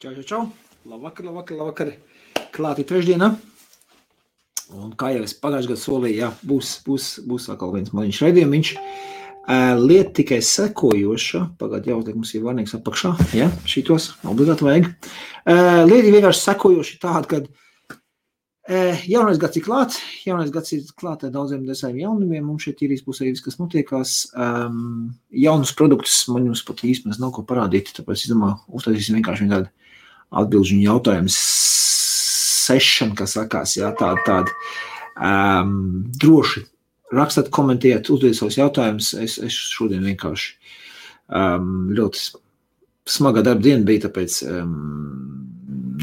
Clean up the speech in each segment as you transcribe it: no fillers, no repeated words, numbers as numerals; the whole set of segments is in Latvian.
Čau. Labvakar. Klāti trešdiena. Un kā jau es pagājušajā gadā solīju, jā, būs atkal viens maziņš raidījumiņš. Lieta tikai sekojoša. Pagād jāuzliek, mums ir varnīgs apakšā. Jā, šitos obligāti vajag. Lieta vienkārši sekojoši tāda, kad jaunais gads ir klāt. Jaunais gads ir klāt ar daudziem jaunumiem. Mums šeit ir būs arī viss, kas notiekās. Jaunus produktus man jums pat īstenībā nav ko parādīt, tāpēc es domāju, uztaisīsim vienkārši tādu atbilžu jautājumu session, kas sakās, jā, tādi droši rakstāt, komentēt, uzdodiet savus jautājumus. Es šodien vienkārši ļoti smagā darba diena bija, tāpēc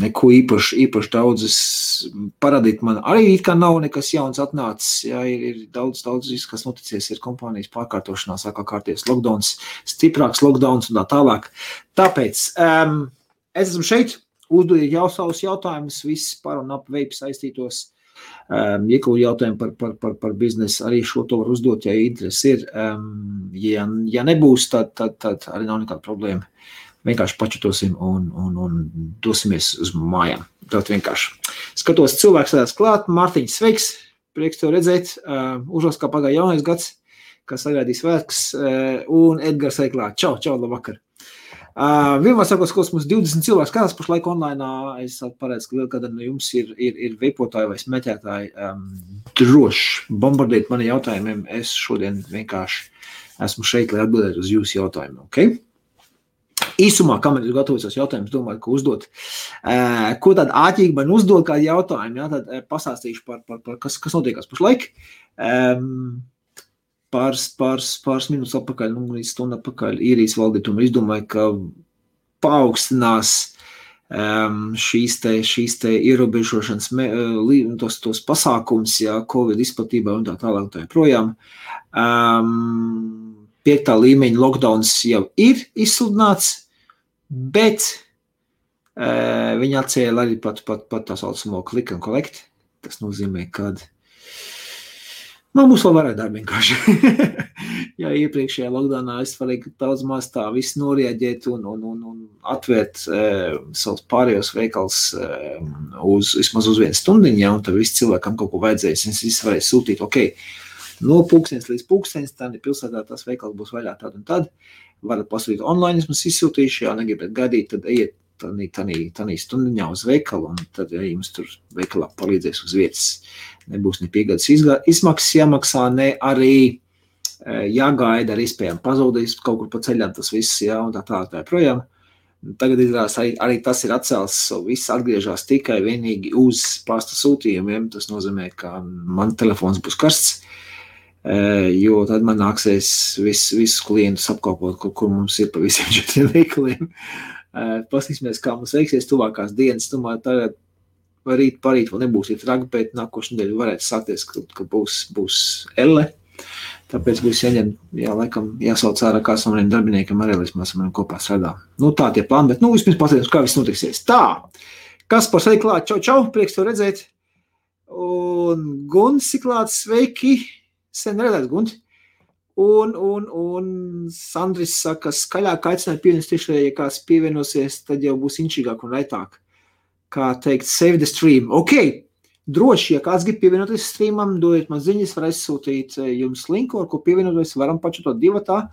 neko īpaši daudzas parādīt man. Arī it kā nav nekas jauns atnācis, jā, ir daudz viss, kas noticies, ir kompānijas pārkārtošanās, sākā kārties lockdowns, stiprāks lockdowns un tā tālāk. Tāpēc es esmu šeit, uzdodiet jau savus jautājumus, viss par un ap veipu saistītos, iekļūt jautājumu par biznesu, arī šo to var uzdot, ja interesi ir. Ja nebūs, tad arī nav nekāda problēma. Vienkārši pačatosim un dosimies uz mājām. Tātad vienkārši. Skatos, cilvēks sēdās klāt, Mārtiņš, sveiks, prieks tev redzēt, uzvalks kā pagāja jaunais gads, kas sagaidīs svētkus, un Edgars arī klāt. Čau, labvakar. Vienmēr sakos, ka mums 20 cilvēks skatās pašlaik online, es paredzu, ka vēl kādā no jums ir veipotāji vai smēķētāji, droši bombardiet mani jautājumiem, es šodien vienkārši esmu šeit, lai atbildētu uz jūsu jautājumiem, ok? Īsumā, kamēr jūs gatavojas jautājumus, domāju, ka uzdot. Ko tāda āķīgi man uzdod kādu jautājumu, jā, tad pastāstīšu par kas notiekās pašlaik. Pāris minūtes atpakaļ, līdz stundu atpakaļ īrijas valdītuma izdomāja, ka paaugstinās šīs te ierobežošanas tos pasākums, jā, Covid izplatībā un tā tālāk tā projām. 5. līmeņa lockdowns jau ir izsludināts, bet viņi atcēla arī pat tā saucamo click and collect. Tas nozīmē, kad mums vēl varētu darbi vienkārši. Jā, iepriekšējā lockdownā es varēju daudz maz tā visu norieģēt un atvērt savus pārējos veikals vismaz uz 1 stundiņu, ja, un tad visi cilvēkam kaut ko vajadzēs. Es visi varēju sūtīt, ok, no pulkstenes līdz pulkstenes, tad pilsētā tas veikals būs vaļā tad un tad. Varat pasūtīt online, es mums izsūtīšu, ja negribat gaidīt, tad ejiet tanī stundiņā uz veikalu, un tad ja jums tur veikalā palīdzēs uz vietas. Nebūs ne piegādes izmaksas jāmaksā, ne arī jāgaida ar iespējām pazudīs kaut kur pa ceļām tas viss, jā, un tā projām. Tagad izrādās arī tas ir atcēls, viss atgriežās tikai vienīgi uz pasta sūtījumiem, tas nozīmē, ka man telefons būs karsts, jo tad man nāksies visus klientus apkalpot, kur mums ir pa visiem 4 veikaliem. Paskatīsimies, kā mums veiksies tuvākās dienas. Domāju, tagad parīt vēl nebūs traki, bet nākošu nedēļu varētu sākties, ka būs elle. Tāpēc būs laikam jāsauc ārā kāds no maniem darbiniekiem arī, lai mēs maniem kopā strādā. Tā tie plāni, bet vispirms paskatīsimies, kā viss notiksies. Tā, kas par sevi klāt? Čau, prieks tev redzēt. Un Gunts ir klāt, sveiki. Sen redzēts, Gunti. Un Sandris saka, skaļāk aicināja pievienot tiešai, ja kāds pievienosies, tad jau būs inčīgāk un raitāk. Kā teikt, save the stream. Ok, droši, ja kāds grib pievienoties streamam, dodiet man ziņas, var aizsūtīt jums linku, ar ko pievienoties, varam pačatot divatā.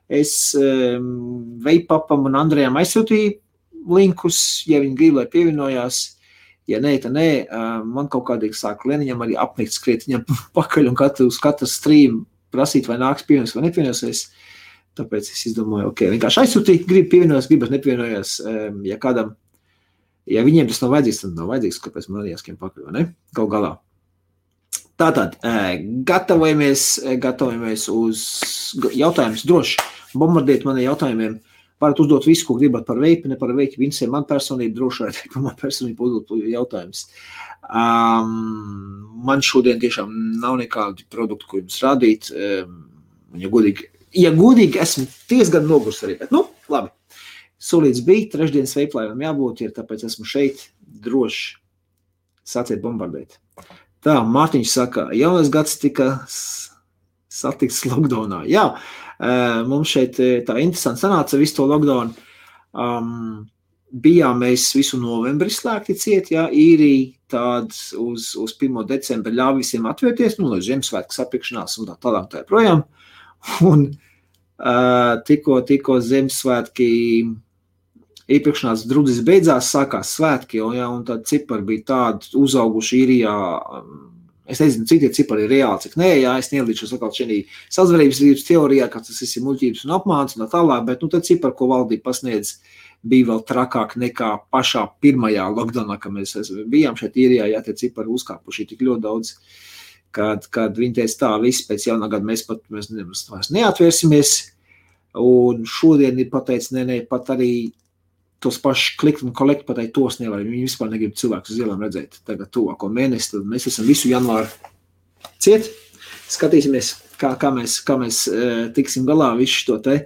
Es Veipapam un Andrejam aizsūtīju linkus, ja viņi grib, lai pievienojās. Ja nē, tad nē, man kaut kādīgi sāk Leniņam arī apnikt skriet viņam pakaļ un uz katru stream prasīt, vai nāks pievienosies vai nepievienosies. Tāpēc es izdomāju, ok, vienkārši aizsūtīt, grib pievienojās, gribas nepievienojās, ja viņiem tas nav vajadzīgs, tad nav vajadzīgs, kāpēc man arī jāskiem pakaļ, vai ne? Gal galā. Tātad, gatavojamies uz jautājumus droši, bombardiet mani jautājumiem. Varat uzdot visu, ko gribat par veipi, ne par veipi, viņas ir man personība, droši vajag par man personību uzdot jautājums. Man šodien tiešām nav nekādi produkti, ko jums rādīt. Ja godīgi, esmu diezgan nogurs arī, bet labi. Solīts bija, trešdienas veiplājumam jābūt, tāpēc esmu šeit droši sāciet bombardēt. Tā, Mārtiņš saka, jaunais gads tika satikts lockdownā. Jā, mums šeit tā interesanti sanāca visu to lockdown. bijām mēs visu novembri slēgti ciet, jā, īrija tād uz 1. decembra ļāva visiem atvērties, līdz Ziemassvētku sapirkšanās un tā tālāk tā projām. Un tikko Ziemassvētki iepirkšanās drudzis beidzās, sākās svētki, un tad cipari bija tādi uzauguši īrijā. Es nezinu, cik tie cipari ir reāli, cik nē, jā, es neilīšos atkal šī sazvarības teorijā, ka tas ir muļķības un apmāns un tā tālāk, bet tad cipari, ko valdība pasniedz, bija vēl trakāk nekā pašā pirmajā lockdownā, kad mēs bijām šeit īrijā, jā, tie cipari uzkāpuši tik ļoti daudz, kad viņi teica tā, viss pēc jaunā gada mēs neatvērsimies, un šodien ir pateicis, nē, pat arī tos paši klikt un kolekt pateikt, tos nevar. Viņi vispār negrib cilvēkus uz ielām redzēt. Tagad tuvāko mēnesi, tad mēs esam visu janvāru ciet. Skatīsimies, kā mēs tiksim galā visu šo te.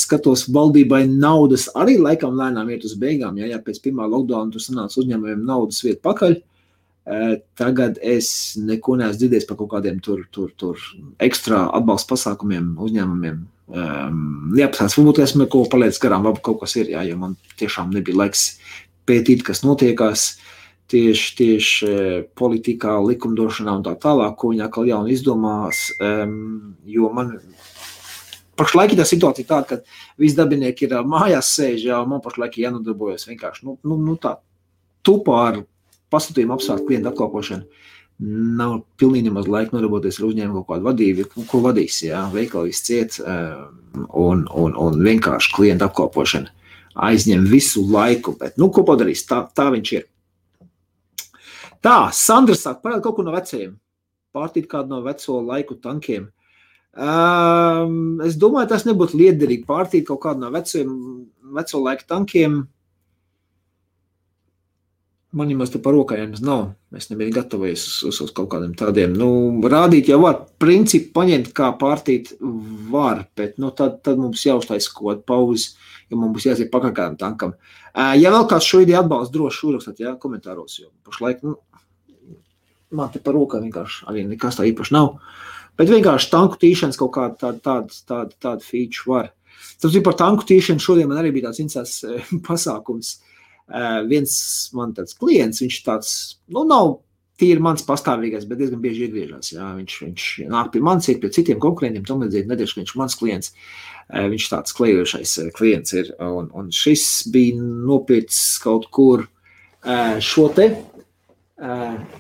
Skatos, valdībai naudas arī laikam lēnām iet uz beigām. Jā, pēc pirmā lockdowna tur sanāca uzņēmumiem naudas vietu pakaļ. Tagad es neko neesmu dzirdējis par kaut kādiem tur ekstra atbalsta pasākumiem uzņēmumiem. Jāpasās, varbūt esmu kaut ko paliec garām, labi kaut kas ir, jā, jo man tiešām nebija laiks pētīt, kas notiekās tieši politikā, likumdošanā un tā tālāk, ko viņi atkal jauni izdomās, jo man pašlaik ir tā situācija tāda, ka visi darbinieki ir mājās sēž, jā, man pašlaik ir jānodarbojas vienkārši, tā tupā ar pasūtījumu apsvērt klientu apkalpošanu. Nav pilnīgi nemaz laika nodarboties ar uzņēmumu kaut kādu vadību, ko vadīs, jā, veikali viss ciet un vienkārši klientu apkalpošana aizņem visu laiku, bet, ko padarīs, tā viņš ir. Tā, Sandra saka, parāda kaut ko no vecajiem, pārtīt kādu no veco laiku tankiem. Es domāju, tas nebūtu liederīgi pārtīt kaut kādu no veco laiku tankiem. Man jau te par rokājiem nav. Es nebiju gatavojies uz kaut kādiem tādiem. Rādīt jau var. Principu paņemt, kā pārtīt var, bet tad mums jāuztais kaut kādu pauzi, jo mums būs jāiet pakaļ kādam tankam. Ja vēl kāds šo ideju atbalsta, droši uzrakstāt, jā, komentāros, jo pašlaik, man te par rokā vienkārši arī nekas tā īpaši nav. Bet vienkārši tanku tīšanas kaut kāda tāda feature var. Tāpēc par tanku tīšanu šodien man arī bija tāds interesants pasākums. Viens man tāds klients, viņš tāds, nav tīri mans pastāvīgais, bet diezgan bieži iegriežās, jā, viņš nāk pie manis, iet pie citiem konkurentiem, tam līdzīgi nedēļas, ka viņš mans klients, viņš tāds klejošais klients ir, un šis bija nopircis kaut kur šo te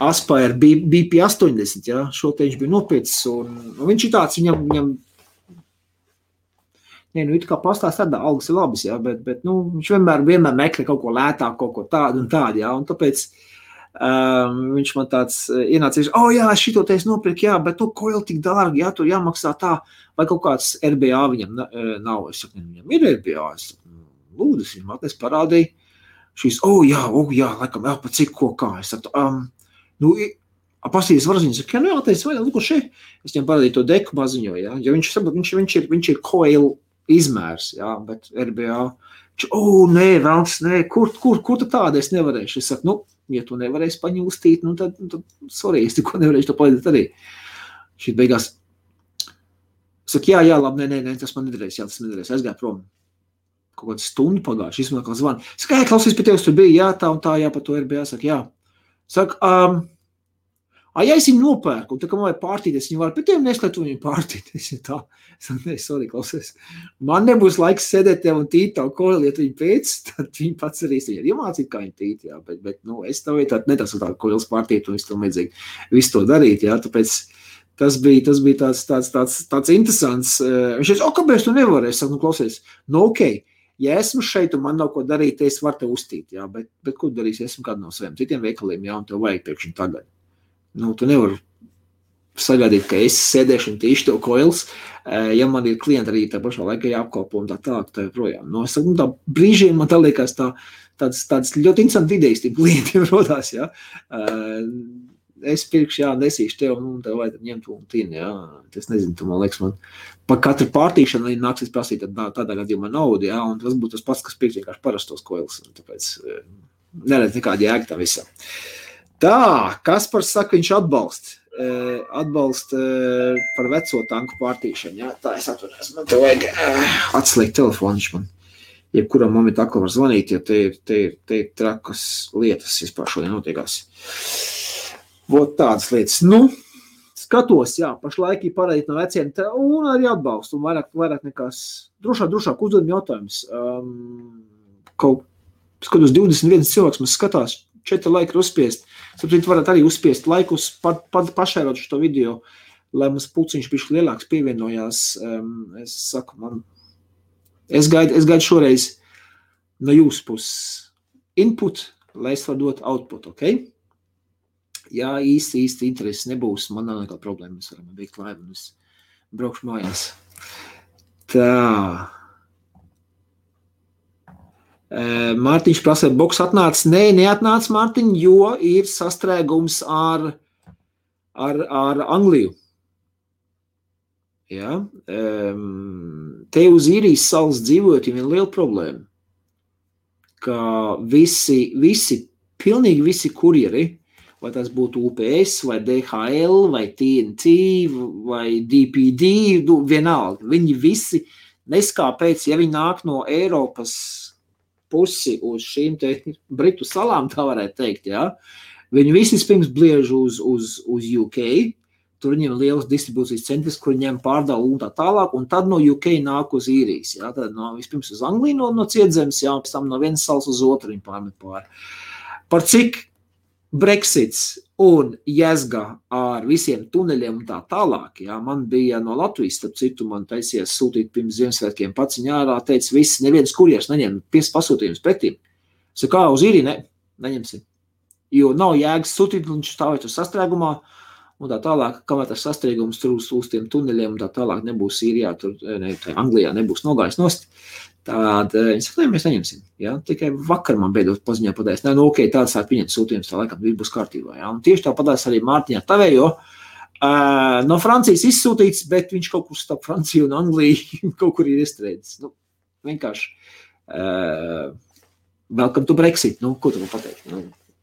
Aspire BP80, jā, šo te viņš bija nopircis, un viņš ir tāds, viņam it kā pastāst tādā, algas ir labas, jā, bet viņš vienmēr meklē kaut ko lētāk, kaut ko tādu un tādu, jā, un tāpēc viņš man tāds ienācīs, jā, šito te es nopirku, jā, bet ko jau tik dārgi, jā, tur jāmaksā tā, vai kaut kāds RBA viņam nav, es saku, viņam ir RBA, es saku, lūdzu, viņam atnes parādīja, šīs, jā, laikam, jā, pa cik ko kā, es saku, pastīties varziņas, saka, jā, teicu, vai, lūko šeit, es viņam parādīju to deku maziņo, jā, jo viņš ir coil izmērs, jā, bet RBA, nē, vēlams, nē, kur tu tāda es nevarēšu? Es saku, ja tu nevarēsi paņūstīt, tad sorry, es tikko nevarēšu to palīdēt arī. Šī beigās, saku, jā, labi, nē, tas man nedarēs, jā, tas nedarēs, aizgāju prom. Kaut kādu stundu pagājuši, izmanā kā zvanu. Saku, klausies, pie tevis tur bija, jā, tā un tā, jā, par to RBA, saku, jā. Saku, ja es viņu nopērku, un tā kā man vajag pārtīt, es viņu varu, bet tev neslētu viņu pārtīt. Es jau tā, sorry, klausies. Man nebūs laiks sēdēt tev un tīt tavu koili, ja tu viņu pēc, tad viņi pats arī viņu iemācīt, kā viņu tīt, jā, bet es tev netasu tādu koilis pārtīt, un es tev vajadzīgi visu to darīt, jā, tāpēc tas bija tāds interesants. Viņš teica, kāpēc tu nevari? Es saku, klausies, okei. Ja esmu šeit un man nav ko darīt, es varu te uztīt, jā, bet ko darīs, ja esmu kādu no saviem citiem veikaliem, jā, un tev vajag pēkšņi tagad. Tu nevari sagaidīt, ka es sēdēšu un tīšu tev koils, ja man ir klienti arī tā pašā laikā jāapkalpo un tā tālāk, tā projām. Es saku, tā brīžiem man tā liekas tāds ļoti interesanti idejas tiem klientiem rodās, jā. Es pirkšu, jā, nesīšu tev, un tev vajag ņemt un tīni, jā. Es nezinu, tu man liekas, man par katru pārtīšanu arī nāksies prasīt tādā gadījumā naudu, jā, un tas būtu tas pats, kas pirks vienkārši parastos koils, un tāpēc neredz nekādi jēga tā visā. Tā, Kaspars saka, viņš atbalsta par veco tanku pārtīšanu, jā, tā es atvarēs, man te vajag atslēgt telefonu, viņš man jebkurā momentā atkal var zvanīt, ja te ir trakas lietas vispār šodien notiekās. Vot tādas lietas. Nu, skatos, jā, pašlaik ir parādīt no veciem, un arī atbalstu, un vairāk nekās drošāk uzdodam jautājums. Skatos 21 cilvēks, mums skatās, 4 laiki ir uzspiest. Saprīt, varat arī uzspiest laikus, pašērot šo video, lai mums pulciņš bišķi lielāks pievienojās. Es saku, es gaidu šoreiz no jūsu puses input, lai es varu dot output, ok? Jā, īsti interesi nebūs, man nav nekāda problēma, mēs varam veikt laivu, un es braukšu mājās. Tā. Mārtiņš prasa, boks atnāca? Nē, neatnāca, Mārtiņ, jo ir sastrēgums ar Angliju. Ja? Te uz Īrijas salas dzīvojot ir viena liela problēma, ka pilnīgi visi kurjeri, vai tas būtu UPS, vai DHL, vai TNT, vai DPD, vienalga, viņi visi neskāpēc, ja viņi nāk no Eiropas pusi uz šīm te Britu salām, tā varētu teikt, jā. Viņi visi pirms bliež uz UK, tur viņiem liels distribūcijas centrs, kur ņem pārdalu un tā tālāk, un tad no UK nāk uz Īrijas, jā. Tad vispirms uz Angliju no cietzemes, jā, un pēc tam no vienas salas uz otru viņi pārmet pāri. Par cik Brexits un jēzga ar visiem tuneļiem un tā tālāk, jā, man bija no Latvijas, starp citu, man taisies sūtīt pirms Ziemassvētkiem paciņā ārā, teica, neviens kurjers neņem pasūtījumus pretīm. Es kā uz Īriju, neņemsim, jo nav jēgas sūtīt, un viņš stāvēt uz sastrēgumā, un tā tālāk, kamēr tas sastrēgums tur uz tiem tuneļiem un tā tālāk nebūs Īrijā, Anglijā nebūs nogājis nost, tad viņi saka, mēs neņemsim. Ja? Tikai vakar man beidzot paziņā padēs. Ok, tāds sāk pieņemt sūtījums, tā laikam būs kārtībā. Ja? Un tieši tā padēs arī Mārtiņā tavējo. No Francijas izsūtīts, bet viņš kaut kur starp Franciju un Angliju kaut kur ir iestrēdzis. Vienkārši welcome to Brexit. Ko tu man pateikt?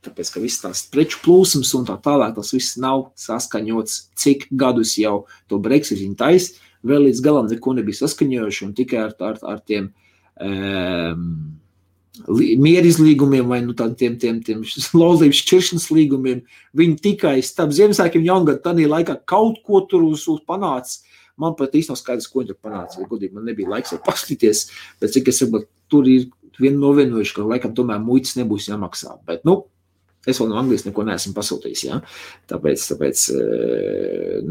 Tāpēc, ka viss tās preču plūsums un tā tālāk, tas viss nav saskaņots, cik gadus jau to Brexit viņi tais. Vēl līdz galam neko nebija saskaņojuši un tikai ar tiem mierizlīgumiem vai tiem laulības šķiršanas līgumiem. Viņi tikai starp Ziemassvētkiem Jaungadu tādā laikā kaut ko tur uz panāca. Man pat īsti nav skaidrs, ko viņi tur panāca. Godīgi, man nebija laiks paskatīties, bet cik es saprotu, tur ir novienojuši, ka laikam tomēr muitas nebūs jāmaksā. Bet, es vēl no Anglijas neko neesmu pasūtījis, ja? Tāpēc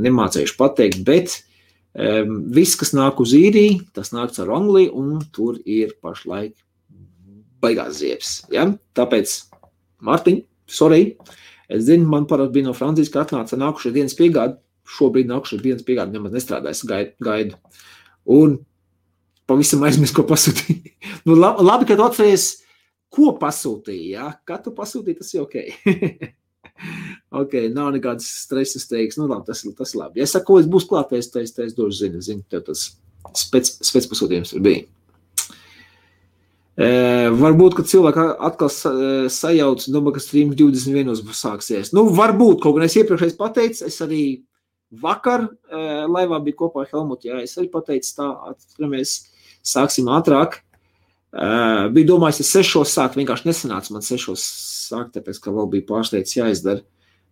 nemācējuši pateikt, bet viss, kas nāk uz Īriju, tas nāks ar Angliju, un tur ir pašlaik baigās ziepes. Ja? Tāpēc, Mārtiņ, sorry, es zinu, man parasti bija no Francijas, ka atnāca nākušais dienas piegādi, šobrīd nākušais dienas piegādi nemaz nestrādājas, gaidu. Un pavisam aizmirst, ko pasūtīja. Labi, ka tu atceries, ko pasūtīja, ja? Kā tu pasūtīji, tas ir ok. Ok, nav nekādas stresas teiks, labi, tas ir labi. Ja es saku, es būs klātais, es došu zinu, tev tas spēc pasūtījums tur bija. Varbūt, ka cilvēki atkal sajauc, ka streams 21 būs sāksies. Varbūt, kaut gan es iepriekšējais pateicu, es arī vakar laivā biju kopā ar Helmutu, jā, es arī pateicu tā, atceramies, sāksim ātrāk. Bija domājis, es 6 sākt, vienkārši nesanāca man 6 sākt, tāpēc, ka vēl bija pārsteigts jāizdara.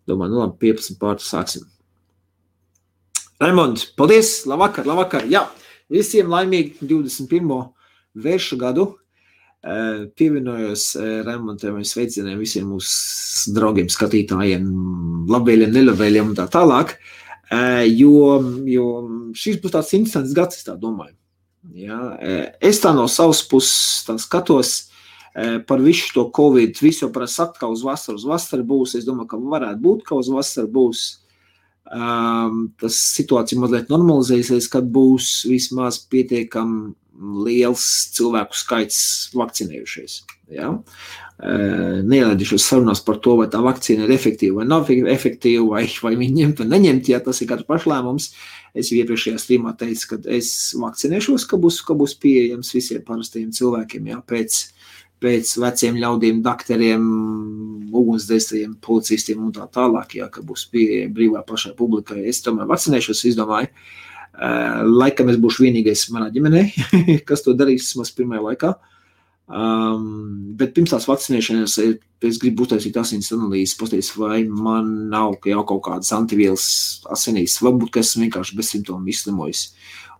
Domāju, labi, 15 pārtu sāksim. Raimond, paldies, labvakar. Jā, visiem laimīgi 21. vēršu gadu. Pievienojos Raimondam sveicieniem visiem mūsu draugiem, skatītājiem, labvēļiem, nelabvēļiem un tā tālāk, jo šis būs tāds interesants gads, es tā domāju. Ja, es tā no savas puses tā skatos par visu to Covid, visu jau parasti sakt, ka uz vasaru būs, es domāju, ka varētu būt, ka uz vasaru būs, tas situācija mazliet normalizēsies, kad būs vismaz pietiekam liels cilvēku skaits vakcinējušies. Ja? Neielēdīšos sarunās par to, vai tā vakcīna ir efektīva vai nav efektīva, vai viņi ņemt vai neņemt, ja tas ir katrs pašlēmums. Es jau iepriekšējā streamā teicu, ka es vakcinēšos, ka būs pieejams visiem parastajiem cilvēkiem, ja? Pēc veciem ļaudīm, dakteriem, ugunsdzēsējiem, policistiem un tā tālāk, ja? Ka būs pieejami brīvā plašai publikai. Es tomēr vakcinēšos, es domāju, laikam es būšu vienīgais manā ģimenē, kas to darīs vismaz pirmajā laikā. Bet pirms tās vakcinēšanas es gribu uztaisīt asins analīzes, paskatīties, vai man nav jau kaut kādas antivielas asinīs, varbūt, ka esmu vienkārši bezsimptomu izslimojis.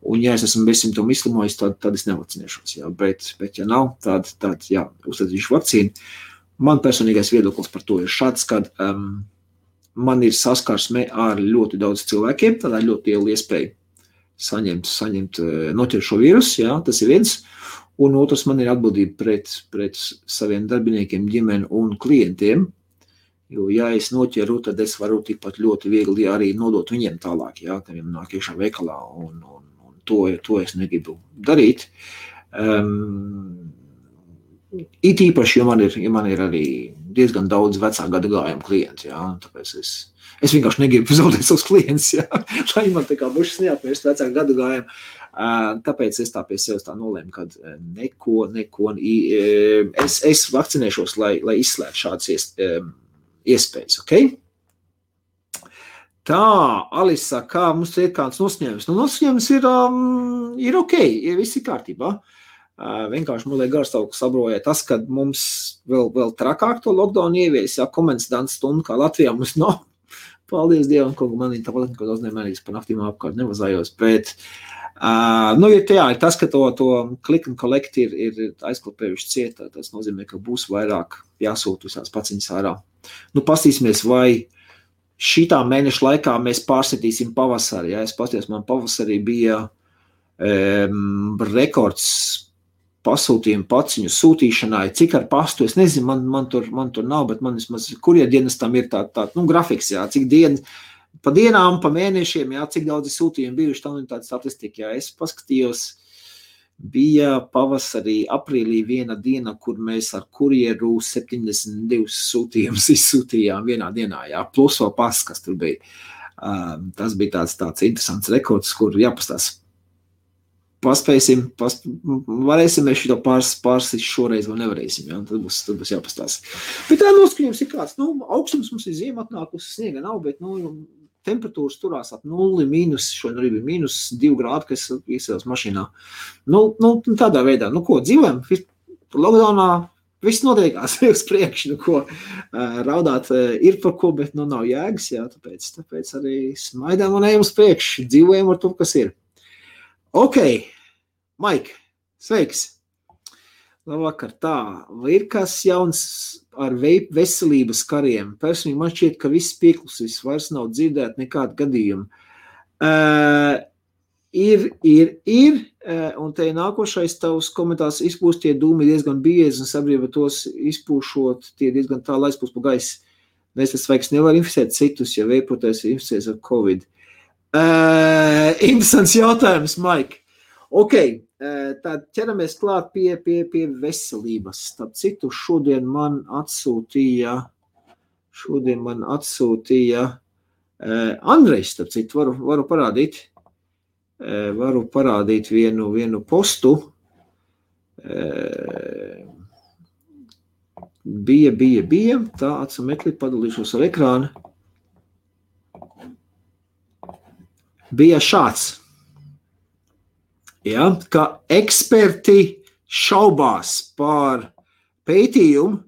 Un ja es esmu bezsimptomu izslimojis, tad es nevakcinēšos. Jā. Bet ja nav, tad jā, uztaisīšu vakcīnu. Man personīgais viedoklis par to ir šāds, kad man ir saskarsme ar ļoti daudz cilvēkiem, tādā ļoti liela iespēja saņemt noķert šo vīrusu, jā, tas ir viens. Un otrs, man ir atbildība pret saviem darbiniekiem, ģimeni un klientiem, jo, ja es noķeru, tad es varu tikpat ļoti viegli arī nodot viņiem tālāk, jā, ka viņiem nāk iekšā veikalā, un to es negribu darīt. It īpaši, jo man ir arī diezgan daudz vecā gada gājuma klienti, jā, tāpēc es vienkārši negribu zaudēt savus klientus, jā, lai man tā kā bušas neapmērst vecā gada gājuma. Tāpēc es tā pie sevis tā nolēmu, kad neko, es vakcinēšos, lai izslēgtu šādas iespējas, ok? Tā, Alisa, kā mums ir kāds nosņēmums? Nosņēmums ir ok, viss ir kārtībā. Vienkārši man liek garstāvoklis sabroja tas, kad mums vēl trakāk to lockdown ievies, jā, komendants stundu, kā Latvijā mums nav. Paldies Dievam, kaut man ir tāpat, ka daudz nemērīgs par naktīm apkārt nevazājos, bet ir tas, ka to click and collect ir aizklapējuši ciet, tas nozīmē, ka būs vairāk jāsūt visās paciņas ārā. Pastīsimies, vai šitā mēneša laikā mēs pārsitīsim pavasari. Ja? Es pasties, man pavasarī bija rekords pasūtījumu paciņu sūtīšanai, cik ar pastu, es nezinu, man tur nav, bet man vismaz kurjerdienas tam ir tā grafiks, jā, cik pa dienām, pa mēnešiem, jā, cik daudz sūtījumi bijuši, tam ir tāda statistika, jā, es paskatījos, bija pavasarī, aprīlī viena diena, kur mēs ar kurjeru 72 sūtījumus izsūtījām vienā dienā, jā, plus vēl pas, kas tur bija. Tas bija tāds interesants rekords, kur jāpastās. Paspēsim, varēsim mēs šito pārsist šoreiz, vai nevarēsim, jā, tad būs jāpastās. Bet tā noskaņojums ir kāds, augstums mums ir ziema atnākusi, sniega nav, bet, temperatūras turās ap 0, šodien arī bija -2 grādi, kas iesēdās mašīnā. Tādā veidā, ko, dzīvojam, lockdownā, viss notiekās uz priekšu, raudāt ir par ko, bet, nav jēgas, jā, tāpēc arī smaidām un ejam uz priekšu, dzīvojam ar to, kas ir. Ok, Maik, sveiks! Labvakar, tā, vai ir kas jauns ar veselības kariem? Personīgi man šķiet, ka viss pieklusis, vairs nav dzirdēt nekādu gadījumu. Ir, un te nākošais tavs komentārs izpūst tie dūmi diezgan biezi un sabiedrība tos izpūšot, tie diezgan tālu aizpūst pa gaisu. Mēs vairs nevar inficēt citus, ja veipotais ir inficēts ar Covid. Interesants jautājums, Maik. Ok, tad ķeramies klāt pie veselības. Starp citu, šodien man atsūtīja Andrejs, starp citu, varu parādīt vienu postu. Bija, tā atsameklīt, padalīšos ar ekrānu. Bija šāds, ja, ka eksperti šaubās par pētījumu,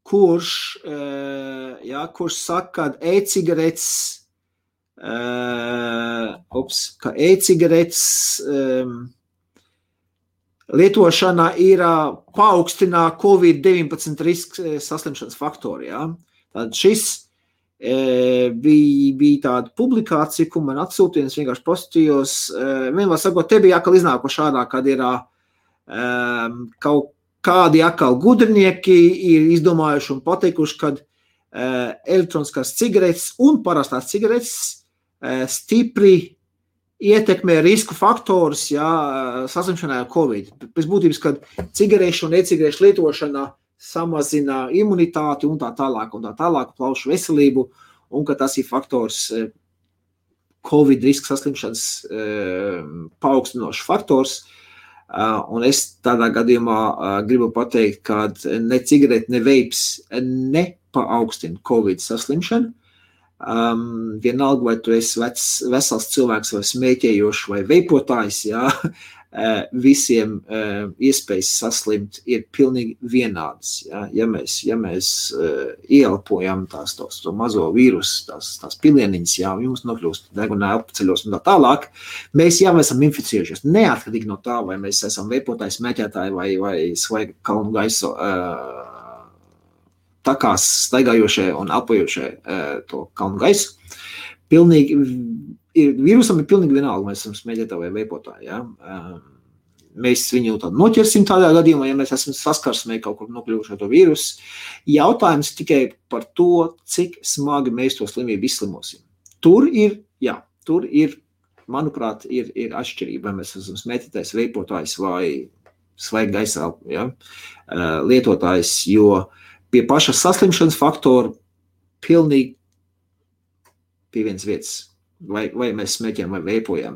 kurš saka, ka e-cigaretes lietošana ir paaugstinā COVID-19 risku saslimšanas faktori. Ja. Tad šis bija tāda publikācija, ko man atsūtīja, es vienkārši postījos, vienmēr sakot, te bija atkal iznākoši ārā, kad ir kaut kādi atkal gudrinieki ir izdomājuši un pateikuši, kad elektroniskās cigaretes un parastās cigaretes stipri ietekmē risku faktorus, jā, saslimšanai ar Covid. Pēc būtības, kad cigarešu un e-cigarešu lietošana samazina imunitāti un tā tālāk, plaušu veselību, un ka tas ir faktors, Covid riska saslimšanas paaugstinošs faktors. Un es tādā gadījumā gribu pateikt, ka ne cigarete, ne veips nepaaugstina Covid saslimšanu. Vienalga, vai tu esi vesels cilvēks vai smēķējošs vai veipotājs, jā, visiem iespējas saslimt ir pilnīgi vienādas. Ja mēs ieelpojam to mazo vīrusu, tās pilieniņas, jums nokļūst degunā apceļos un tā tālāk, mēs jau esam inficējušies. Neatkarīgi no tā, vai mēs esam veipotāji, smēķētāji vai svaiga kalnu gaisu takās staigājošie un elpojošie to kalnu gaisu. Vīrusam ir pilnīgi vienalga, mēs esam smēķētāji vai veipotāji. Ja? Mēs viņu noķersim tādā gadījumā, ja mēs esam saskarsmē kaut kur nokļuvuši ar to vīrusu. Jautājums tikai par to, cik smagi mēs to slimību izslimosim. Tur ir, manuprāt, ir atšķirība, vai mēs esam smēķētājs, veipotājs vai svaiga gaisā lietotājs, jo pie paša saslimšanas faktora pilnīgi pie vienas vietas. Vai mēs smēķējam vai veipojam.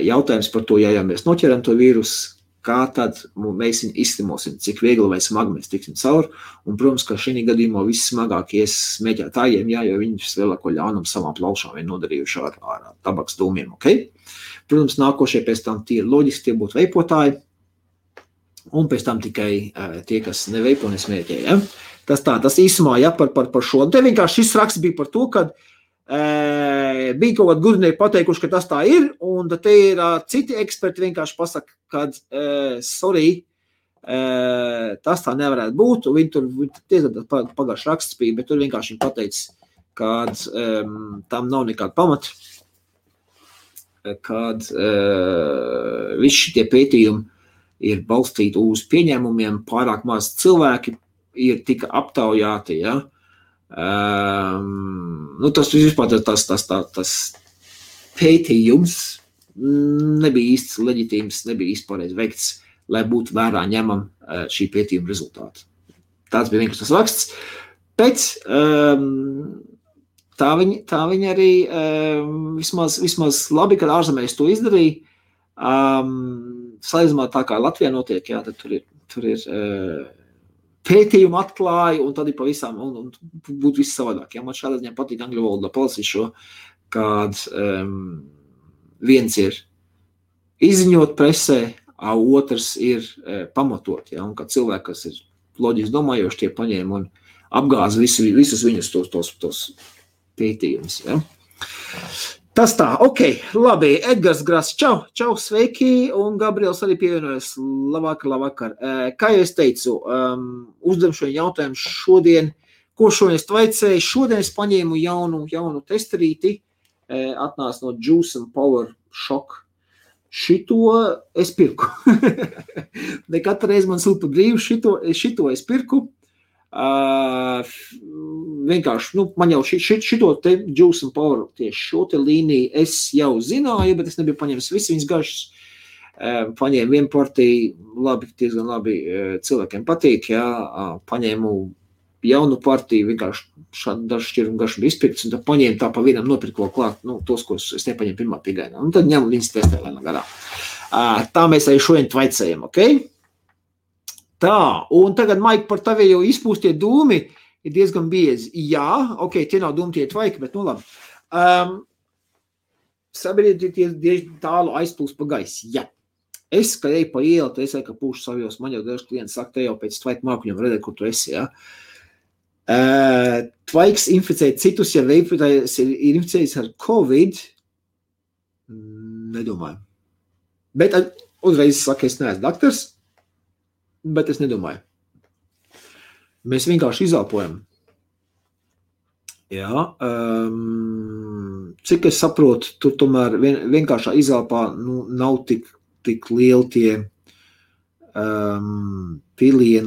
Jautājums par to, ja mēs noķeram to vīrusu, kā tad mēs viņu izslimosim, cik viegli vai smagi mēs tiksim cauri. Un, protams, ka šī gadījumā vissmagākie smēķētājiem, jo viņi lielāko ļaunumu savām plaušām ir nodarījuši ar tabaks dūmiem. Okay? Protams, nākošie pēc tam tie ir loģiski, tie būtu veipotāji, un pēc tam tikai tie, kas neveipo, nesmēķē. Ja? Tas īsumā par šo. Te vienkārši šis raksts bija par to, kad bija kaut kādi gudrinieki pateikuši, ka tas tā ir, un te ir citi eksperti vienkārši pasaka, kad sorry, tas tā nevarētu būt, un viņi tur pagājuši raksts bija, bet tur vienkārši viņi pateica, kad tam nav nekāda pamata, kad visi šitie pētījumi ir balstīti uz pieņēmumiem, pārāk maz cilvēki ir tika aptaujāti, ja? Tas vispār tas pētījums nebija īsti leģitīms, nebija īsti pareizi veikts, lai būtu vērā ņemam šī pētījuma rezultāti. Tāds bija vienkārši tas raksts, bet tā viņa arī vismaz labi, kad ārzemēs to izdarīja, salīdzinājumā tā kā Latvijā notiek, tad tur ir pētījumu atklāja, un tad ir pavisam, un būtu viss savādāk. Ja? Man šādā ziņā patīk angļu valodā palasīt šo, kad viens ir izziņot presē, otrs ir pamatot. Ja? Un kad cilvēki, kas ir loģiski domājoši, tie paņēma un apgāza visus viņus tos pētījumus. Ja? Tas tā, labi, Edgars Grasi, čau, sveiki, un Gabriels arī pievienojas, labvakar. Kā jau es teicu, uzdem šo jautājumu šodien, ko šodien es tvaicēju, šodien es paņēmu jaunu testerīti, atnāca no Juice and Power Shock. Šito es pirku. Ne katru reizi man sūta brīvu, šito es pirku. Vienkārši, man jau šito te Juice and Power, tieši šo te līniju es jau zināju, bet es nebiju paņēmis visi viņas garšas. Paņēmu vienu partiju, diezgan labi cilvēkiem patīk, paņēmu jaunu partiju, vienkārši dažu šķirumu garšu bija izpirkts, un tad paņēmu tā pa vienam nopirku vēl klāt, tos, ko es nepaņēmu pirmā pigainā. Un tad ņemu viņas testē lēnā garā. Tā mēs arī šodien tvaicējam, Tā, un tagad, Maik, par tavi jau izpūstie dūmi ir diezgan biezi. Jā, tie nav dūmi, tie tvaiki, bet labi. Sabiedrība tie tālu aizplūst pa gaisu. Jā. Es, kad eju pa ielu, tad es ka pūšu savos, man jau daži klienti saka, te jau pēc tvaika mākuņiem redzēt, kur tu esi, jā. Tvaiks inficē citus, ja veipotājs ir inficējis ar Covid, nedomāju. Bet uzreiz saka, es neesmu daktars, bet es nedomāju. Mēs vienkārši izelpojam. Jā, cik es saprotu, tur tomēr vienkāršā izelpā nav tik lieli tie pilieni,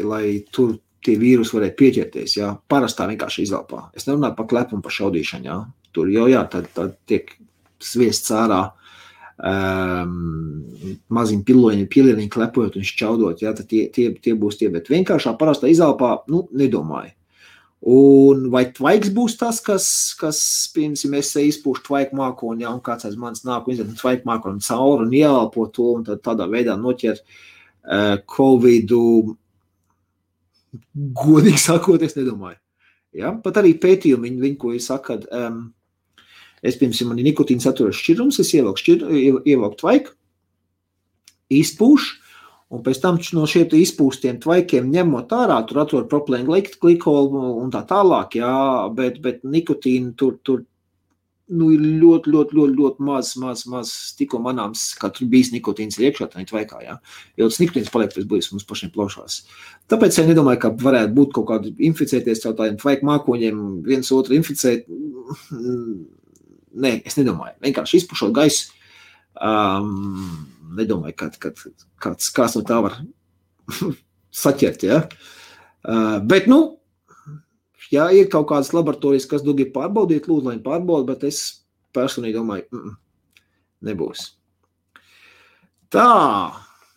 lai tur tie vīrusi varētu pieķerties. Jā. Parastā vienkārši izelpā. Es nerunāju par klepu un par šaudīšanu. Jā. Tur jau tad tiek sviests ārā maziņi pilieni klepojot un šķaudot, jā, tad tie būs tie, bet vienkāršā parastā izelpā, nedomāju. Un vai tvaiks būs tas, kas piemēram, es izpūšu tvaiku mākoni, un kāds aiz manis nāk un izdara tvaiku mākoni cauri un ieelpo to, un tad tādā veidā noķer Covidu, godīgi sakot, es nedomāju. Ja? Pat arī pētījumi, viņi ko ir saka, es, piemēram, man ir nikotīna saturošs šķirums, es ievelku tvaiku, izpūš, un pēc tam no šiem izpūstiem tvaikiem ņemot ārā, tur atrod propilēnu glikolu un tā tālāk, jā, bet nikotīnu tur ir ļoti maz tikko manāms, kā tur bijis nikotīns iekšā tā tvaikā, jā. Jo tas nikotīns paliek pēc būs mums pašiem plaušās. Tāpēc es nedomāju, ka varētu būt kaut kādi inficēties caur tādiem tvaiku mākoņiem, viens otru inficēt. Nē, es nedomāju. Vienkārši izpušot gaisu, nedomāju, kāds no tā var saķert, ja. Bet, ja ir kaut kādas laboratorijas, kas grib pārbaudīt, lūdzu, lai pārbauda, bet es personīgi domāju, nebūs. Tā,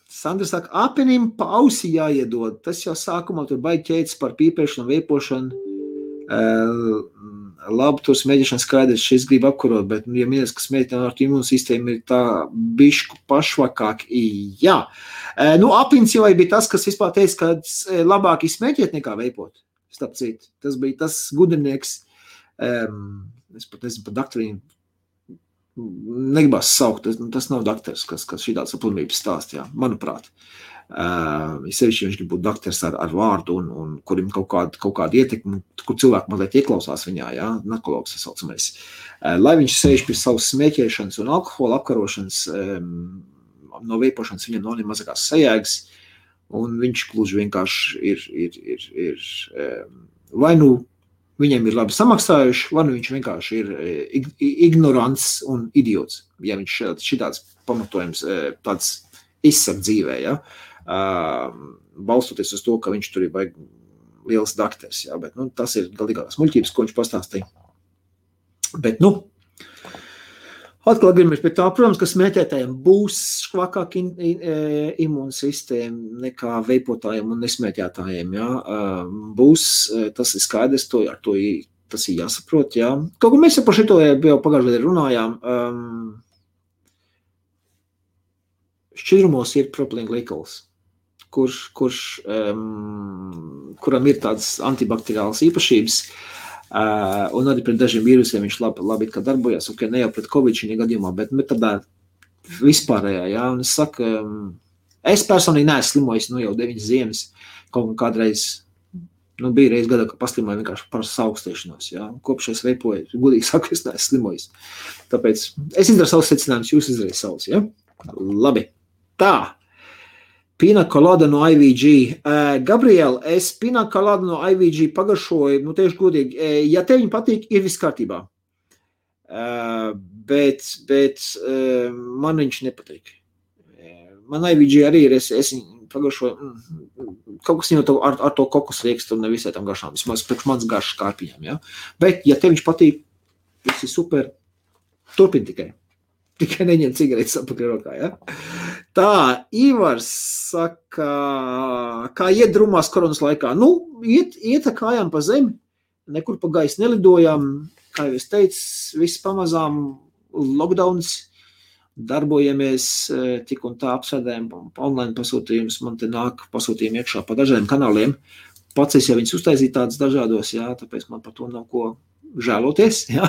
Sandra saka, apenim pa ausi jāiedod. Tas jau sākumā tur baigi ķēdes par pīpēšanu, veipošanu. Labi, tur smēģišana skaidrs, šis grib apkarot, bet, ja minēs, ka smēģišana ar imūnsistēmu ir tā bišku pašvakāk, jā. Apins jau bija tas, kas vispār teica, ka labāk izsmēķiet nekā veipot. Starp citu, tas bija tas gudrinieks, es pat nezinu par daktarīnu, negribas saukt, tas nav daktars, kas šitāds aplimības stāst, jā, manuprāt. Sevišķi viņš grib būt daktars ar vārdu un kurim kaut kāda ietekme, kur cilvēki mazliet ieklausās viņā, jā, narkologs saucamais. Lai viņš sēž pie savas smēķēšanas un alkohola apkarošanas, no veipošanas viņam nav nemazākās sajēgas, un viņš gluži vienkārši ir vai viņiem ir labi samaksājuši, vai viņš vienkārši ir ignorants un idiots, ja viņš šitāds pamatojums tāds izsaka dzīvē, ja, balstoties uz to, ka viņš tur ir liels dakters, ja, bet, tas ir galīgās muļķības, ko viņš pastāstīja. Bet, atkal gribamies pie tā, protams, ka smēķētājiem būs švakāk imūnsistēma nekā veipotājiem un nesmēķētājiem, jā. Būs, tas ir skaidrs, tas ir jāsaprot, jā. Kaut ko mēs par šito jau pagājušajā runājām, šķidrumos ir propilēna glikols, kuram ir tādas antibakteriālas īpašības, un arī pret dažiem vīrusiem viņš labi darbojas, ok, ne jau pret Covid šī gadījumā, bet tādā vispārējā, jā, un es saku, es personīgi neesmu slimojis, jau 9 ziemas, kaut kādreiz, bija reiz gadā, ka paslimoju vienkārši par saukstēšanos, jā, kopš es veipoju, godīgi saku, es neesmu slimojis. Tāpēc es izdaru savus secinājumus, jūs izdarīt savus, jā? Labi. Tā. Pina colada no IVG. Gabriela, es pina colada no IVG pagaršoju, tieši godīgi, ja tev viņa patīk, ir viss kārtībā. Bet man viņš nepatīk. Man IVG arī ir, es pagaršoju, kaut kas jau ar to kokos riekstu un nevisai tam garšām, vismaz priekš mans garšas kārpiņām, ja? Bet, ja tev viņš patīk, viss ir super, turpin tikai. Tikai neņem cigaretes apakaļ rokā, ja? Tā, Ivars saka, kā iet drumās koronas laikā? Iet kājām pa zemi, nekur pa gaisu nelidojām, kā jau es teicu, viss pamazām lockdowns, darbojamies, tik un tā apsēdējam online pasūtījumus, man te nāk pasūtījumi iekšā pa dažādiem kanāliem. Pats es jau viņus uztaisīju tādus dažādos, jā, tāpēc man par to nav ko žēloties, jā.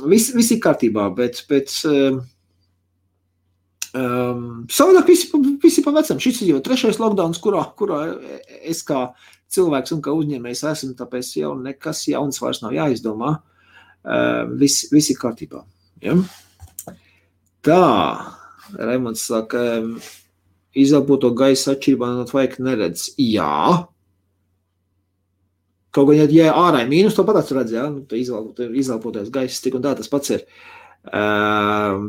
Viss ir kārtībā, bet savādāk visi pa vecam. Šis ir jau 3. lockdowns, kurā es kā cilvēks un kā uzņēmējs esmu, tāpēc jau nekas jauns vairs nav jāizdomā. Viss ir kārtībā. Ja? Tā, Raimonds saka, izelpoto gaisa atšķirībā no tvaika neredz. Jā. Kaut gan, ja ārā ir mīnus, to pat redz, jā, izelpotais gaiss, tik un tā tas pats ir.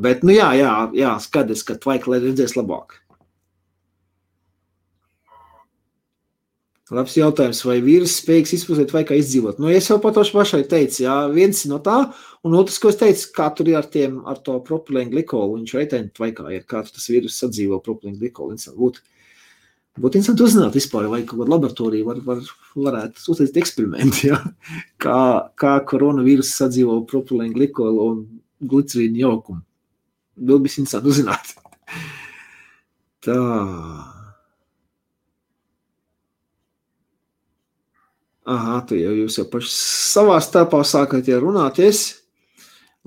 Bet, jā, skaties, ka tvaika redzēs labāk. Labs jautājums, vai vīrus spējīgs izpūstēt tvaikā izdzīvot? Es jau pat pašai teicu, jā, viens no tā, un otrs, ko es teicu, kā tur ir ar to propilēnu glikolu, viņš reitēni tvaikā ir, kā tas vīrus sadzīvo propilēnu glikolu. Būtu interesanti uzzināt vispār, vai kaut kāda laboratorija varētu uztaisīt eksperimentu, ja? kā koronavīrus sadzīvo propilēnu glikolu un glicerīnu jaukumu. Vēl bija interesanti uzzināt. Tā. Aha, tu jūs jau paši savā starpā sākat runāties.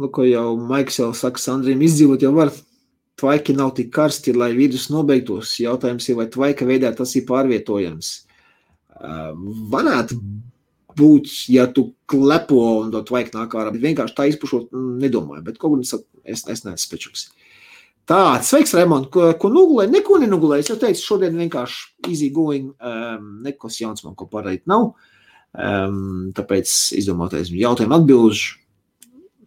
Lūko jau Maiks jau saka, Sandriem izdzīvot jau var. tvaiki nav tik karsti, lai vīrus nobeigtos. Jautājums ir, vai tvaika veidā tas ir pārvietojams. Varētu būt, ja tu klepo un to tvaika nāk ārā, bet vienkārši tā izpušot nedomāju, bet kaut kur es neesmu spečuks. Tā, sveiks, Raimond, ko nogulēji? Neko nenogulēji. Es jau teicu, šodien vienkārši easy going, nekas jauns man ko parādīt nav. Tāpēc izdomātais jautājumu atbilžu.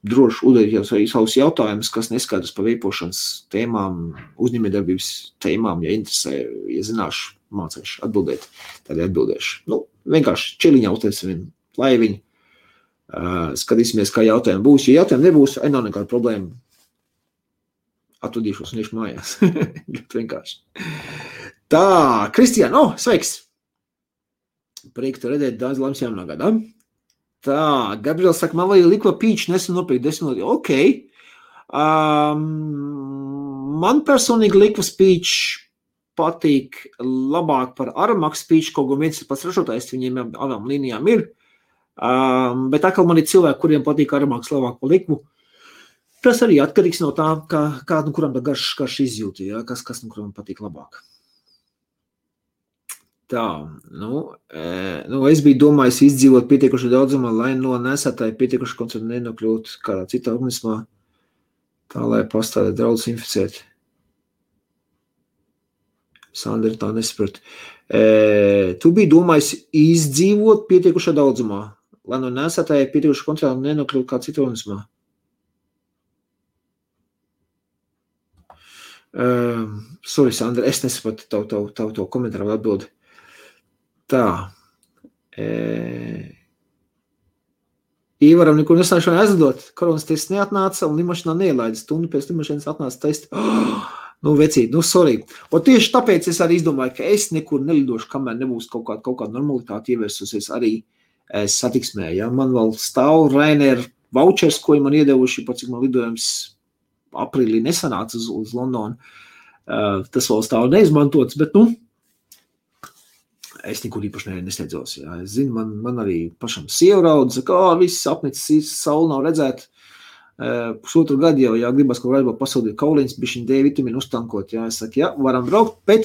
Droši uzdodiet jau savus jautājumus, kas neskaidrs par veipošanas tēmām, uzņēmējdarbības tēmām, ja interesē, ja zināšu, mācīšu atbildēt, tad atbildēšu. Vienkārši čiliņā uztaisam vienu laiviņu, skatīsimies, kā jautājumi būs. Ja jautājumi nebūs, nav nekāda problēma. Atvadīšos un iešu mājās. Ļoti vienkārši. Tā, Kristiāna, sveiks! Prieks te redzēt, daudz laimes jaunā gadā. Tā, Gabriels saka, man vajag likva pīču, nesen nopirkt 10 lati. Ok. Man personīgi likvas pīču patīk labāk par Aramax pīču, kaut gan viens ir pats ražotājs, viņiem abām līnijām ir. Bet atkal man ir cilvēki, kuriem patīk Aramax labāk par likvu. Tas arī atkarīgs no tā, kā kuram tā garš izjūti, ja? Kas kuram patīk labāk. Tā, es biju domājis izdzīvot pietiekuši daudzumā, lai no nesētāji pietiekuši koncertu nenokļūt kādā citā organismā, tā, lai pastāvēt draudus inficēt. Sandra tā nesaprat. Tu biji domājis izdzīvot pietiekuši daudzumā, lai no nesētāji pietiekuši koncertu nenokļūt kādā citā organismā. Sorry, Sandra, es nesapratu tavu komentāru atbildi. Tā. Īvaram nekur nesāšanu aizlidot. Koronas tests neatnāca un limašanā neielaida. Stundu pēc limašanas atnāca testi. Vecīt, sorry. Un tieši tāpēc es arī izdomāju, ka es nekur nelidošu, kamēr nebūs kaut kāda normalitāte ievērsusies arī satiksmē. Ja? Man vēl stāv Ryanair vouchers, ko man iedevuši, pat cik man lidojums aprīlī nesanāca uz Londonu. Tas vēl stāv neizmantots, bet es nekur īpaši nesteidzos. Jā. Es zinu, man arī pašam sieva raudz, saka, viss apnicis, saule nav redzēt. Pusotru gadu jau, gribas kaut kādā pasūdīt kauliņas, bišķiņ D vitamīnu uztankot. Jā. Es saku, varam braukt, bet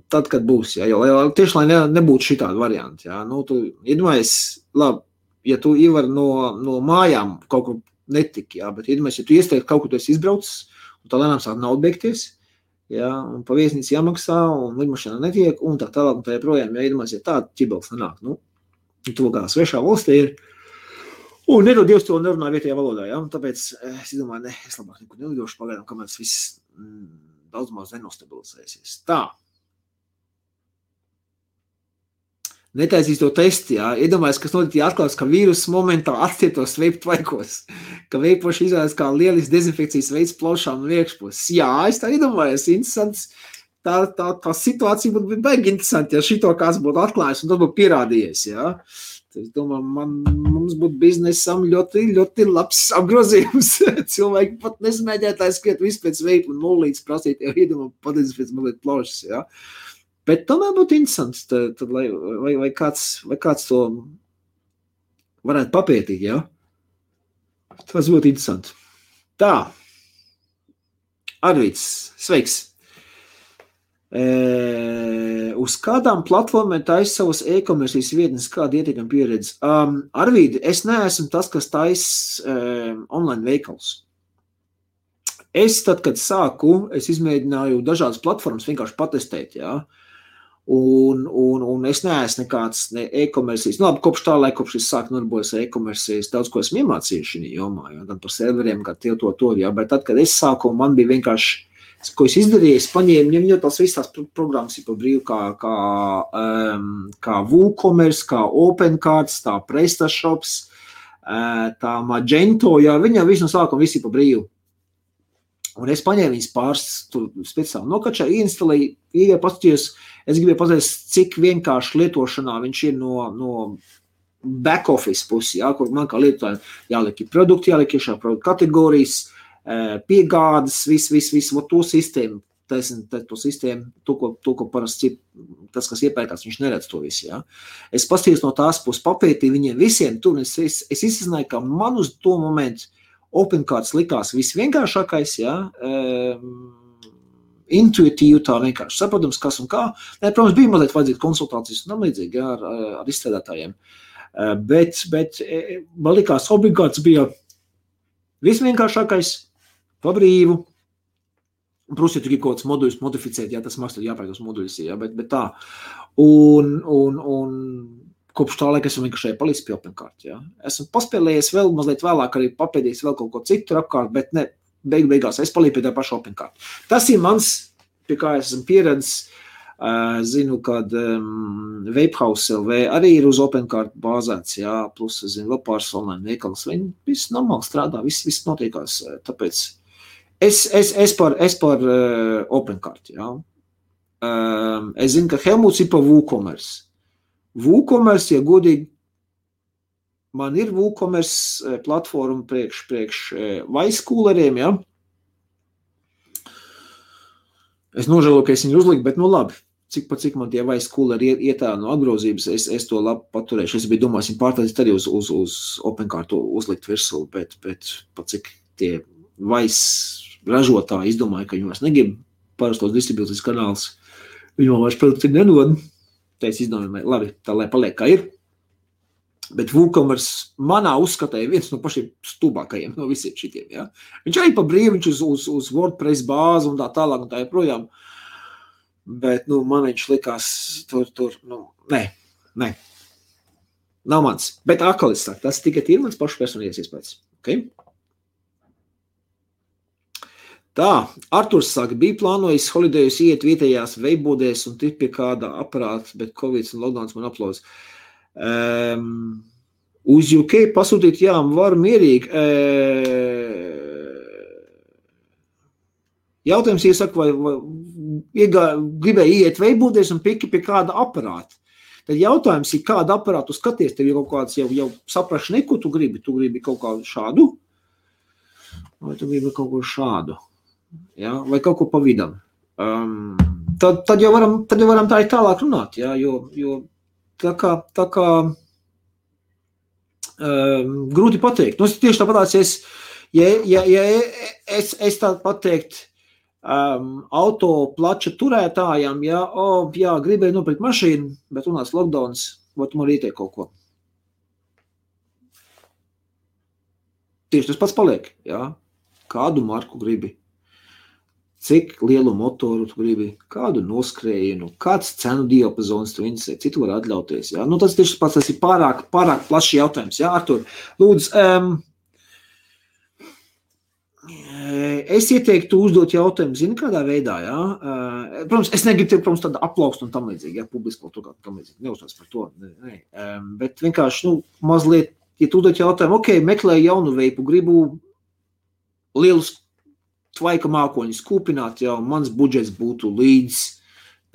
tad, kad būs. Jā, jo tieši, lai nebūtu šitādi varianti. Jā. Tu iedomājies, labi, ja tu ievari no mājām kaut kur netiki, jā, bet iedomājies, ja tu iesteigti kaut kur tu esi izbraucis, un tā lēnām sāk naudu beigties, jā, un pa viesnīcu jāmaksā, un lidmašanā netiek, un tā tālāk, un tā joprojām, ja iedomājies, ja tāda ķibels nenāk, tu kā svešā valstī ir, un nedod Dievs to nerunā vietējā valodā, jā, un tāpēc es domāju, es labāk nekur nelidošu pagaidām, kamēr tas viss daudz maz nenostabilizēsies. Tā. Netaisīs to testi, jā. Iedomājies, kas notiek, ja atklās, ka vīrus momentā atstietos veipu tvaikos, ka veipoši izvēlas kā lielis dezinfekcijas veids plaušām un iekšpos. Jā, es tā iedomājos, interesants. Tā situācija būtu baigi interesanti, ja šito kāds būtu atklājis un tas būtu pierādījies, jā. Es domāju, mums būtu biznesam ļoti, ļoti labs apgrozījums. Cilvēki pat nesmēģētāji skriet visu pēc veipu un nulītes prasīt, jau iedomā pateicis pēc mazliet plaušas, jā. Bet tomēr būtu interesants, tad, vai kāds to varētu papētīt, jā? Tas būtu interesanti. Tā. Arvīds, sveiks. Uz kādām platformām taisa savas e-komercijas vietnes, kāda ietekama pieredze? Arvīdi, es neesmu tas, kas taisa online veikals. Es tad, kad sāku, es izmēģināju dažādas platformas vienkārši patestēt, jā. Un es neesmu nekāds e-komercijas. Labi, kopš tā laika, kopš es sāku nodarboties ar e-komercijas, daudz ko esmu iemācījuši šī jomā, jā, gan par serveriem, kā to, jā, bet tad, kad es sāku, man bija vienkārši, ko es izdarīju, es paņēmu, jo tās visas tās programmas ir pa brīvu, kā WooCommerce, kā OpenCards, tā PrestaShops, tā Magento, jā, viņam visu no sākuma visi pa brīvu. Un es paņēmu viņas pāris speciāli nokačāju, ieinstalēju, paskatījos, es gribēju pateikt, cik vienkārši lietošanā viņš ir no back office pusi, jā, kur man kā lietotājiem jāliek ir produkti, jāliek iešā produktu kategorijas, piegādes, viss, to sistēmu, to sistēmu, to, ko parasti tas, kas iepērkās, viņš neredz to visu, jā. Es paskatījos no tās puses papētīju viņiem visiem tur, es izsazināju, ka man uz to momentu OpenCards likās visvienkāršākais, jā, intuitīvi tā vienkārši saprotams, kas un kā. Nē, protams, bija mazliet vajadzīt konsultācijas un tam līdzīgi, jā, ar izstrādātājiem. Bet man likās, OpenCards bija visvienkāršākais, pa brīvu. Protams, ja tu gribi kaut kāds moduļus modificēt, jā, tas maksā jāpērk tos moduļus, jā, bet tā. Un kopš tā laika esmu vienkārši palicis pie OpenCard, jā. Esmu paspēlējies vēl mazliet vēlāk, arī papēdījis vēl kaut ko citu apkārt, bet ne, beigās es palīju pie tā paša OpenCard. Tas ir mans, pie kā es esmu pieredzis, zinu, kad Vapehouse LV arī ir uz OpenCard bāzēts, jā, plus, zinu, vēl pāris online veikals, viņi viss normāli strādā, viss notiekās, tāpēc es par OpenCard, jā. Es zinu, ka Helmuts ir par WooCommerce. WooCommerce, ja godīgi, man ir WooCommerce platforma priekš vaiskūleriem, jā. Es nožēloju, ka es viņu uzliku, bet nu labi, cik man tie vaiskūleri ietā no apgrozības, es to labi paturēšu. Es biju domājis, viņu pārtaisīt arī uz OpenCard uzlikt virsū, bet pat cik tie vais ražotāji izdomāja, ka viņi vairs negrib parastos distribūcijas kanāls, viņi man vairs produkti nedod. Tā es izdomāju, labi, tā lai paliek kā ir. Bet WooCommerce manā uzskatā ir viens no pašiem stūbākajiem no visiem šitiem, jā. Viņš arī pa brīvi, viņš uz WordPress bāzi un tā tālāk un tā joprojām. Bet, man viņš likās tur, nē. Nav mans. Bet atkal es saku, tas tikai ir mans pašu personīgais iespējas. Okay? Tā, Arturs saka, bija plānojis holidejus iet vietējās veibūdēs un tik pie kāda aparāta, bet Covid un lockdowns man aplauz. Uz UK pasūtīt, jā, varu mierīgi. Jautājums iesaka, vai gribēja iet veibūdēs un piki pie kāda aparāta. Tad jautājums ir, kādu aparātu skaties, tev ir kaut kāds jau saprašani, ko tu gribi? Tu gribi kaut kādu šādu? Vai tu gribi kaut ko šādu? Ja, vai kaut ko pa vidam. Tad jau varam tā ir tālāk runāt, ja, jo tā kā grūti pateikt. Tieši tāpatās, ja es tā pateikt auto plača turētājām, ja, gribēju nopirkt mašīnu, bet unās lockdowns, vai tu man ieteikt kaut ko? Tieši tas pats paliek, ja. Kādu marku gribi? Cik lielu motoru tu gribi, kādu noskrējienu, kāds cenu diapazons tu interesē, citu var atļauties. Ja? Tas tieši pats, tas ir pārāk plašs jautājums. Ja? Artur, lūdzu, es ieteiktu uzdot jautājumu, zini, kādā veidā, ja? Protams, es negribu tev, tādu aplaukstu un tam līdzīgi, ja, publiski kaut tam līdzīgi, neuzstāst par to, ne. Bet vienkārši, mazliet, ja tu uzdot jautājumu, meklēju jaunu veipu, gribu lielus tvaika mākoņus kūpināt, jau mans budžets būtu līdz,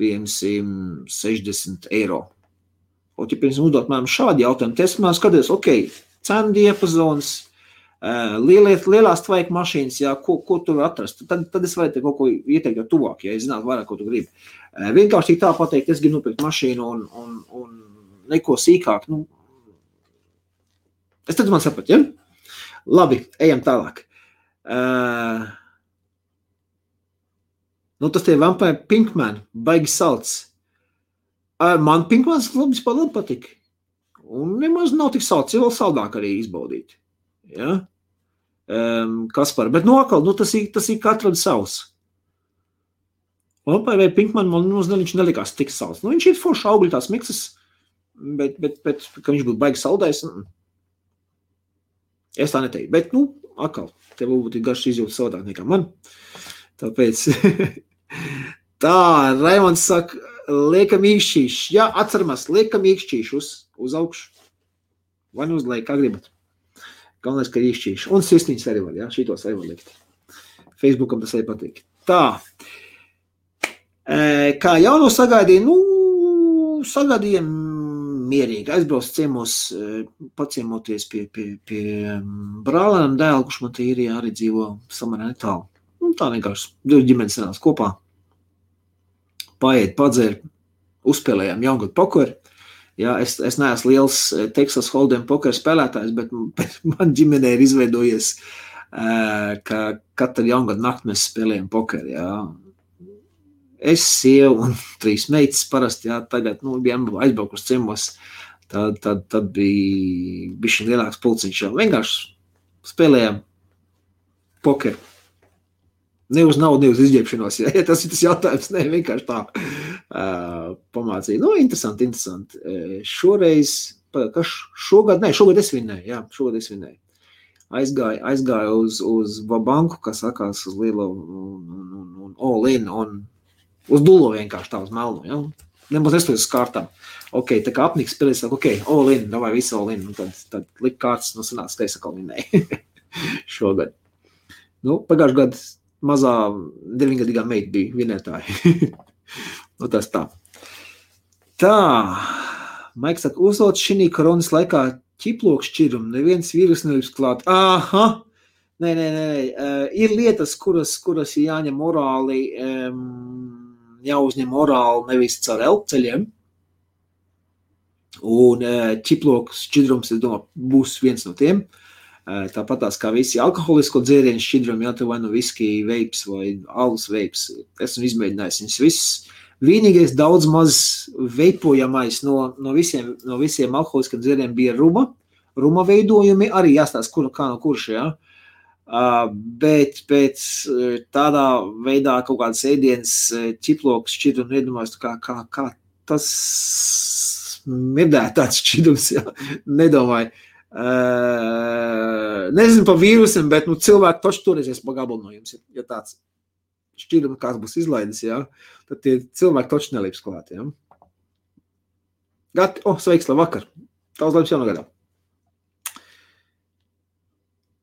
piemēram, 60 eiro. Ja piemēram uzdot man šādi jautājumi, tad es man skaties, cenu diapazons, lielās tvaika mašīnas, jā, ko tu var atrast. Tad es varētu kaut ko ieteikt jau tuvāk, ja es zinātu vairāk, ko tu gribi. Vienkārši tā pateikt, es gribu nopirkt mašīnu un neko sīkāk. Es tad man sapratu, ja? Labi, ejam tālāk. Tas tie Vampire Pinkman, baigi salds. Man Pinkmans labi patika. Un nemaz nav tik salds, jau vēl saldāk arī izbaudīt. Ja? Kaspar, bet atkal, tas ir katram savs. Vampire Pinkman man viņš nelikās tik salds. Viņš ir forši augļu tās miksas, bet ka viņš būtu baigi saldais, es tā neteiktu. Bet, atkal, tev būtu garš izjūta savādāk nekā man. Tāpēc... Tā, Raimonds saka, liekam īkšķīši. Jā, atceramies, liekam īkšķīši uz augšu. Vai uz leju, kā gribat. Galvenais, ka īkšķīši. Un sirsniņas arī var, jā, šitos arī var likt. Facebookam tas arī patīk. Tā. Kā jauno sagaidīja, sagaidījām mierīgi. Aizbrauc ciemos, paciemoties pie brālēnam dēlu, kurš man te ir arī dzīvo samērā netālu. Tā vienkārši, divi ģimenes sanās kopā, paiet, padzēr, uzspēlējām jaungadu pokeru. Jā, es neesmu liels Texas Hold'em pokeru spēlētājs, bet man ģimenē ir izveidojies ka katru jaungadu nakti mēs spēlējam pokeru, jā. Es, sieva un 3 meitas parasti, jā, tagad, bijām aizbraukuši ciemos, tad bija bišķi lielāks pulciņš, jā. Vienkārši spēlējām pokeru. Ne uz naudu, ne uz izģēpšanos, ja tas ir tas jautājums, ne, vienkārši tā pamācīja. Interesanti. Šoreiz, šogad es vinnēju, jā, Aizgāju uz banku, kas sakās uz lielo un all-in, un uz dullo vienkārši tā uz melnu, ja? Nemaz nestojas uz kārtām. Ok, tā kā apniks spēlēs, ok, all-in, davai visu all-in, un tad lik kārtas, sanāca, ka es atkal vinnēju šogad. Pagājuši gadu mazā 9-gadīgā meita bija vinnētāji. Tas tā. Tā, Maiks saka, uzlot šī koronas laikā ķiploku šķirumu, neviens vīrus nevis klāt. Aha! Nē. Ir lietas, kuras jāņem morāli, jāuzņem morāli nevis caur elpceļiem. Un ķiploku šķidrums, es domāju, būs viens no tiem. Tāpatās kā visi alkoholisko dzērienu šķidrumi, jā, vai viski veips vai alus veips. Esmu izmēģinājis viņus visus. Vienīgais daudz maz veipojamais no visiem alkoholiskiem dzērieniem bija ruma veidojumi, arī jāstāsta, kā no kurš, jā. Bet pēc tādā veidā kaut kādas ēdienas ķiploks šķidrumi nedomājas, kā tas mirdētāts šķidrums, jā, nedomāju. Nezinu par vīrusiem, bet cilvēki toši toreizies pa gabalu no jums, ja tāds šķidrumi kāds būs izlaidis, jā, tad tie cilvēki toši nelīps klāt, jā. Gati, sveiks, labvakar. Tavs laimes jaunogadā.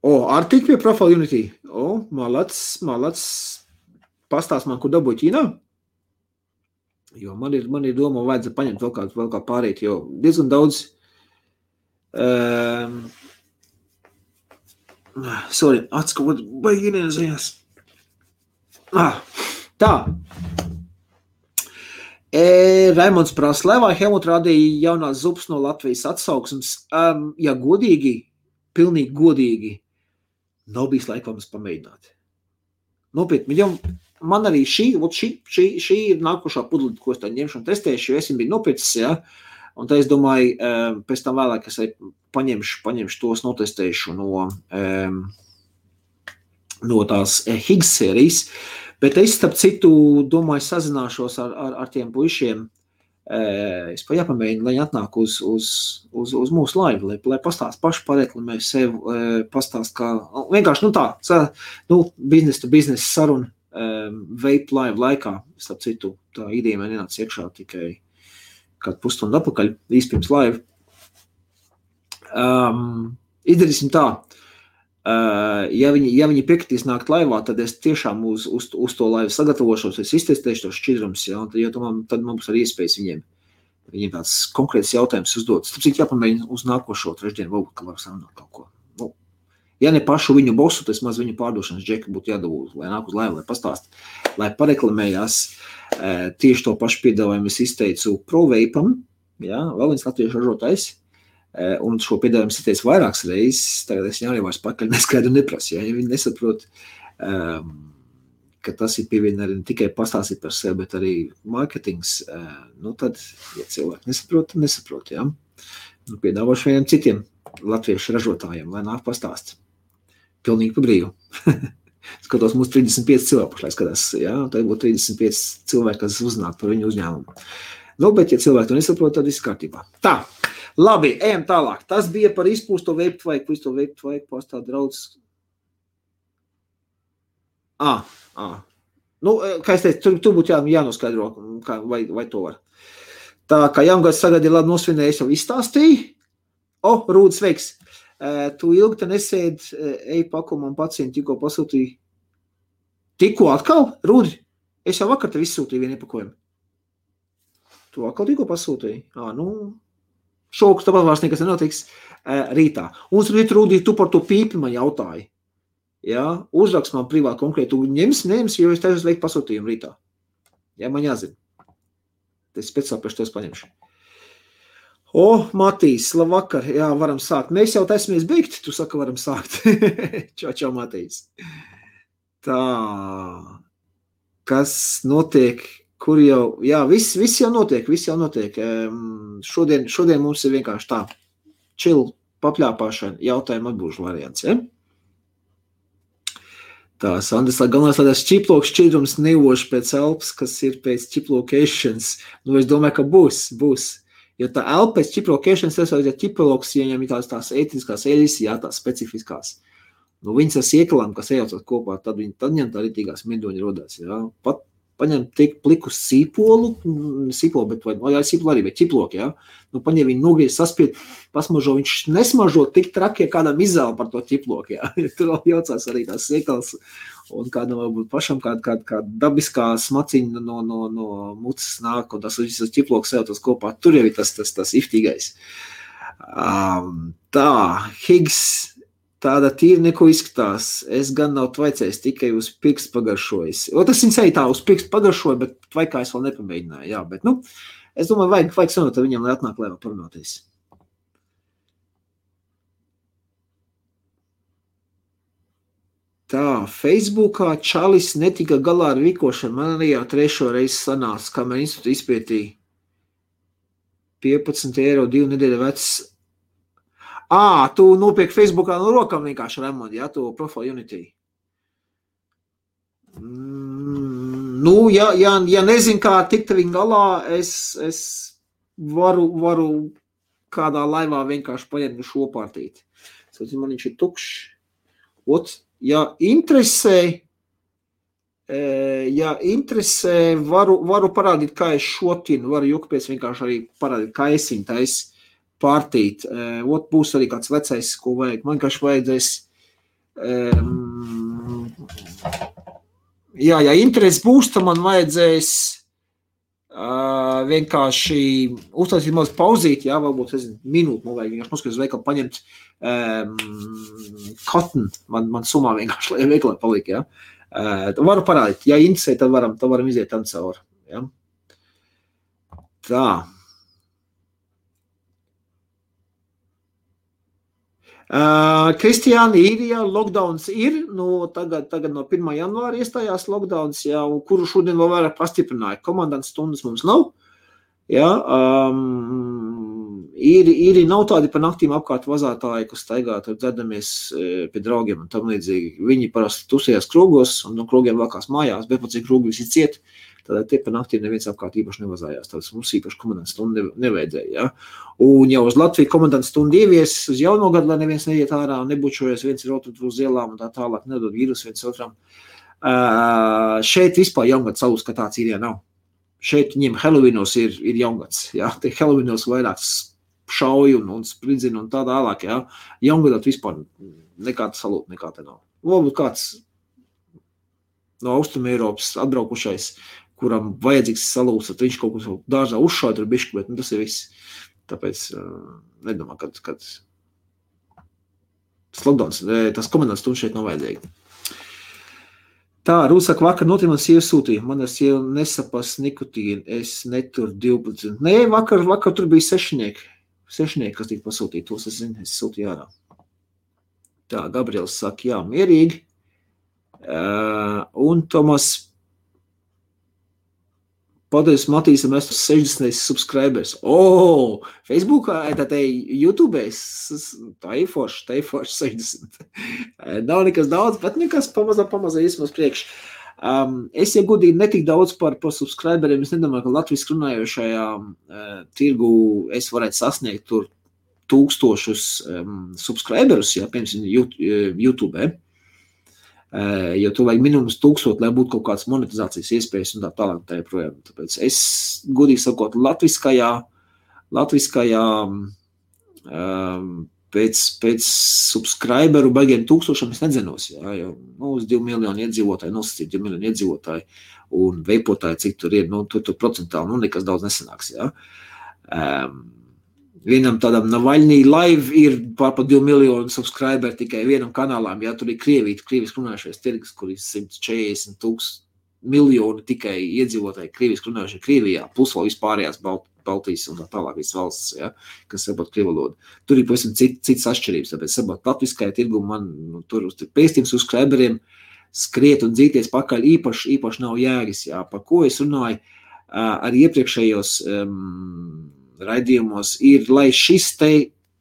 Artik pie Profile Unity. Malac. Pastāst man, kur dabūju Ķīnā? Jo man ir doma, vajadzētu paņemt vēl kā pārīt, jo diezgan daudz atskot, baigi ienēzējās. Tā. Raimonds prasa, vai Helmut rādīja jaunās zupas no Latvijas atsauksmes? Ja godīgi, pilnīgi godīgi, nav bijis laika mums pamēģināt. Nopietni, man arī šī ir nākošā pudlīte, ko es tā ņemšu un testēšu, jo es biju nopircis, jā. Un tā es domāju, pēc tam vēlāk es paņemšu tos, notestēšu no tās Higgs sērijas, bet es, starp citu, domāju, sazināšos ar tiem puišiem, es jāpamēģinu, lai atnāk uz mūsu laivu, lai pastāst paši pareklamē sev, pastāst kā, vienkārši, business to business saruna, vape live laikā, starp citu, tā ideja man nenāca iekšā tikai kādu pusstundu atpakaļ, īsti pirms laiva. Izdarīsim tā, ja viņi piekritīs nākt laivā, tad es tiešām uz to laivu sagatavošos, es iztestēšu tos šķidrums, ja, jo tad man būs arī iespējas viņiem tāds konkrēts jautājums uzdot. Tāpēc jāpamēģina uz nākošo trešdienu, varbūt, ka var sarunāt kaut ko. Ja ne pašu viņu bosu, tas maz viņu pārdošanas džeka būtu jādabū, lai nāk uz laivu, lai pastāst, lai pareklamējās. Tieši to pašu piedāvājumu es izteicu ProVapam, ja, vēl viens latviešu ražotājs, un šo piedāvājumu es izteicu vairākas reizes, tagad es arī vairs pakaļ neskaidru neprasu, ja viņi nesaprot, ka tas ir pievienot ne tikai pastāstīt par sevi, bet arī marketings, tad, ja cilvēki nesaprot, ja, piedāvāšu vieniem citiem latviešu ražotājiem, lai nāk pastāst. Pilnīgi pa brīvu. Skatos, mums 35 cilvēku pašlaik skatās, jā, tad būtu 35 cilvēki, kas uzzinātu par viņu uzņēmumu. Bet, ja cilvēki to nesaprot, tad viss kārtībā. Tā, labi, ejam tālāk. Tas bija par izpūsto vape tvaiku, pastā draudz. Kā es teicu, tur būtu jānoskaidro, vai to var. Tā, kā jaungads sagadi labi nosvinējies, jau izstāstīja. Rūdis, sveiks. Tu ilgi te nesēd, pakumu un pacientu tikko pasūtīju. Tikko atkal? Rūdi, es jau vakar tev izsūtīju vienu iepakojumu. Tu atkal tikko pasūtīji? Šokus, tāpat vairs nekas nenotiks rītā. Un Rūdi, tu par to pīpi man jautāji. Ja? Uzrakst man privāti konkrēti, tu ņems, jo es tev uzveikt pasūtījumu rītā. Ja, man jāzina. Es speciāli pēc tos paņemšu. Matīs, labvakar, jā, varam sākt. Mēs jau taismies beigt, tu saka, varam sākt. Čau, Matīs. Tā, kas notiek, kur jau, jā, viss jau notiek. Šodien mums ir vienkārši tā, chill, papļāpāšana, jautājumu atbūžu variants, ja? Tā, Sandrs, galvenais, lai tas ķiploks šķidrums nevoši pēc elpas, kas ir pēc ķiplokēšanas. Es domāju, ka būs. Jo tā elpa pēc ķiplokēšanas, ja ķiploks, ja viņam ir tās ētiskās eļas, jā, tās specifiskās. Viņas ar siekalām, kas ejaucot kopā, tad viņam tā ritīgās medoņi rodās, jā. Pat paņem tik plikus sīpolu, bet sīpolu arī, bet ķiploki, jā. Paņem viņu nogriez, saspied, pasmažo, viņš nesmažo tik traki, ja kādam izēl par to ķiploki, jā. Tur jaucās arī tās siekals, un kādam varbūt pašam kāda dabiskā smaciņa no mucas nāk, un tas visas ķiploks ejaucās kopā, tur jau ir tas iftīgais. Tā, Higgs, tāda tīri neko izskatās. Es gan nav tvaicējis, tikai uz pirkstu pagaršojis. Tas viņas arī tā uz pirkstu pagaršoja, bet tvaikā es vēl nepamēģināju. Jā, bet, es domāju, vajag sanot ar viņam, lai atnāk, lai vēl parunāties. Tā, Facebookā Čalis netika galā ar vikošanu. Man arī jau 3. reizi sanāca, kamēr institūti izpētīja 15 eiro 2 nedēļa vecs. Tu nopiek Facebookā no rokām vienkārši Raimond, jā, to Profile Unity. Ja nezinu, kā tikt viņu galā, es varu kādā laivā vienkārši paņemt šo pārtīt. Man viņš ir tukšs. Ja interesē, varu parādīt, kā es šotinu, varu jukpies vienkārši arī parādīt, kā es viņu tais pārtīt. Būs arī kāds vecais, ko vajag. Man vienkārši vajadzēs, ja interesi būs, tad man vajadzēs vienkārši uztaisīt mazliet pauzīt, jā, varbūt, minūti, man vajag vienkārši noskaties veikalu paņemt cotton, man sumā vienkārši, lai veikalā paliek, jā. Varu parādīt, ja interesē, tad varam iziet tam cauri, jā. Tā. Kristiāni, Īrijā lockdowns ir, tagad no 1. janvāra iestājās lockdowns, jā, kuru šodien vēl vairāk pastiprināja. Komandants stundas mums nav, jā, īri nav tādi pa naktīm apkārt vazātāji, kas staigā, tur dzedamies pie draugiem un tam līdzīgi. Viņi parasti tusējās krogos un no krogiem vakās mājās, bet pat cik krogi visi ciet, tad tie pa naktīm neviens apkārt īpaši nevazājās. Tāpēc mums īpaši komandants stundu nevajadzēja, jā. Un jau uz Latviju komandants stundu ievies uz jauno gadu, lai neviens neiet ārā un nebučojas, viens ir otru uz ielām un tā tālāk, nedod vīrusu viens otram. Šeit vispār jaungad savus, ka tāds Īrijā nav. Šeit viņiem Halloweenos ir jaungads, jā. Tie Halloweenos vairāk šauju un spridzina un tā tālāk, jā. Jaungadot vispār nekāda salūta, nekā te nav. Varbūt kāds no Austrum Eiropas atbraukušais, kuram vajadzīgs salūsat, viņš kaut ko dārzā uzšauj tur bišķi, bet tas ir viss. Tāpēc nedomā, kad lockdowns, tas komandants stundu šeit nav vajadzīgi. Tā, Rūsaka vakar notiek man sieva sūtīja. Man ar sievu nesapas nikotīnu, es neturu 12. Nē, vakar tur bija sešnieki, kas tika pasūtīti, tos es zinu, es sūtīju ārā. Tā, Gabriels saka, jā, mierīgi. Un Tomas Paldies, Matīsam, es 60 subscribers. Facebookā, YouTube, tā ir forši 60. Nav nekas daudz, bet nekas pamazā iesmās priekš. Es, ja godīgi, netik daudz par subscriberiem, es nedomāju, ka latviski runājošajā tirgu es varētu sasniegt tur 1000 subscriberus, jā, piemēram, YouTube. Jo tu vajag minimums 1000, lai būtu kaut kāds monetizācijas iespējas un tā tālāk tā joprojām. Tāpēc es, godīgi sakot, latviskajā pēc subscriberu baigiem 1000 es nedzenos, jā, jo uz 2 miljoni iedzīvotāji, nosacīt 2 miljoni iedzīvotāji un veipotāji, cik tur ir, tur procentāli, nekas daudz nesanāks, jā. Vienam tādam Navaļnī live ir pār 2 miljonu subscriberi tikai vienam kanālām, jā, tur ir krieviski runājušies tirgus, kur ir 140 miljoni tikai iedzīvotāji krieviski runājušie Krievijā, plus vēl vispārējās Baltijas un tā tālāk visas valsts, ja, kas saprot krievu valodu. Tur ir pavisam citas atšķirības, tāpēc saprot latviskajā tirgu man tur uz pēstījums uz subscriberiem skriet un dzīties pakaļ īpaši nav jēgas, jā, par ko es runāju arī iepriekšējos raidījumos ir, lai šis te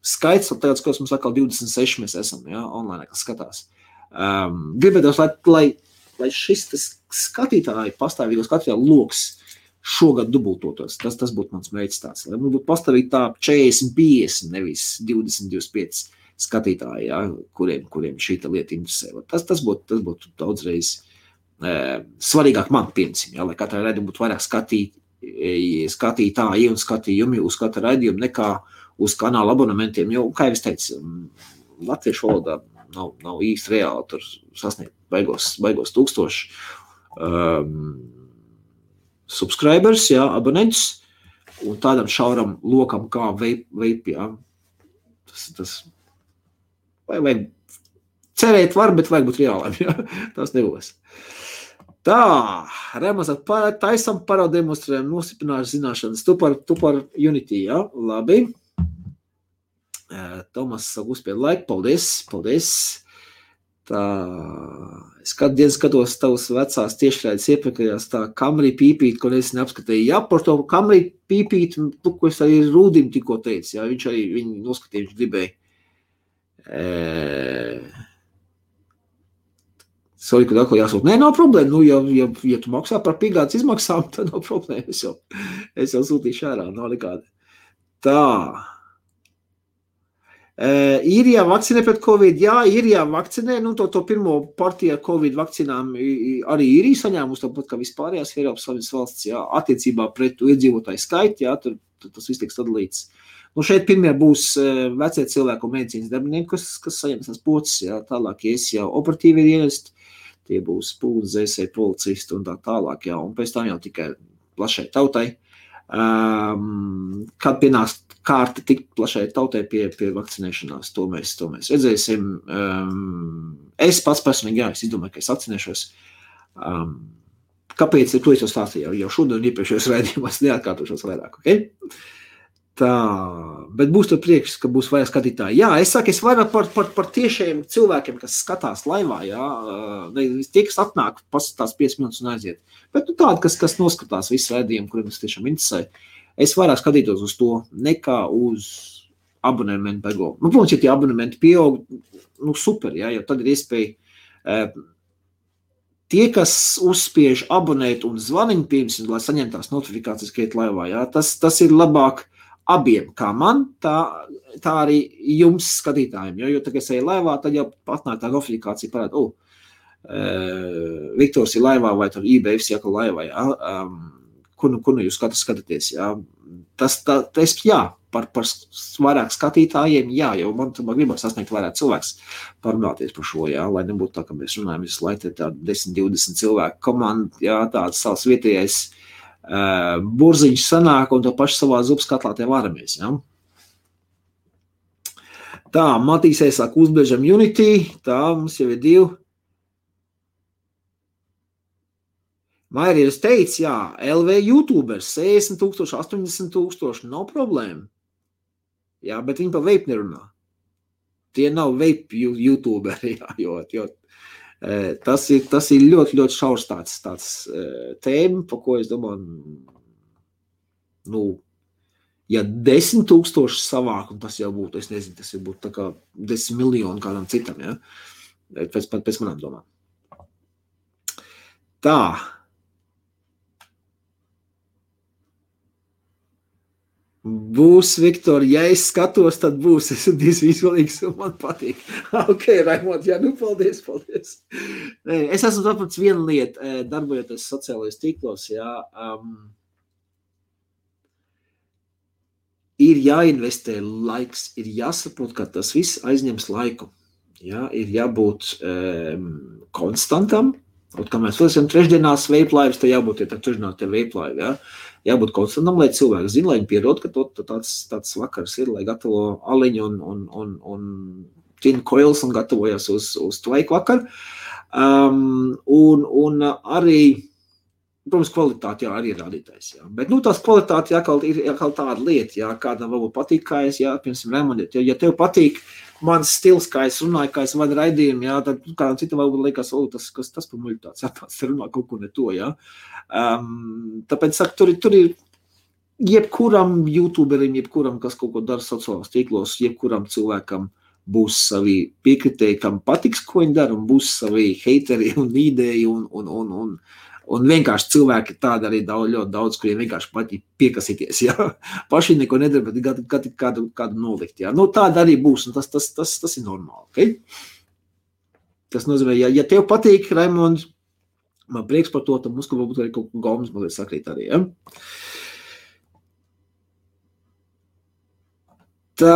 skaits, tāds, kas mums atkal 26 mēs esam, jā, online, kas skatās. Gribētos, lai šis skatītāji, pastāvīgo skatītāju loks šogad dubultotos. Tas būtu mans mērķis tāds. Lai mums būtu pastāvīgi tā 40-50, nevis 20-25 skatītāji, jā, kuriem šī lieta interesē. Tas būtu daudzreiz svarīgāk man, piemēram, ja, lai katrai raidījumam būtu vairāk skatītāji un skatījumi uz katru raidījumu nekā uz kanāla abonementiem, jo, kā jau es teicu, latviešu valodā nav īsti reāli tur sasniegt baigos 1000 subscribers, jā, abonentus, un tādam šauram lokam kā vape, jā. Tas vajag cerēt var, bet vajag būt reāliem, jā. Tas nebūs. Tā, Remas taisam parademonstrējam, nostiprināšu zināšanas. Tu par Unity, jā, labi. Tomas uzspied laiku, paldies. Tā, es kādu dienu skatos tavas vecās tiešraides iepriekšējās tā Camry pīpīt, ko es neapskatīju. Jā, par to Camry pīpīt, ko es arī Rūdim tikko teicu, jā, viņš arī viņu noskatīja, viņš gribēja. Sorry, kad atkal jāsūt. Nē, nav problēma. Ja tu maksā par pīgādas izmaksām, tad nav problēma. Es jau sūtīšu ārā, nav nekāda. Tā. Īrijā vakcinē pret Covid. Jā, Īrijā vakcinē. To pirmo partiju ar Covid vakcinām arī Īrija saņēmusi, tāpat kā vispārējās Eiropas Savienības valsts, jā, attiecībā pret iedzīvotāju skaitu, jā, tur tas viss tiks sadalīts. Šeit pirmie būs vecie cilvēku un medicīnas darbinieki, kas saņems tās pocis, jā, tālāk ies jau operatīvi dienesti, tie būs pūles, zēsēji, policisti un tā tālāk, jā, un pēc tam jau tikai plašai tautai. Kad pienāks kārta tik plašai tautai pie vakcinēšanās, to mēs redzēsim. Es pats personīgi, jā, es izdomāju, ka es vakcinēšos. Kāpēc? To es jau stāstīju jau šodien iepriekšējos raidījumos, neatkārtošos vairāk, ok? Tā, bet būs tur priekš, ka būs vairāk skatītāji. Jā, es saku, es vairāk par tiešiem cilvēkiem, kas skatās laivā, jā, tie, kas atnāk, pasatās 5 minūtes un aiziet. Bet tādi, kas noskatās visu raidījumu, kuriem tas tiešām interesē, es vairāk skatītos uz to, nekā uz abonementu bego. Protams, ja tie abonementi pieaug, super, jā, jo tad ir iespēja tie, kas uzspiež abonēt un zvaniņu pirms, lai saņemtās notifikācijas, ka iet laivā, jā, tas ir labāk abiem, kā man, tā arī jums skatītājiem, jo tā, es eju laivā, tad jau patnāk tā notifikācija parāda, Viktors ir laivā vai tur eBay jāka laivā, jā, kur jūs skatāties, jā, jā, par vairāk skatītājiem, jā, jo man gribas sasniegt vairāk cilvēks parunāties par šo, jā, lai nebūtu tā, ka mēs runājam visu laiku, tāda 10-20 cilvēku komanda, jā, tāds savs vietējais burziņš sanāk un to pašu savā zupas katlā te varamies, ja? Tā, Matīsē sāk uzbiežam Unity, tā, mums jau ir 2. Mairieris teica, jā, LV YouTubers, 60,000, 80,000, nav problēma. Jā, bet viņi pa vape nerunā. Tie nav vape YouTuberi, jā, jo tas ir ļoti, ļoti šaurs tāds tēma, par ko es domāju, ja 10,000 savāk, un tas jau būtu, es nezinu, tas jau būtu tā kā 10 miljoni kādam citam, ja? Pēc manām domām. Tā. Būs, Viktor, ja es skatos, tad būs. Es esmu izvēlīgs un man patīk. Ok, Raimond, jā, paldies. Es esmu sapratis vienu lietu, darbojoties sociālajos tīklos, jā. Ir jāinvestē laiks, ir jāsaprot, ka tas viss aizņems laiku. Jā, ir jābūt konstantam. Un, kā mēs esam trešdienās veiplaivis, tad jābūt trešdienās te veiplaivi, jā. Jābūt konstantam, lai cilvēki zina, lai viņi pierod, ka tāds vakars ir, lai gatavo aliņu un tin coils un gatavojas uz tvaiku vakaru. Un arī Protams, kvalitāte, jā, arī ir rādītājs, jā. Bet, tās kvalitāte ir tāda lieta, jā, kādam varbūt patīk, kā es, jā, piemēram, Raimondiet, ja tev patīk mans stils, kā es runāju, kā es vadu raidījumu, jā, tad kādam citam varbūt liekas, tas par muļu tāds, tāds runā kaut ko ne to, jā. Tāpēc, saku, tur ir jebkuram youtuberim, jebkuram, kas kaut ko dara sociālās tīklos, jebkuram cilvēkam būs savi piekritēji, kam patiks, ko viņi dara, un būs savi heiteri un ideji un vienkārši cilvēki tādi arī ļoti daudz, kuriem vienkārši patīk piekasīties, jā. Paši neko nedara, bet kādu nolikt, jā. Tāda arī būs, un tas ir normāli, ok? Tas nozīmē, ja tev patīk, Raimond, man prieks par to, tad mums, ka varbūt arī kaut ko gaumas mazliet sakrīt arī, jā. Tā,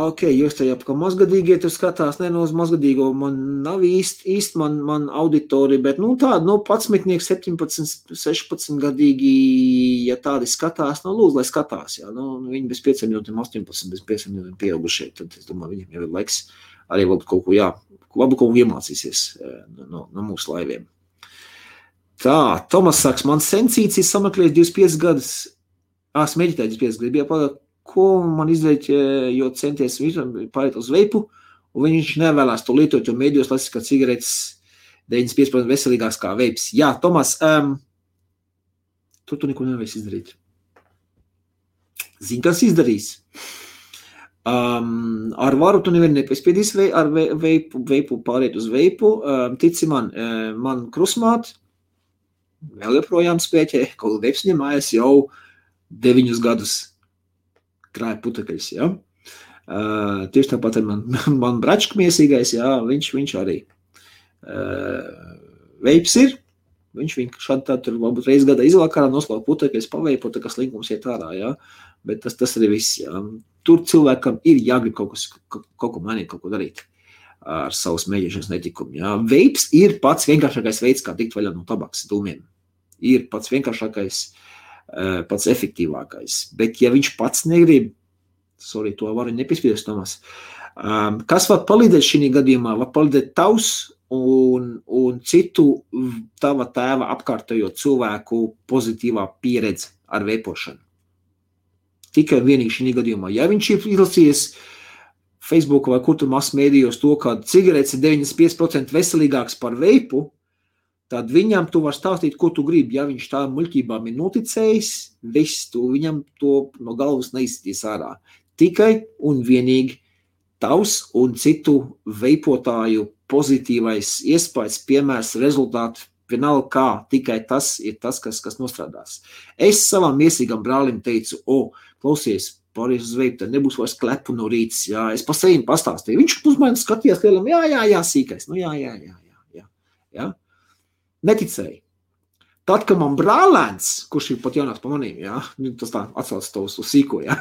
ok, jūs tajā, ka mazgadīgie tur skatās, uz mazgadīgo man nav īsti man auditorija, bet, tāda, 11, 17, 16 gadīgi, ja tādi skatās, lūdzu, lai skatās, jā, viņi bez 5 minūtēm, 18, bez 5 minūtēm pieaugušie, tad es domāju, viņiem jau ir laiks arī varbūt kaut ko, jā, varbūt kaut ko iemācīsies no mūsu laiviem. Tā, Tomas saks, man sensīts ir sameklējis 25 gadus, smēģitēji 25 gadus, bija pagāt, ko man izdarīt, jo centies pārēt uz veipu, un viņš nevēlās to lietot, jo mēdījos lasīt, ka cigaretes 95% veselīgāks kā veips. Jā, Tomas, tu neko nevēs izdarīt. Zini, kas izdarīs? Ar varu tu nevienu nepiespiedīs ar veipu pārēt uz veipu. Tici man krusmāt, vēl joprojām spēķē, kaut veips ņemājas jau 9 gadus. Krāja putekļus, jā. Tieši tāpat ir man bračka miesīgais, jā, viņš arī. Veips ir, viņš šādi tā tur varbūt reiz gadā izvakarā noslauka putekļus, paveipo, tā kā slinkums iet ārā, jā. Bet tas arī viss, jā. Tur cilvēkam ir jāgrib kaut ko mainīt, kaut ko darīt ar savu smēģēšanas netikumu, jā. Veips ir pats vienkāršākais veids, kā tikt vaļā no tabaks dūmiem. Ir pats vienkāršākais, pats efektīvākais. Bet, ja viņš pats negrib, to var nepiespiedis, Tomas, kas var palīdēt šī gadījumā? Var palīdēt tavs un citu tava tēva apkārtējo cilvēku pozitīvā pieredze ar veipošanu. Tikai vienīgi šī gadījumā. Ja viņš ir izlasījies Facebook vai kur tur masmēdījos to, ka cigaretes ir 95% veselīgāks par veipu, tad viņam tu var stāstīt, ko tu gribi. Ja viņš tā muļķībām ir noticējis, viss tu viņam to no galvas neizsitīs ārā. Tikai un vienīgi tavs un citu veipotāju pozitīvais iespējas, piemērs, rezultāti, vienalga kā, tikai tas ir tas, kas nostrādās. Es savam miesīgam brālim teicu, klausies, pārējais uz veipu, tad nebūs vairs klepu no rītas, jā, es pa saviem pastāstīju. Viņš uz mani skatījās lielam, jā, sīkais, jā. Neticēja. Tad, kad man brālēns, kurš ir pat jaunāks pa manīm, jā, tas tā atsauc to uz sīko, jā,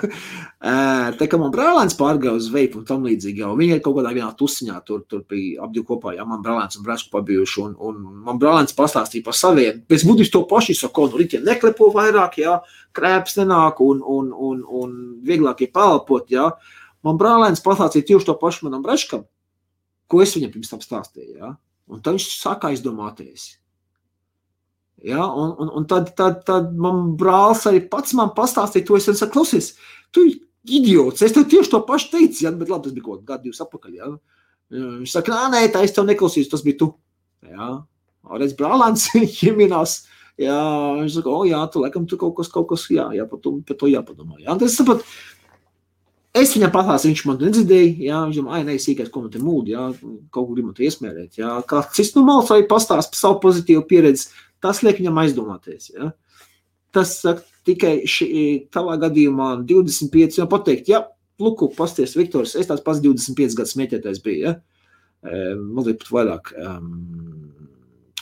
tad, kad man brālēns pārgāja uz veipu un tam līdzīgi, jau viņi ir kaut kādā vienā tusiņā, tur bija ap divu kopā, jā, man brālēns un brēšku pabijuši, un man brālēns pastāstīja par saviem, pēc būtības to paši saka, rītiem neklepo vairāk, jā, krēps nenāk un vieglāk ir palpot, jā. Man brālēns pastāstīja tieši to pašu manam brēškam, ko es viņam pirms tam stāstīju, jā, un tad viņš sākā izdomāties. Ja, un tad man brālis arī pats man pastāstīja to, es saku, klausies, tu idiots, es tev tieši to pašu teicu, ja, bet labi, tas bija kaut gadu 2 apakaļ, ja. Viņš saka, nē, tā es tev neklausīju, tas bija tu, ja, redz brālēns, ieminās, ja, viņš saka, jā, tu laikam tu kaut kas, jā, par to jāpadomā, ja, tas sapat, es viņam pastāstīju, viņš man nedzirdēja, jā, viņš domā, nē, sīkais, ko man te mūdi, jā, kaut kur grib man te iesmērēt, jā, kā cits malas arī pastāst par savu pozitīvu pieredzi, tas liek viņam aizdomāties, ja. Tas saka, tikai tavā gadījumā 25, jau pateikt, ja, luku, pasties, Viktors, es tāds pats 25 gadus smēķētājs bija, ja, mazliet pat vairāk,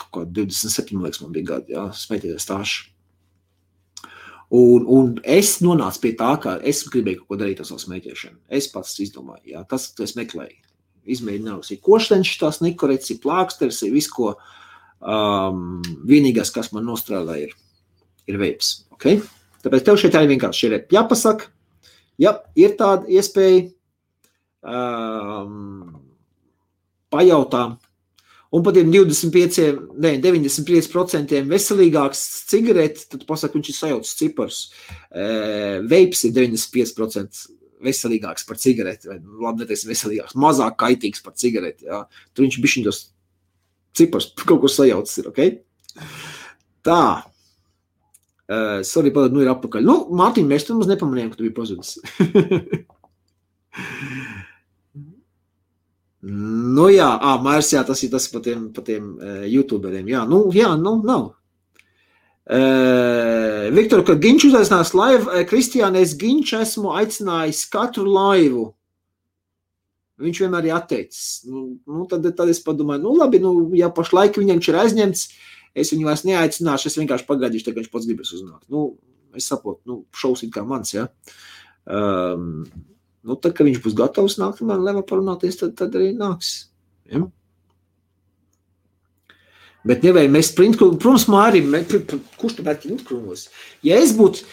kaut kā 27, liekas, man bija gadi, ja, smēķētājs stāšu. Un es nonācu pie tā, ka es gribēju kaut ko darīt ar savu smēķēšanu. Es pats izdomāju, ja, tas es meklēju. Izmēģināju, ir košteņš, tās nikorets, ir plāksters, ir viss, ko vienīgais, kas man nostrādā, ir veips. Okay? Tāpēc tev šeit arī vienkārši ir jāpasaka, ja ir tāda iespēja pajautā. un pat tiem 95% veselīgāks cigareti, tad pasaka, viņš ir sajaucis cipars. Veips ir 95% veselīgāks par cigareti, vai labi neteiksim veselīgāks, mazāk kaitīgs par cigareti, jā. Tur viņš bišķiņ tos cipars kaut ko sajaucis ir, ok? Tā. Sorry, nu ir apakaļ. Nu, Mārtiņ, mēs tur mums nepamanījām, ka tu biji pazudis. Nu jā, Mārs, jā, tas ir pa tiem youtuberiem, jā, nav. Viktor, kad Ginč uzaicinās laivu, Kristiāne, es Ginču esmu aicinājis katru laivu. Viņš vienmēr ir atteicis. Nu, tad es padomāju, labi, ja pašlaik viņam ir aizņemts, es viņu vairs neaicināšu, es vienkārši pagaidīšu, tagad viņš pats gribas uznākt. Es saprotu, šaus ir kā mans, jā. Tad, kad viņš būs gatavs nākt, man leva parunāties, tad arī nāks. Ja? Bet nevajag mēs printkrūmos, protams, Mārim, kurš tu met printkrūmos? Ja es būtu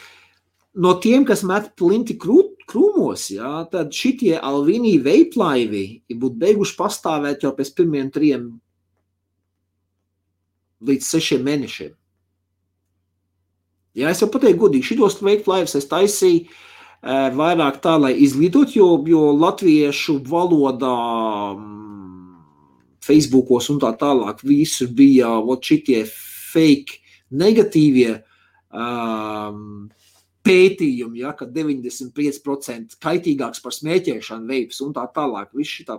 no tiem, kas met plinti krūmos, jā, tad šitie Alvini veiplaivi būtu beiguši pastāvēt jau pēc pirmiem 3 līdz 6 mēnešiem. Jā, es jau pateiktu godīgi, šitos veiplaivus es taisīju vairāk tā, lai izglītot, jo latviešu valodā Facebookos un tā tālāk visur bija šitie fake negatīvie pētījumi, ja, ka 95% kaitīgāks par smēķēšanu veips un tā tālāk. Viss šitā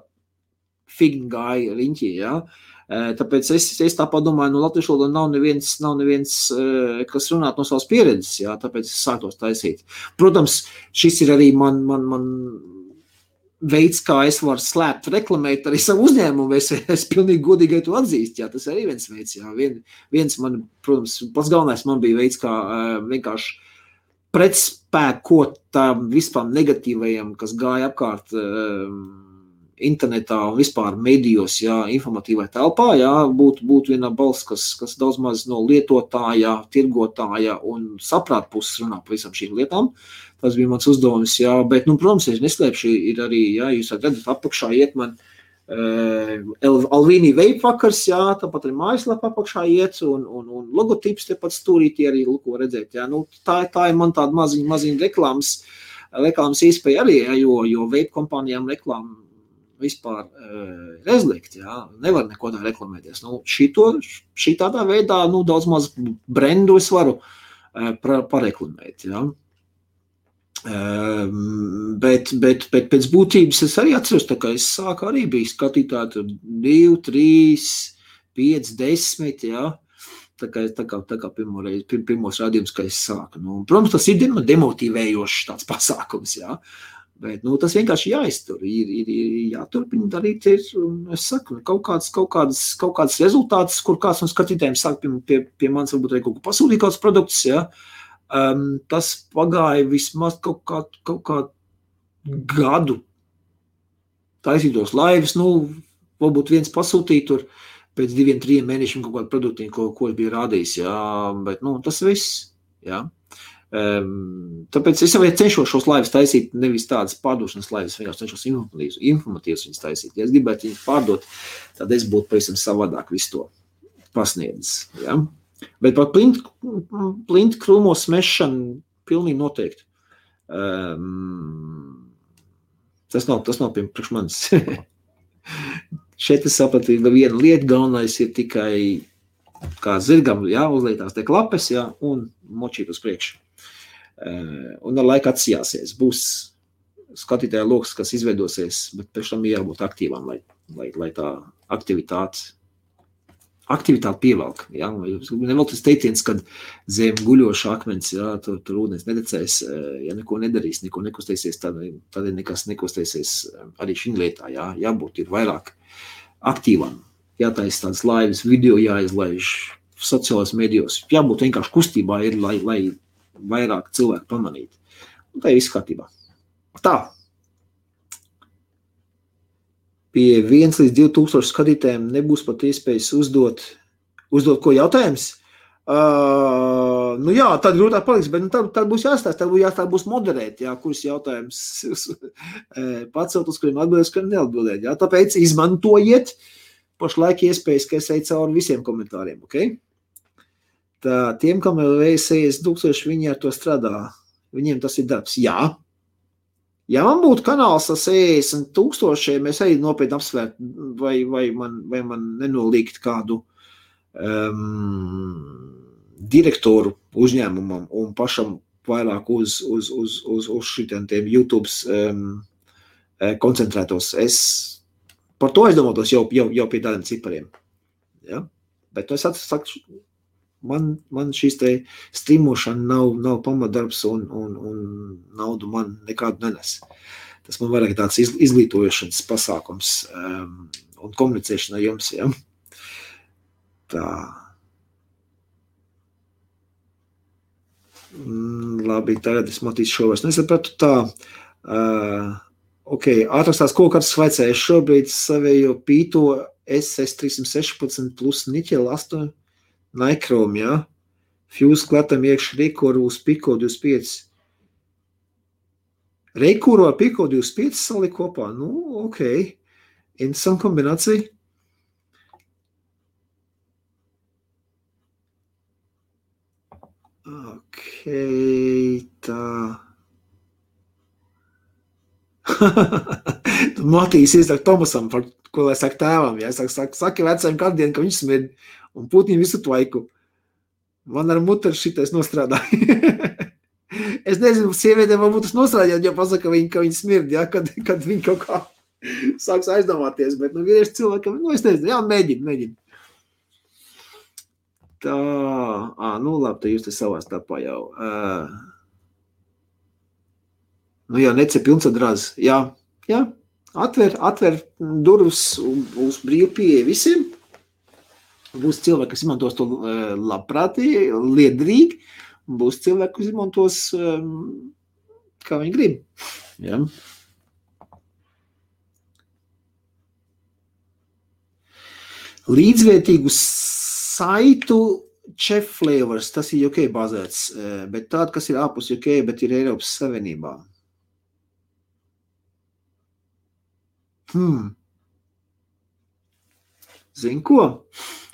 figni gāja riņķī, ja. Tāpēc es tā padomāju, latviešu valodā nav neviens, kas runāt no savas pieredzes, jā, tāpēc es sāktos taisīt. Protams, šis ir arī man veids, kā es varu slēpt, reklamēt arī savu uzņēmumu, es pilnīgi godīgi to atzīst, jā, tas arī viens veids, jā, viens man, protams, pats galvenais man bija veids, kā vienkārši pretspēkot tām vispār negatīvajiem, kas gāja apkārt internetā un vispār medijos, jā, informatīvai telpā, jā, būtu viena balss, kas daudz maz no lietotāja, tirgotāja un saprāt puses runā par visam šīm lietām. Tas bija mans uzdevums, jā, bet, protams, es neslēpšu, ir arī, jā, jūs redzat, apakšā iet man Alvini vape vakars, jā, tāpat arī mājaslapa apakšā iet un logotips tepat stūrīti arī, ko redzēt, jā, tā ir man tāda maziņa reklāmas iespēja arī, jā, jo vape kompānijām reklāma vispār rezlikt, jā, nevar neko tā reklamēties. Šitādā veidā, daudz maz brendu es varu pareklamēt, jā. Bet pēc būtības es arī atceros, tā kā es sāku arī bija skatītāji 2, 3, 5, 10, jā. Tā kā pirmos rādījumus, kā es sāku. Protams, tas ir demotivējošs tāds pasākums, jā. Bet, tas vienkārši jāiztur, ir jāturpina darīt, es saku, kaut kāds rezultāts, kur kāds no skatītājiem sāk pie manis varbūt arī kaut ko pasūtīt kāds produkts, ja, tas pagāja vismaz kaut kā gadu taisītos laivas, varbūt viens pasūtīt tur pēc 2-3 mēnešiem kaut kādu produktīnu, ko es biju rādījis, ja, bet, tas viss, ja. Tāpēc es jau cenšos šos laivas taisīt, nevis tādas pārdošanas laivas, vienkārši cenšos informatīvas viņas taisīt. Ja es gribētu viņas pārdot, tad es būtu pavisam savādāk visu to pasniedzis. Ja? Bet par plintu krūmos smešanu pilnīgi noteikti. Tas nav priekš manis. Šeit es sapratu, viena lieta galvenais ir tikai kā zirgam, jā, uzlietās te klapes, jā, un močīt uz priekšu. Un ar laiku atsijāsies. Būs skatītāja loks, kas izveidosies, bet pēc tam jābūt aktīvām, lai tā aktivitāte pievelk. Ja? Nevēl tas teiciens, kad zem guļoša akmens, ja, tur ūdens nedecēs, ja neko nedarīs, neko nekustēsies, tad nekas nekustēsies arī šī lietā. Ja? Jābūt ir vairāk aktīvām. Jātaisa tādas laivas, video jāizlaiž sociālās medijos. Jābūt vienkārši kustībā, ir, lai vairāk cilvēku pamanīt. Un tā ir viss kārtībā. Tā. Pie 1 līdz 2000 skatītājiem nebūs pat iespējas uzdot ko jautājums. Jā, tad grūtāk paliks, bet tad būs jāstāst, tad būs moderēt, jā, kurus jautājums pacelt, uz kuriem atbildēt, uz kuriem neatbildēt. Jā. Tāpēc izmantojiet pašlaik iespējas, ka es eju cauri visiem komentāriem, ok? Tā, tiem, kam vēl vējs 60 000, viņi ar to strādā. Viņiem tas ir darbs. Jā. Ja man būtu kanāls ar 60 000, es eju nopietni apsvērt, vai man nenolīgt kādu direktoru uzņēmumam un pašam vairāk uz šitiem YouTube koncentrētos. Es par to aizdomātos jau pie tādiem cipariem. Ja? Bet es saku, man šīs te streamošana nav pamatdarbs un naudu man nekādu nenes. Tas man vairāk tāds izglītojošanas pasākums un komunicēšana ar jums. Ja? Tā. Labi, tagad es matīšu šo vairs nesapratu. Tā. Ok, ātrākās kokartas vaicēju šobrīd savējo pīto SS316 plus niķela 8 Nikrom, jā. Fuse klatam iekš Reikuru uz Pico 25. Reikuru ar Pico 25 saliek kopā? Nu, ok. Interesanta kombinācija. Ok, tā. Matīs iesaka Tomasam, par ko lai saka tēvam. Ja? Saki vecajam kādu dienu, ka viņš smird. Un Putin visu tvaiku. Man ar muteru šitais nostrādāja. Es nezinu, sievietēm varbūt tas nostrādāt, jo pasaka, ka viņi smird, ja? Kad viņi kaut kā sāks aizdomāties. Bet vīrieši cilvēkam, es nezinu, jā, mēģina. Tā, nu labi, tad jūs te savā starpā jau. Nu jā, nece pilnsadrāz. Jā, atver durvis uz brīvu pieeja visiem. Būs cilvēki, kas izmantos to labprātīgi, liederīgi, un būs cilvēki, kas izmantos, kā viņi grib. Ja? Līdzvērtīgu saitu Chef Flavors, tas ir UK bazēts, bet tāda, kas ir ārpus UK, bet ir Eiropas Savienībā. Zini ko?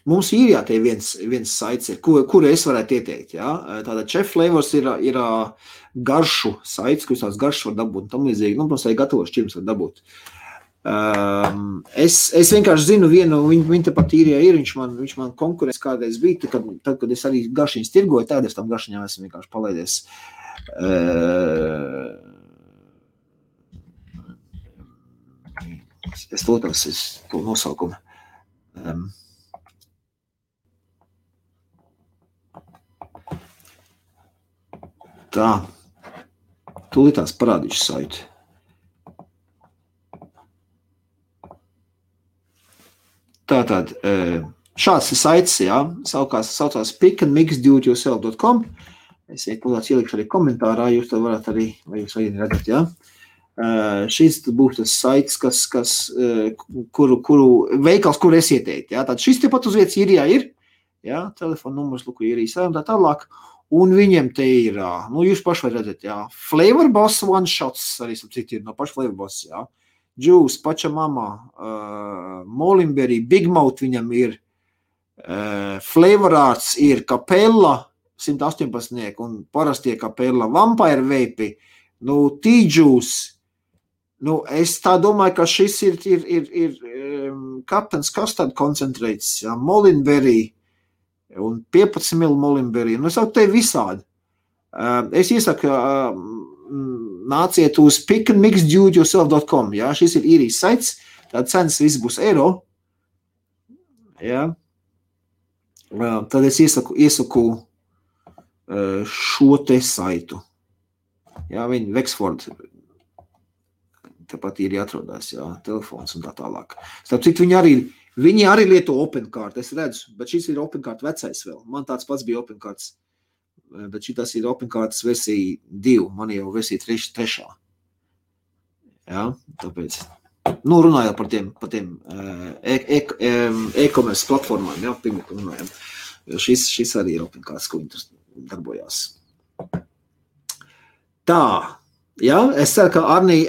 Mums īrijā te viens saits ir, kuru es varētu ieteikt. Ja? Tāda Chef Flavors ir garšu saits, kurus tās garšas var dabūt un tam līdzīgi. Nu, protams, arī gatavos šķirums var dabūt. Es vienkārši zinu vienu, viņa tepat īrijā ir, viņš man konkurence kādreiz bija, tad, kad es arī garšiņas tirgoju, tad es tam garšiņām esmu vienkārši palaidies. Es lūtos, to nosaukumu. Tā, tūlītās parādīšu saitu. Tātad, šāds ir saits, jā, saucās pickandmixdoityourself.com. Es tūlītās ielikšu arī komentārā, jūs to varat arī, vai jūs arī redzat, jā. Šis būs tas saits, kuru veikals, kur es ieteiktu, jā. Tātad šis tepat uz vietas īrijā ir, jā, telefona numurs, luku īrijas tā tālāk. Un viņiem te ir, nu, jūs paši var redzēt, jā, Flavor Boss One Shots, arī cik ir no paša Flavor Boss, jā, Juice, Pachamama, Molimberry, Big Mouth viņam ir, Flavor Arts ir Capella, 118, un parastie Capella, Vampire Vape, nu, T-Juice, nu, es tā domāju, ka šis ir Captain's Custard Concentrates, jā, Molimberry, un 15 ml Molimberry. Nu, es jau te visādi. Es iesaku, nāciet uz pickandmixdoityourself.com. Ja? Šis ir īrijas saits, tāda cenas viss būs eiro. Ja? Tad es iesaku šo te saitu. Ja? Viņi Wexford, tāpat ir jāatrodās, ja? Telefons un tā tālāk. Starp citu, viņi arī lieto OpenCart, es redzu, bet šis ir OpenCart vecais vēl. Man tāds pats bija OpenCarts, bet šitas ir OpenCarts versija 2, man jau versija 3. Ja, tāpēc, nu, runājot par tiem e-commerce platformām, ja, pirmīt runājam. Šis arī ir OpenCarts, ko viņi darbojās. Tā, Jā, es ceru, ka Arnī,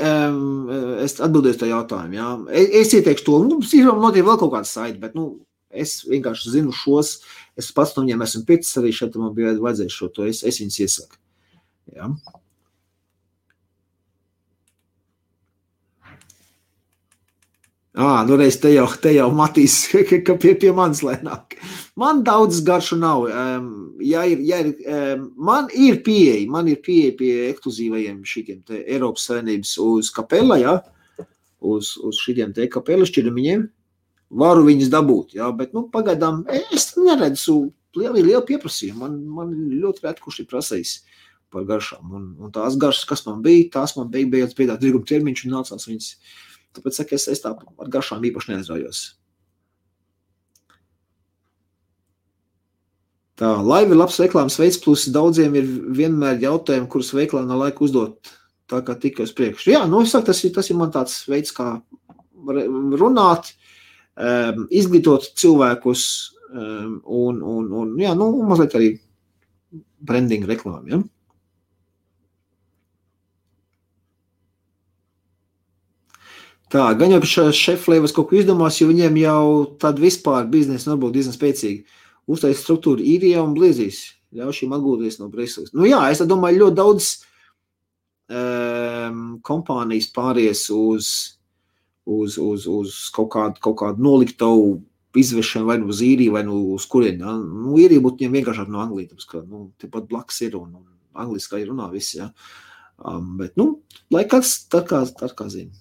es atbildēšu tā jautājumu, jā. Es ieteikšu to, notiek vēl kaut kāds saiti, bet, es vienkārši zinu šos, es pats no viņiem esmu pircis arī šeit, man bija vajadzējuši šo to, es viņus iesaku. Jā. Reiz te jau Matīs, ka pie manis lēnāk. Man daudz garšu nav. Man ir pieeja pie ekskluzīvajiem šitiem te Eiropas Savienības uz kapela, jā, uz šitiem te kapela šķirmiņiem. Varu viņus dabūt, jā, bet, pagaidām es neredzu lielu pieprasījumu. Man ļoti rēt, kurš ir prasējis par garšām. Un tās garšas, kas man bija, tās man beigās piedāt dirguma termiņš un nācās viņas. Tāpēc saka, es tā ar garšām īpaši neaizraujos. Tā, laiva ir labs reklāmas veids, plus daudziem ir vienmēr jautājumi, kurus veiklā nav laika uzdot, tā kā tikai uz priekšu. Jā, es saku, tas ir man tāds veids, kā runāt, izglītot cilvēkus un jā, mazliet arī branding reklāmu, ja? Tā, gan jau šeflēvas kaut ko izdomās, jo viņiem jau tad vispār biznesa varbūt diezgan spēcīgi. Uztais struktūra īrijā un bliezīs. Ļauj šīm atgūties no Briseles. Jā, es domāju, ļoti daudz kompānijas pāries uz kaut kādu noliktavu izvešanu vai uz īriju vai uz kurieni. Ja? Īrija būtu viņiem vienkāršāk no Anglijas, tāpēc, ka tepat blakus ir un angliski arī runā viss. Ja? Bet, lai kāds tā kā zina.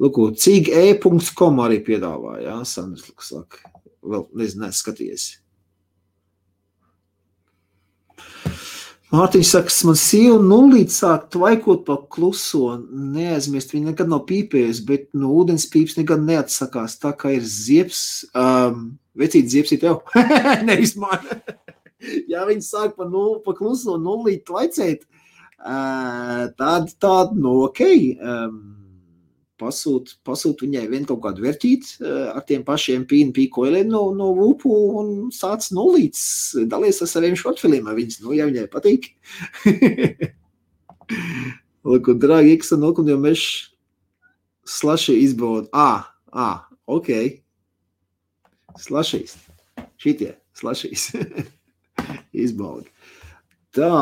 Lūk, cig.e.com arī piedāvā, jā, Sandrs, saka, vēl nezinu, skaties. Mārtiņš saka, man sieva nulīt sāk tvaikot pa kluso, neaizmirst, viņa nekad nav pīpējusi, bet no ūdens pīps nekad neatsakās, tā kā ir ziepes, vecīt ziepes ir tev, nevis man. Ja viņi sāk pa kluso nulīt tvaicēt, tād, okei, pasūt viņai vien kaut kādu vērtīt ar tiem pašiem pīkoiliem no Vupu un sāc nulīts, dalies ar saviem šortfiliem ar viņas, ja viņai patīk. Lūk, un drāgi X un jo mēs slaši izbaud. Ok. Slašīs. Šitie, slašīs. Izbaud. Tā.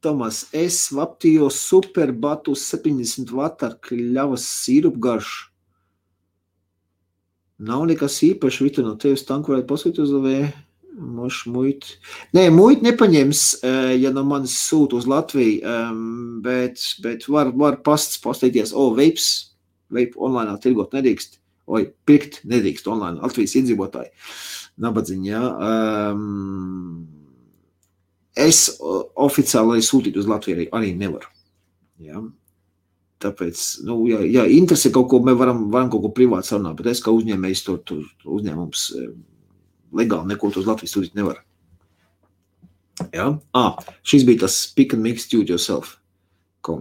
Tomas, es vaptīju superbatu 70 vatu ar kļavas sīrupu garšu. Nav nekas īpaši, Vita, no tevis tanku varētu pasūt uz LV, mošu muitu. Nē, muitu nepaņems, ja no manis sūt uz Latviju, bet var pasteikties, vape online tirgot nedrīkst, pirkt nedrīkst online, Latvijas iedzīvotāji, nabadziņi, jā. Es oficiāli arī sūtīt uz Latviju arī nevaru. Ja? Tāpēc, ja interesi kaut ko, mēs varam kaut ko privāti sarunāt, bet es kā uzņēmējs tur uzņēmums legāli neko uz Latviju sūtīt nevaru. Ja? Šis bija tas pick and mix do it yourself.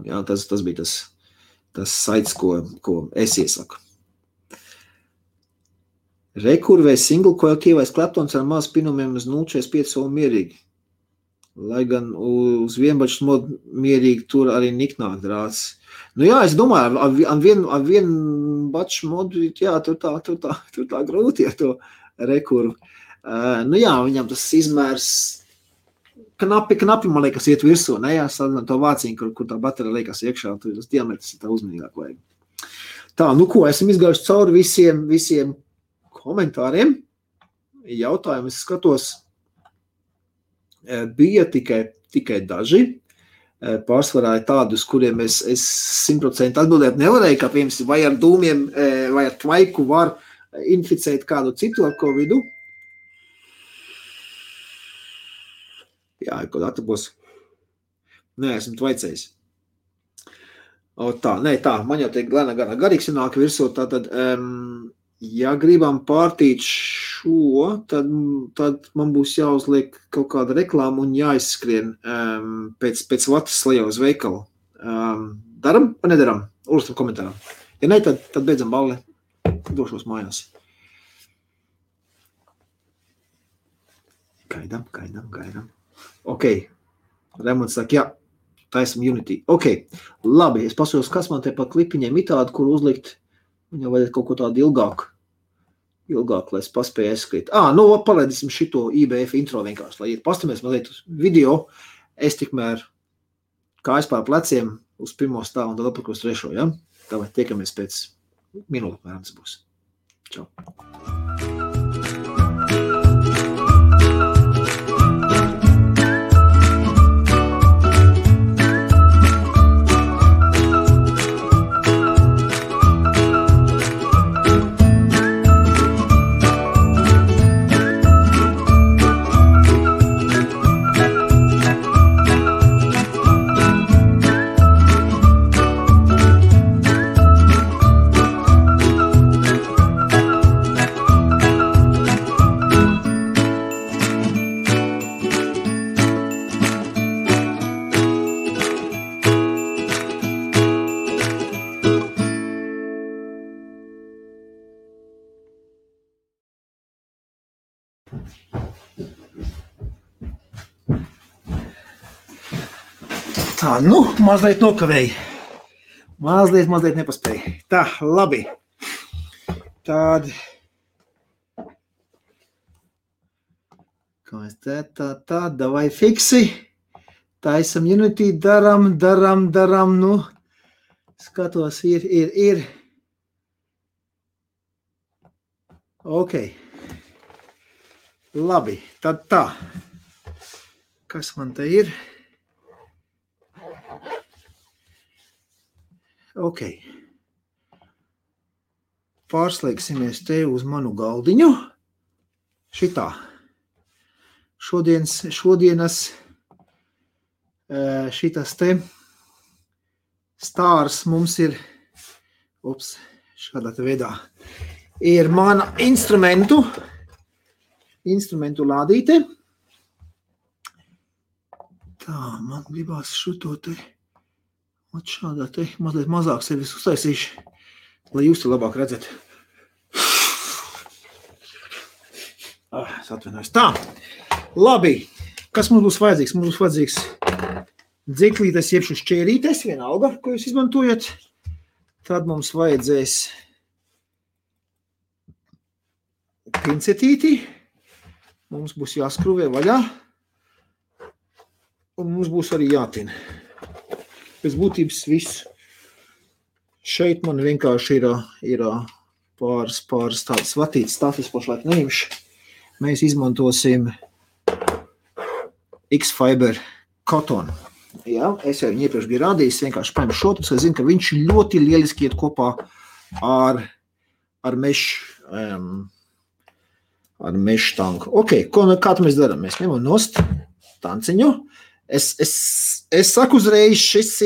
Ja? Tas bija tas saits, ko es iesaku. Rekurvē single coil kievais kleptons ar maz pinumiem uz 0,45 un mierīgi. Lai gan uz vienbačs modu mierīgi tur arī niknāk drāts. Jā, es domāju, ar vienu baču modu, jā, tur tā grūti ar to rekurvu. Jā, viņam tas izmērs knapi, man liekas, iet virsū, ne, jā, sadien to vāciņu, kur tā baterija liekas iekšā, tur tas diametrs ir tā uzmanīgāk vajag. Tā, ko, esam izgājuši cauri visiem komentāriem, jautājumus skatos, bija tikai daži, pārsvarā ir tādi, uz kuriem es 100% atbildēt nevarēju, kā piemēram, vai ar dūmiem, vai ar tvaiku var inficēt kādu citu ar Covidu. Jā, kaut atapos. Nē, esmu tvaicējis. Man jau tiek garīgs nāk virsū, tātad, ja gribam pārtīt šo, tad man būs jāuzliek kaut kāda reklāma un jāizskrien pēc vatas lejā uz veikalu. Daram vai nedaram? Uzstam komentārā. Ja ne, tad beidzam balli. Došos mājās. Gaidam. Ok. Remonts saka, jā. taisam Unity. Ok, labi, es pasaros, kas man te pa klipiņiem itādi, kur uzlikt. Viņam vajadzētu kaut ko tādu ilgāku, lai es paspēju aizskrīt. Nu, palaidīsim šito IBF intro vienkārši, lai pastamies mazliet uz video. Es tikmēr kājas pār pleciem uz pirmo stāvu un tad apakos trešo, ja? Tāpēc tiekamies pēc minūtes, mēram tas būs. Čau. Tā, mazliet nokavēju. Mazliet nepaspēju. Tā, labi. Tād. Kā es tā, davai fiksi. Taisam Unity, daram, skatos, ir. Ok. Labi, tad tā. Kas man te ir? Ok. Pārslēgsimies te uz manu galdiņu. Šitā. Šodienas šitas te stārs mums ir, šādā te veidā, ir mana instrumentu lādīte. Tā, man gribās šito te, šādā te, mazliet mazāk sevis uztaisīšu, lai jūs te labāk redzat. Es atvainojos. Tā, labi, kas mums būs vajadzīgs? Mums būs vajadzīgs dziklītes, jeb šķērītes, vienalga, ko jūs izmantojat. Tad mums vajadzēs pincetīti. Mums būs jāskruvē vaļā, un mums būs arī jātina. Pēc būtības viss. Šeit man vienkārši ir pāris tādas vatītas stāstas, pašlaik neimšu. Mēs izmantosim X-Fiber cotton. Jā, es jau viņu iepriekš biju rādījis, vienkārši paņemu šo, tas es zinu, ka viņš ļoti lieliski iet kopā ar mešu tanku. Ok, kā mēs darām? Mēs ņemam nost tanciņu. Es saku uzreiz, šis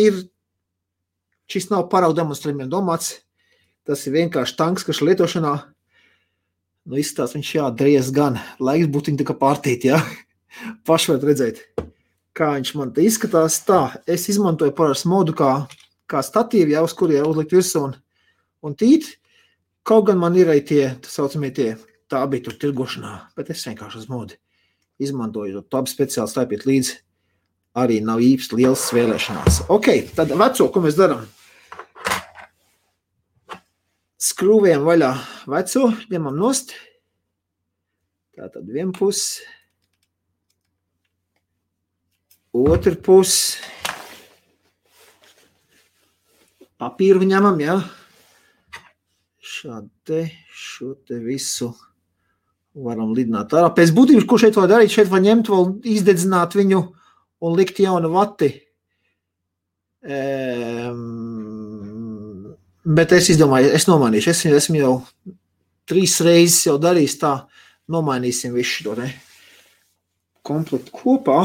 nav paraugu demonstrējumiem domāts. Tas ir vienkārši tanks, kas lietošanā, izskatās viņš jādreiz gan. Laiks būtu viņa tā kā pārtīt, jā. Paši varat redzēt, kā viņš man te izskatās. Tā, es izmantoju parasti modu kā statīvi, jā, uz kuriem uzlikt virsū un tīt. Kaut gan man ir arī tā bija tur tirgošanā, bet es vienkārši uz modu izmantoju. Tā speciāli stāpiet līdzi, arī nav īpaši liels svēlēšanās. Ok, tad veco, ko mēs darām? Skrūvējam vaļā veco, ņemam nost. Tātad vien pusi. Otru pusi. Papīru ņemam, jā. Šo te visu varam lidināt ārā. Pēc būtības, ko šeit var darīt? Šeit var ņemt, vēl izdedzināt viņu un likt jaunu vati. Bet es izdomāju, es nomainīšu. Esmu jau 3 reizes jau darījis tā. Nomainīsim visu šo komplektu kopā.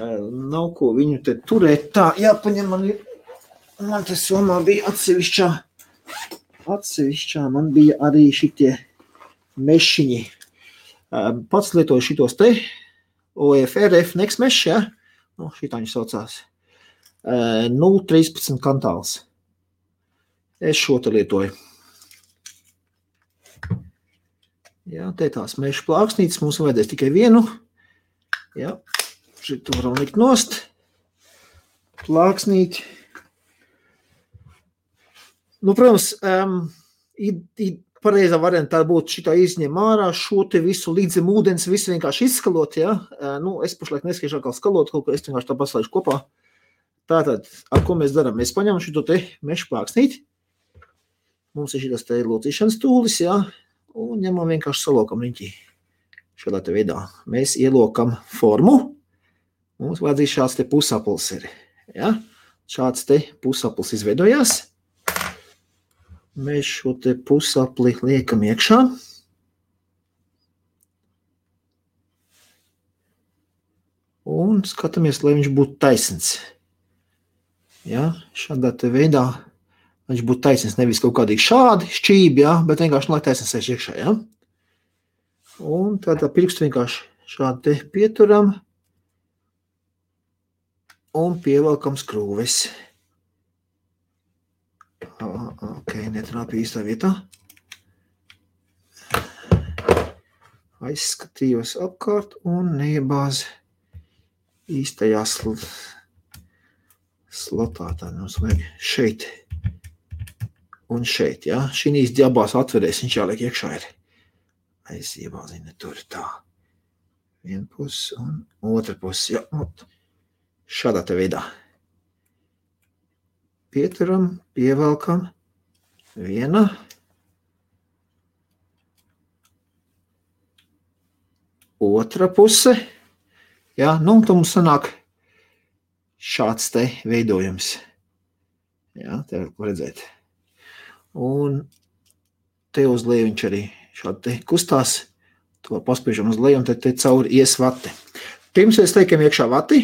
Nav ko viņu te turēt. Tā, jāpaņem man te somā bija atsevišķā, man bija arī šitie mešiņi. Pats lietoju šitos te, OFRF Next Mesh, ja? Šitā viņš saucās. 0,13 kantāls. Es šo te lietoju. Jā, te tās mešu plāksnītes, mums vajadzēs tikai vienu. Jā, šito varam likt nost. plāksnīti. Nu, protams, pareizā varianta tā būtu šitā izņem ārā, šo te visu līdzim ūdens, visu vienkārši izskalot, ja? Nu, es pašlaik neskiešu atkal skalot, kaut ko es vienkārši tā paslaišu kopā. Tātad, ar ko mēs darām? Mēs paņemam šito te mešu plāksnīti. Mums ir šitas te locīšanas tūlis, ja? Un ņemam vienkārši salokam riņķī. Šādā te veidā. Mēs ielokam formu. Mums vajadzīs šāds te pusaplis ir, ja? Šāds te pusaplis izveidojās. Mēs šo te pusapli liekam iekšā. Un skatāmies, lai viņš būtu taisns. Ja, šādā te veidā viņš būtu taisns, nevis kaut kādīgi šādi šķībi, ja, bet vienkārši lai taisns sēž iekšā. Ja. Un tādā pirkstu vienkārši šādi te pieturam un pievelkam skrūves. Ok, netrāpīja īstā vietā. Aizskatījos apkārt un neiebāz īstajā slotā. Tā mums vajag šeit un šeit, ja. Šīs abās atverēs viņš jāliek iekšā ir. Aiziebāzina tur tā. Viena puse un otra puse, ja. Šādā te veidā. Pieturam, pievelkam, viena, otra puse, ja, nu, tad mums sanāk šāds te veidojums, ja, te var redzēt, un te uz leju viņš arī šādi te kustās, to paspiežam uz leju, un te cauri ies vati. Pirms mēs liekam iekšā vati,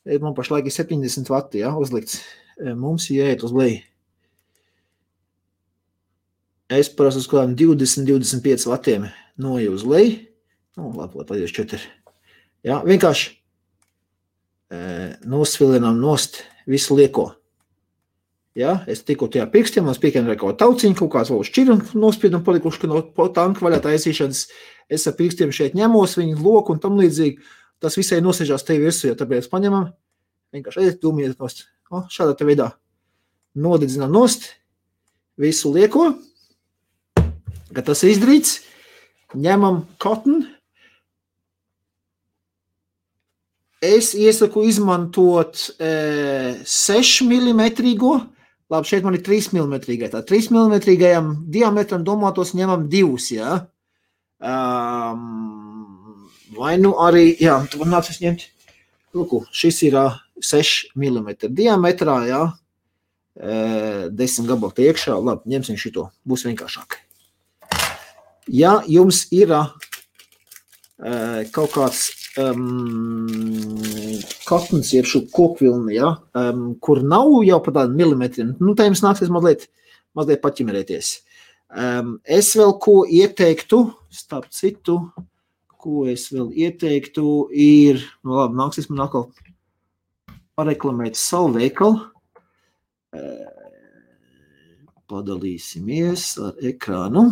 man pašlaik ir 70 vati, ja, uzlikts. Mums jāiet uz leju. Es parasti uz kādām 20-25 vatiem noju uz leju. Nu, labi, lai 4. Ja, vienkārši nosvilinām nost visu lieko. Ja, es tikko tajā pirkstiem, mums piekiem ir kaut tauciņu, kaut kāds vēl šķiru nospiedam palikuši, ka no tanka vaļā taisīšanas es ar pirkstiem šeit ņemos, viņu loku un tam līdzīgi. Tas visai nosēžās te virsū, ja tāpēc paņemam. Vienkārši aiziet, dūmiet nost. Šādā te veidā nodedzinām nost visu lieko, kad tas ir izdarīts, ņemam cotton. Es iesaku izmantot 6 mm, labi, šeit man ir 3 mm, tā 3 mm diametram domātos ņemam 2, ja. Vai nu arī, jā, tu man nāc es ņemt, lūku, šis ir 6 mm diametrā, jā, 10 gabali te iekšā, labi, ņemsim šito, būs vienkāršāk. Ja jums ir kaut kāds katns, jeb šo kokvilni, ja, kur nav jau pa tādu milimetriem, nu, tā jums nāksies mazliet paķimerēties. Es vēl ko ieteiktu, starp citu, ko es vēl ieteiktu, ir, nu labi, nāksies man atkal pareklamēt savu veikalu. Padalīsimies ar ekrānu.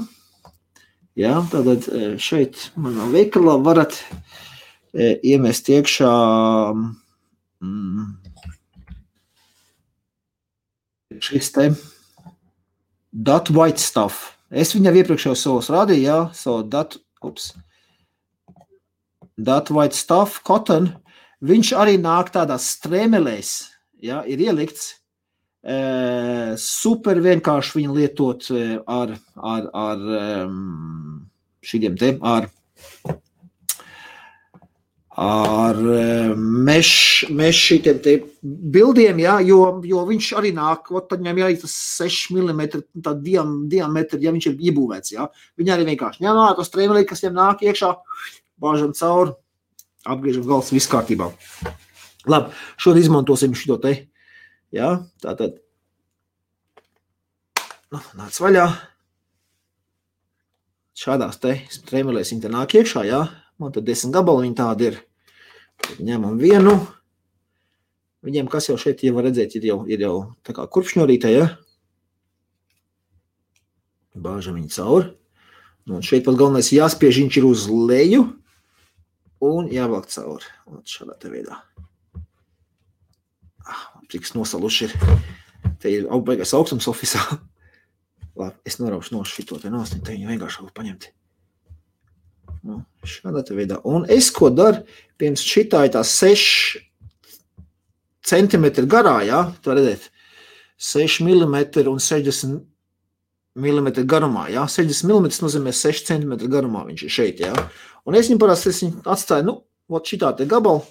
Jā, tātad šeit manā veikalā varat iemest iekšā šis te That White Stuff. Es viņam iepriekš jau savos rādīju, jā, savu That White Stuff, cotton, viņš arī nāk tādās strēmelēs, jā, ir ielikts, super vienkārši viņu lietot ar šīdiem te, ar šītiem te bildiem, jā, jo viņš arī nāk, tad viņam jāiet tas 6 mm tā diametri, ja viņš ir iebūvēts, jā. Viņi arī vienkārši ņem ārā to strēmelī, kas viņam nāk iekšā, bāžam cauri, apgriežam galvas, viss kārtībā. Labi, šodien izmantosim šito te, jā, tātad, nāc vaļā, šādās te strēmelēs viņi te nāk iekšā, jā, man tad 10 gabali viņi tādi ir, tad ņemam vienu, viņiem, kas jau šeit, ja var redzēt, ir jau tā kā kurpšņorītē, jā, bāžam viņi cauri, un šeit pat galvenais jāspiež, viņš ir uz leju, un jāvelk cauri, un šādā te veidā. Prieks nosaluši ir. Te ir beigās augstums ofisā. Labi, es noraušu no šito te nost, te viņu vienkārši var paņemt. Nu, šādā te veidā. Un es ko daru, pirms šitā ir tā 6 centimetri garā, jā, tā redzēt, 6 mm un 60 mm garumā, jā, 60 mm nozīmē 6 cm garumā viņš ir šeit, jā. Un es viņu parasti atstāju, šitā te gabalu,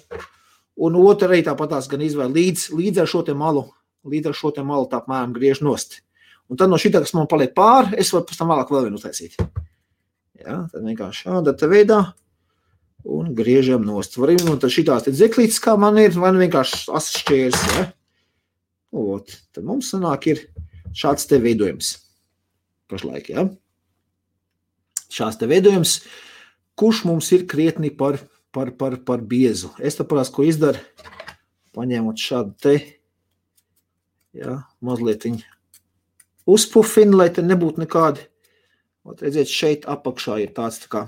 un otru arī tāpatās gan izvēl līdz ar šo te malu tā apmēram griež nost. Un tad no šitā, kas man paliek pāri, es varu pēc tam vēlāk vēl vienu uztaisīt. Jā, tad vienkārši šādā te veidā un griežam nost. Varam, un tad šitās te dzeklītes, kā man ir, vai vienkārši asšķērs, ja? Tad mums sanāk ir šāds te veidojums. Pašlaik, ja? Šāds te veidojums, kurš mums ir krietni par biezu. Es tā parās, ko izdaru, paņēmot šādu te, ja, mazliet viņu uzpufinu, lai te nebūtu nekādi. Redziet, šeit apakšā ir tāds tā kā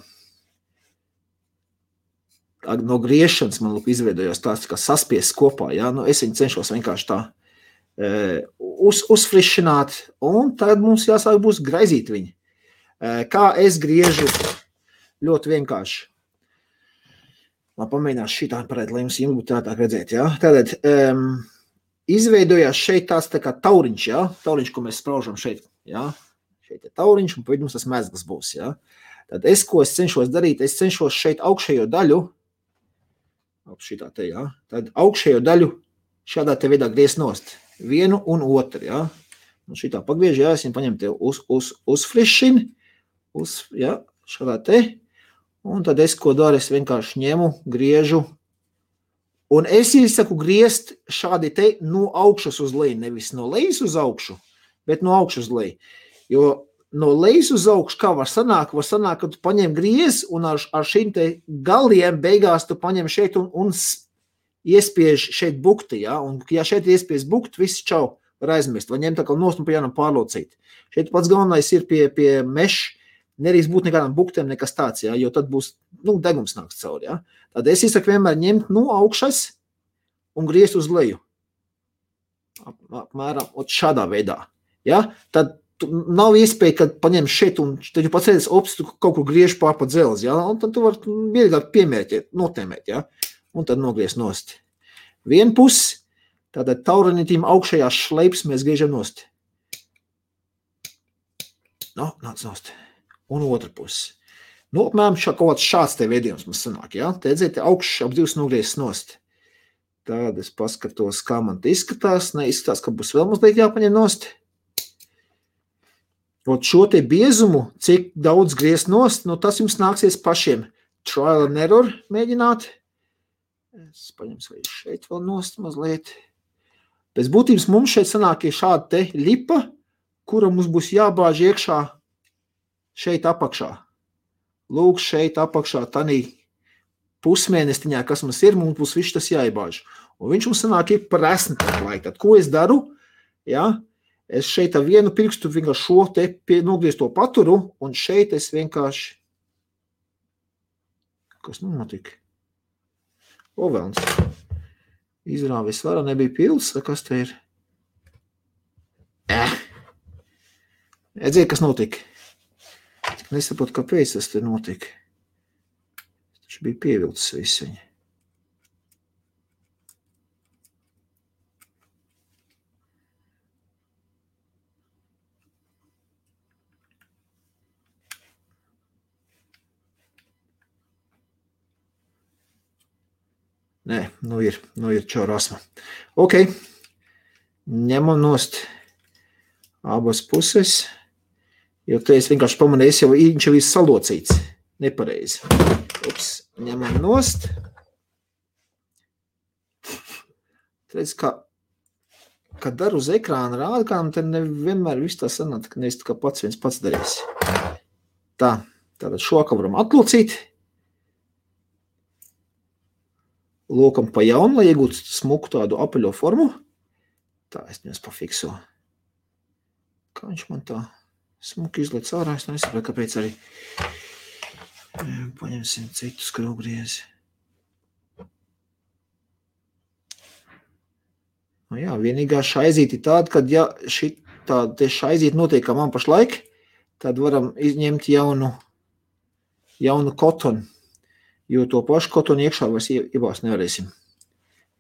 no griešanas man izveidojās tāds tā kā saspies kopā, ja? Es viņu cenšos vienkārši tā uzfrišināt, un tad mums jāsāk būs graizīt viņu. Kā es griežu ļoti vienkārši. Man pamēģinās šitā parēt, lai jums būtu tātāk redzēt, ja? Tātad izveidojās šeit tāds tā kā tauriņš, ja? Tauriņš, ko mēs spraužam šeit, ja? Šeit ir tauriņš, un pēc mums tas mezgls būs, ja? Tad ko es cenšos darīt, es cenšos šeit augšējo daļu, šitā te, ja? Tad augšējo daļu šādā te veidā griezt nost. Vienu un otru, ja? Un šitā pagriež, ja? Es viņu paņemu te uzfrišinu, ja? Šādā te. Un tad es ko daru, es vienkārši ņemu, griežu. Un es saku griezt šādi te no augšas uz leju, nevis no lejas uz augšu, bet no augšas uz leju. Jo no lejas uz augšu, kā var sanākt, ka tu paņem griez un ar šīm te galiem beigās tu paņem šeit un iespiež šeit bukti, ja? Un ja šeit iespiež bukti, viss čau var aizmirst, vai ņem tā kā nost un pa jānam pārlocīt. Šeit pats galvenais ir pie meša, nerīs būt nekādām buktēm nekas tāds, ja? Jo tad būs, degums nāks cauri, ja? Tad es iesaku vienmēr ņemt no augšas un griezt uz leju. Apmēram šādā veidā, ja? Tad nav iespēja, kad paņem šeit un tad jau pats redzes, tu kaut kur griež pār pa dzelzi, ja? Un tad tu var vieglāk piemērķēt, notēmēt, ja? Un tad nogriezt nost. Vienu pusi, tātad tauranitīm augšējās šleips mēs griežam nost. Nāc nost. Un otra pusi. Apmēram kaut kāds šāds te veidījums mums sanāk, ja? Te redzēt, augšs ap divas nogriezts nost. Tad es paskatos, kā man te izskatās. Neizskatās, ka būs vēl mazliet jāpaņem nost. Šo te biezumu, cik daudz griezt nost, tas jums nāksies pašiem trial and error mēģināt. Es paņemšu vai šeit vēl nost mazliet. Pēc būtības mums šeit sanāk ir šāda te lipa, kura mums būs jābāž iekšā šeit apakšā. Lūk, šeit apakšā tanī pusmēnestiņā, kas mums ir, mums būs viss tas jāiebāž. Un viņš mums sanāk ir par esni tā laika. Tad, ko es daru? Ja? Es šeit ar vienu pirkstu vienkārši šo te nogriezto paturu, un šeit es vienkārši... Kas notika? Velns. Izrāvis vara nebija pils, kas te ir? Redziet, kas notika? Nesaprotu, kāpēc tas te notika. Taču bija pievilcis visu viņu. Nē, ir čaurasma. Ok, ņemam nost abas puses, jo te es vienkārši pamanīju, viņš jau ir salocīts, nepareizi. Ņemam nost. Redz, kā daru uz ekrāna rādkām, tad nevienmēr viss tā sanāk, ka nevis kā viens pats darīs. Tātad šo kā varam atlocīt. Lokam pa jaunu, lai iegūtu smuku tādu apaļo formu. Tā, es viņus pafikso. Kā viņš man tā smuki izliec ārā, es nesapratu, kāpēc arī. Paņemsim citu skrūvgriezi. jā, vienīgā šaizīte ir tāda, kad ja šitā šaizīte notiek, kā man pašlaik, tad varam izņemt jaunu kotonu, jo to pašu kotonu iekšā vairs iebāzt nevarēsim.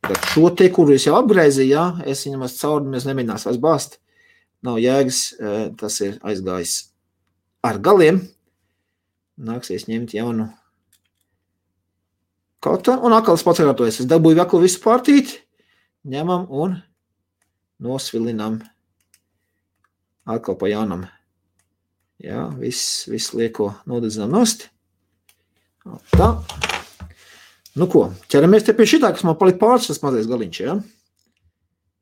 Tad šo te, kuru es jau apgraizīju, jā, es viņam cauri, mēs nemēģinās vairs bāzt, nav jēgas, tas ir aizgājis ar galiem, nāksies ņemt jaunu kotonu, un atkal es pats atkārtojas, es dabūju atkal visu pārtīti, ņemam un nosvilinam atkal pa jaunam. Jā, viss lieko nodedzinām nost. Tā. Nu ko, ķeramies te pie šitā, kas man palika pāris, tas mazais galiņš, jā?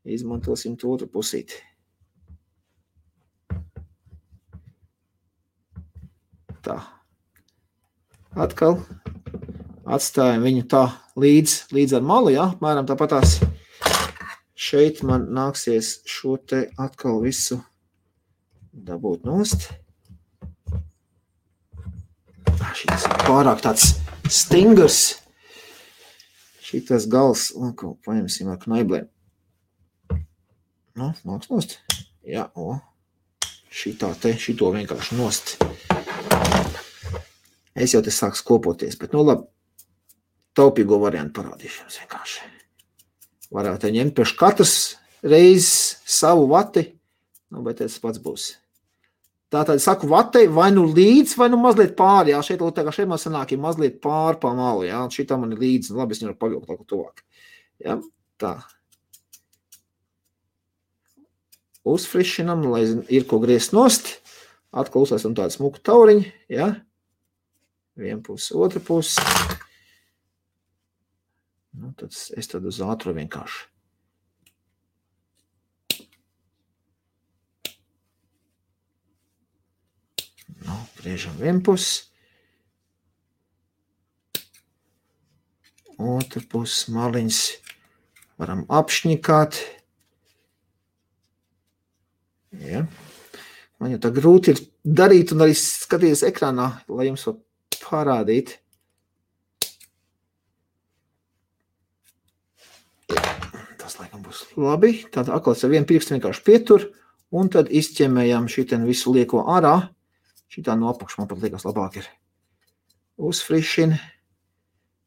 Izmantosim to otru pusīti. Tā. Atkal atstājam viņu tā līdz ar malu, jā? Mēram tāpatās. Šeit man nāksies šo te atkal visu dabūt nost. Šitas ir pārāk tāds stingrs. Šitas gals, un ko paņemsim ar knaiblēm. Nu, nāks nost. Jā, šito vienkārši nost. Es jau te sāks kopoties, bet nu labi, taupīgo variantu parādīšu jums vienkārši. Varētu ņemt pēc katras reizes savu vati, nu, bet tas pats būs. Tātad saku vatei vai nu līdz, vai nu mazliet pāri, jā, šeit man sanāk ir mazliet pāri pa malu, jā, šitā man ir līdz, labi, es viņu pavilku tā, tuvāk. Jā, tā. Uzfrišinam, lai ir ko griezt nost, atkal uzlēsam tādu smuku tauriņu, jā, viena puse, otra puse. Nu, tad es tad uz ātru vienkārši. Nu, griežam vienpus. Otru pusi maliņas varam apšņikāt. Ja. Man jau tā grūti ir darīt un arī skatīties ekrānā, lai jums var parādīt. Tas laikam būs labi. Tad atkal ar vienu pirkstu vienkārši pietur un tad izķemējam šitien visu lieko ārā. Šitā no apakšu man pat liekas labāk ir. Uzfrišina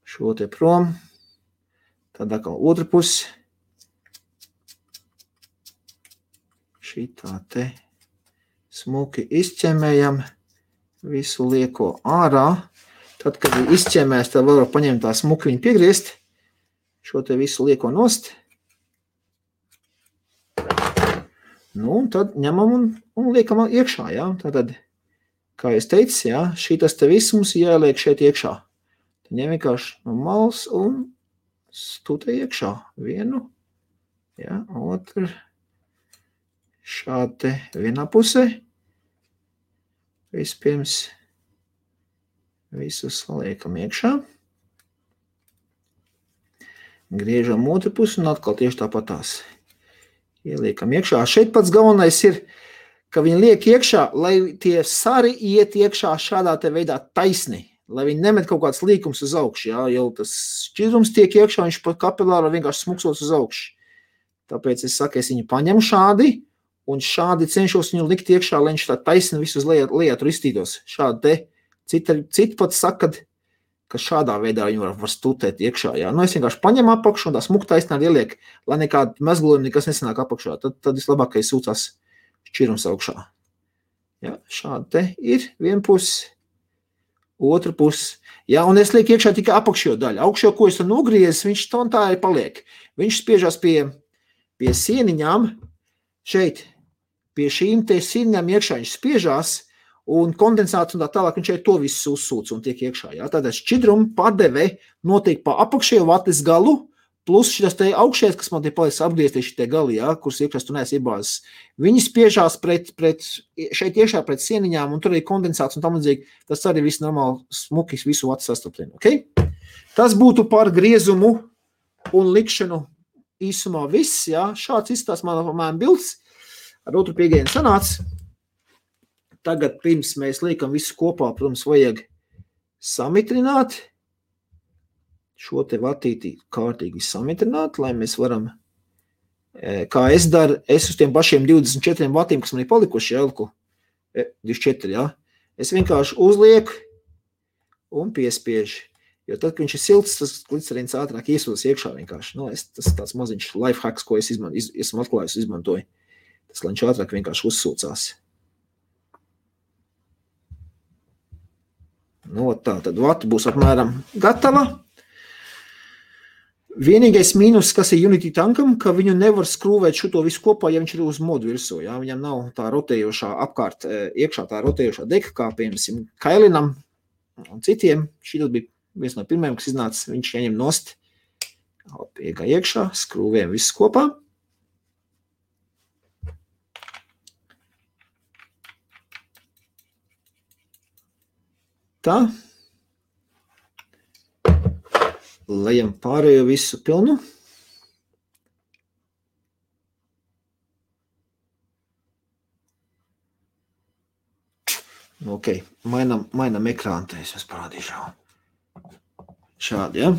šo te prom. Tad atkal otru pusi. Šitā te smuki izķemējam visu lieko ārā. Tad, kad ir izķemējis, tad vēl var paņemt tā smuki viņu piegriezt. Šo te visu lieko nost. Nu, un tad ņemam un liekam iekšā, jā. Tātad, kā es teicu, jā, šitas te viss mums jāliek šeit iekšā. Tad ņem vienkārši no malas un stūtē iekšā. Vienu, jā, otru. Šādi te vienā pusē. Vispirms visu saliekam iekšā. Griežam otru pusi un atkal tieši tāpatās. Ieliekam iekšā. Šeit pats galvenais ir, ka viņi liek iekšā, lai tie sari iet iekšā šādā te veidā taisni, lai viņi nemet kaut kāds līkums uz augšu, jā, jau tas šķidrums tiek iekšā, viņš pa kapilāru vienkārši smuksos uz augšu. Tāpēc es saku, es viņu paņemu šādi, un šādi cenšos viņu likt iekšā, lai viņš tā taisni visu uz lejā tur iztītos. Šādi te, citi pat saka, ka šādā veidā viņu var stutēt iekšā, jā. Nu, es vienkārši paņemu apakšu un tā smuk taisnā ieliek, lai nekāda mezglojuma nekas nesanāk apakšā. Tad vislabākais sūcās šķirums augšā. Ja, šādi te ir viena pusi, otra pusi. Ja, un es lieku iekšā tikai apakšo daļu. Augšo, ko es tur nogriezis, viņš tā arī paliek. Viņš spiežās pie sieniņām, šeit, pie šīm te sieniņām iekšā viņš spiežās, un kondensāts un tā tālāk viņš šeit to visu uzsūc un tiek iekšā. Ja. Tātad šķidruma padeve notiek pa apakšējo vates galu, plus šitas te augšējais, kas man te paliks apgriezties šitie gali, ja, kuras iekšās tu neesi iebāzes. Viņi spiežās šeit iekšā pret sieniņām, un tur ir kondensāts un tam līdzīgi. Tas arī viss normāli smukis visu vatu sastaptien. Okay? Tas būtu par griezumu un likšanu īsumā viss. Ja. Šāds izstās man bilds. Ar otru piegājienu sanāca. Tagad pirms mēs liekam visu kopā, protams, vajag samitrināt. Šo te vatīti kārtīgi samitrināt, lai mēs varam kā es daru, es uz tiem pašiem 24 vatiem, kas man ir palikuši, jā, 24, jā, es vienkārši uzlieku un piespiežu. Jo tad, kad viņš ir silts, tas glicerīns ātrāk iesūdas iekšā vienkārši. Nu, tas ir tāds maziņš life hacks, ko es esmu atklājis, izmantoju. Tas, lai viņš ātrāk vienkārši uzsūcās. Nu, tā, tad vata būs apmēram gatava. Vienīgais mīnus, kas ir Unity tankam, ka viņu nevar skrūvēt šito visu kopā, ja viņš ir uz modu virsū. Jā? Viņam nav tā rotējošā apkārt iekšā, tā rotējošā deka, kā piemēram Kailinam un citiem. Šitas bija viens no pirmajiem, kas iznāca, viņš ieņem nost. Iegā iekšā, skrūvējam visu kopā. Tā. Lejam pārējo visu pilnu. Ok, mainam ekrānu, te es jums parādīšu. Šādi, ja?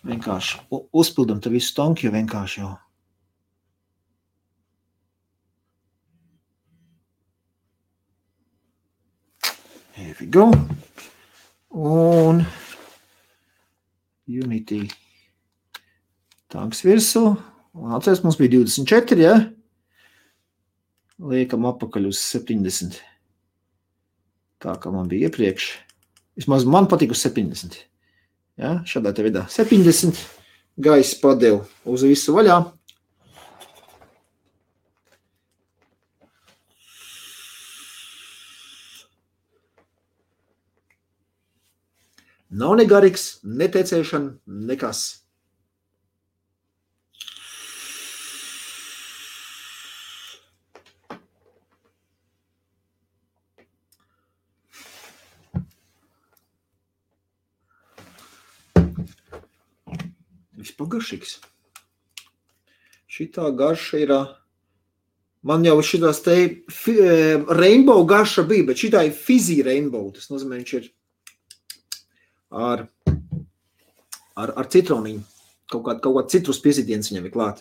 Vienkārši uzpildam te visu tanku, jo vienkārši jau. Here we go. Un Unity tanks virsū. Un atceries, mums bija 24, ja? Liekam apakaļ uz 70. Tā kā man bija iepriekš. Vismaz man patīk uz 70. Ja? Šādā te veidā 70. Gaisa padevu uz visu vaļā. Nav ne garīgs, ne tecēšana, nekas. Vispār garšīgs. Šitā garša ir, man jau šitās te rainbow garša bija, bet šitā ir fizzy rainbow, tas nozīmē, viņš ir ar citroniņu. Kaut kāda citrus piesitiens viņam ir klāt.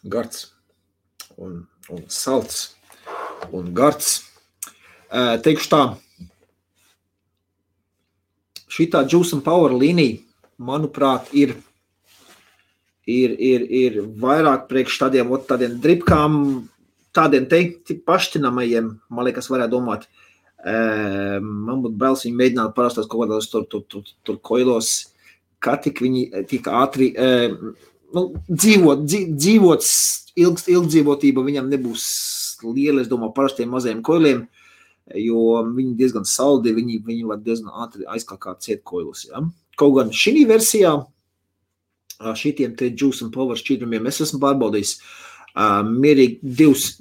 Gards. Un salts. Un gards. Teikšu tā. Šitā Juice and Power līnija, manuprāt, ir vairāk priekš tādiem dripkām, tādiem pašķinamajiem, man liekas, varētu domāt. Man būtu bailes viņi mēģināt parastās kaut kādās tur koilos, kā tik viņi tik ātri, dzīvot ilgdzīvotība viņam nebūs liela, es domāju, parastiem mazajiem koiliem, jo viņi diezgan saldi, viņi var diezgan ātri aizkākāt ciet koilus. Ja? Kaut gan šī versijā, šitiem te Juice and Power šķidrumiem es esmu pārbaudījis. Mierīgi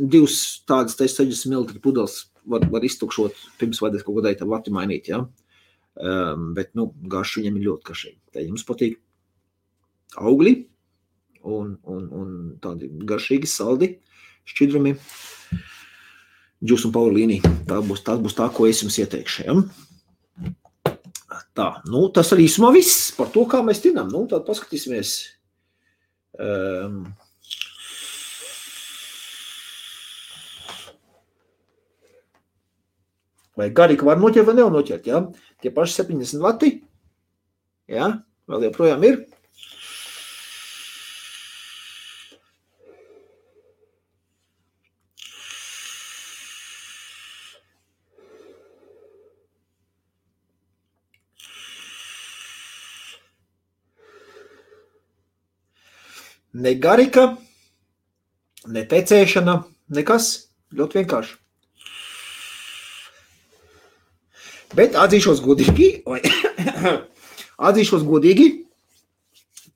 divas tādas 60 ml pudeles var iztukšot pirms vajadzēs kaut kādai tā vati mainīt, ja? Bet, garši viņam ir ļoti garšīgi. Tā jums patīk augļi un tādi garšīgi, saldi šķidrumi. Juice and Power līnija. Tas būs tā, ko es jums ieteikšu, ja? Tā, tas arī īsumā viss par to, kā mēs tinām. Tad paskatīsimies. Vai garīgi var noķert vai nevar noķert, ja? Tie paši 70 vati, ja? Vēl joprojām ir. Ne garika, ne tecēšana, nekas, ļoti vienkārši. Bet atzīšos godīgi,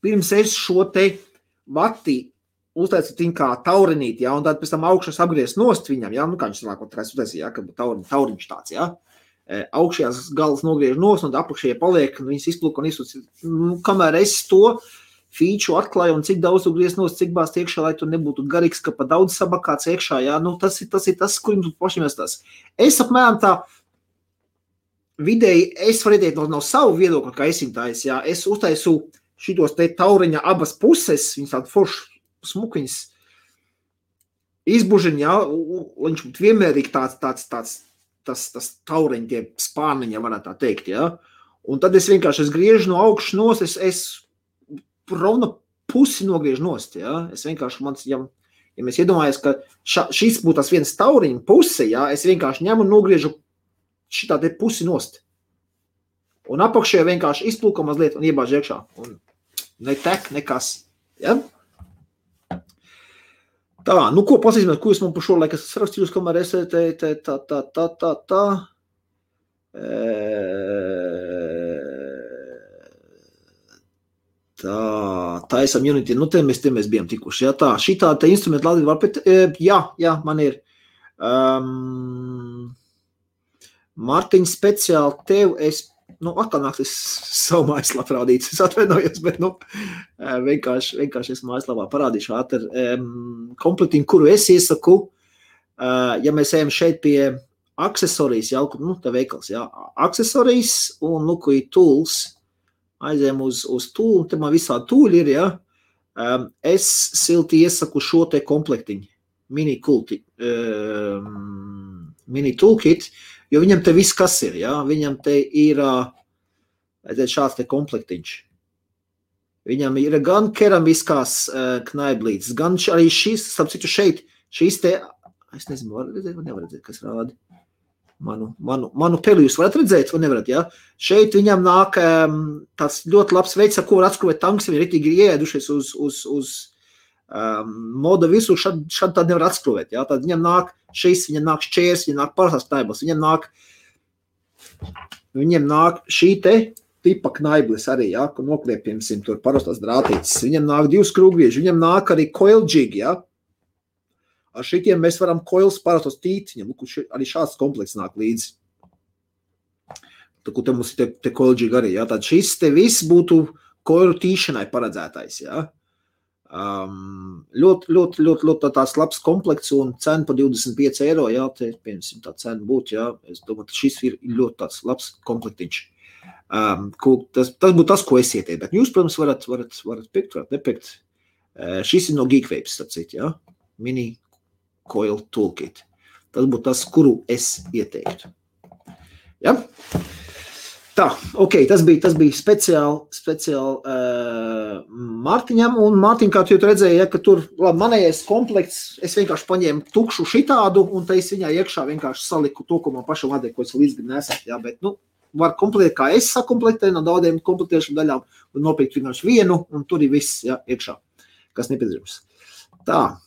pirms es šo te vati uztaicu viņu kā taurinīt, ja, un tad pēc tam augšas apgriezt nost viņam, ja, kā viņš sanāk, ja, kad tauriņš tāds, ja. Augšējās galas nogriež nost, un apakšējie paliek, un viņas izplūk un izsūc. Kamēr es to feature atklāju un cik daudz tu griezt nost, cik bāzt iekšā, lai tu nebūtu garīgs, ka pa daudz sabakāts iekšā, jā, tas ir tas, kur jums pašiem jāstās. Es apmēram tā vidēji es varu ieteikt no savu viedokli, kā esintājs, jā, es uztaisu šitos te tauriņa abas puses, viņas tādu foršu smukiņas izbužiņ, jā, viņš būtu vienmērīgi tas tauriņa, tie spārniņa, varētu tā teikt, jā. Un tad es vienkārši griežu no augšas nost, es rovna pusi nogriežu nost, jā. Es vienkārši, ja mēs iedomājamies, ka šis būtu tas viens tauriņa puse, jā, es vienkārši ņemu un nogriežu šitā te pusi nost. Un apakšē vienkārši izplūka mazliet un iebāž iekšā. Un ne tek, nekas. Ja? Tā, nu ko pasīsimies, ko jūs man par šo laiku esat sarakstījusi, kamēr es taisam Unity, nu te mēs bijām tikuši. Ja? Tā, šitā te instrumenti Latvija var pēc, jā, man ir. Mārtiņ, speciāli tev es, atkal nāks es savu mājaslapu parādīt, es atvainojos, bet, vienkārši es mājaslapā parādīšu ātri komplektiņu, kuru es iesaku, ja mēs ejam šeit pie aksesorijas, tā veikals, aksesorijas un, kur ir tools, aizējam uz tool, te man visādi tūļi ir, es silti iesaku šo te komplektiņu, mini toolkit, jo viņam te viss kas ir, viņam te ir šāds te komplektiņš. Viņam ir gan keramiskās knaiblītes, gan arī šis, starp citu šīs te, es nezinu, var redzēt, kas rādi. Manu peli jūs varat redzēt, vai nevarat, Šeit viņam nāk tāds ļoti labs veids, ar ko var atskruvēt tanks, viņi ritīgi ieēdušies uz moda visu, šad tad nevar atskruvēt, Tad viņam nāk šis, viņam nāk šķērs, viņam nāk parastās knaiblis, viņam nāk šī te tipa knaiblis arī, ko nokliepjamsim tur parastās drātītes, viņam nāk 2 skrūvgrieži, viņam nāk arī coil jig, Ar šitiem mēs varam coils parastos tīt, viņam arī šāds komplekts nāk līdzi. Tad, te mums ir te coil jig arī, Tad šis te viss būtu coilu tīšanai paredzētais, Ļoti tās labs komplekts un cena pa 25 €, te, piemēram, tā cena būtu, Es domāju, ka šis ir ļoti tāds labs komplektiņš. Tas būtu tas, ko es ieteiktu, bet jūs, protams, varat pikt, varat nepikt. Šis ir no Geekwapes, tācīt, Mini Coil Toolkit. Tas būtu tas, kuru es ieteiktu. Tā, ok, tas bija speciāli Mārtiņam, un Mārtiņ, kā tu jau redzēji, ka tur, labi, manējais komplekts, es vienkārši paņēmu tukšu šitādu, un te es viņā iekšā vienkārši saliku to, ko man pašam vajadzēja, ko es līdz nesat, bet, var komplektēt, kā es sakomplektēju no daudziem komplektēšanu daļām, un nopirkt vienkārši vienu, un tur ir viss, iekšā, kas nepieciešams. Tā,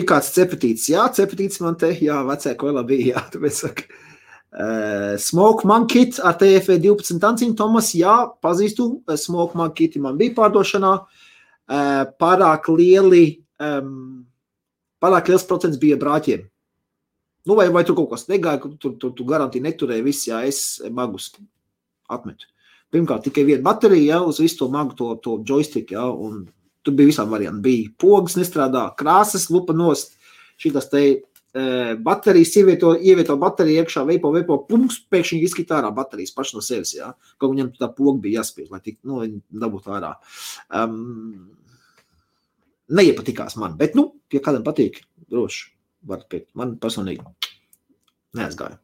kāds cepetīts, cepetīts man te, vecē koilā bija, tāpēc saka, Smoke Man Kit ar TFE 12 tanciņu, Tomas, pazīstu, Smoke Man Kiti man bija pārdošanā, pārāk liels procents bija brāķiem. Vai tur kaut kas negāja, tu garantīgi neturēji viss, es magus atmetu. Pirmkārt, tikai viena baterija, uz visu to magu, to joystick, un tur bija visām varianti. Bija pogas nestrādā, krāsas, lupa nost, šitas te baterijas, ievieto bateriju iekšā, veipo, pumps, pēkšņi izskita ārā baterijas paši no sevis, Kaut viņam tā poga bija jāspiež, lai tik, viņi dabūtu ārā. Neiepatikās man, bet, ja kādam patīk, droši, varat piekt. Man personīgi neaizgāja.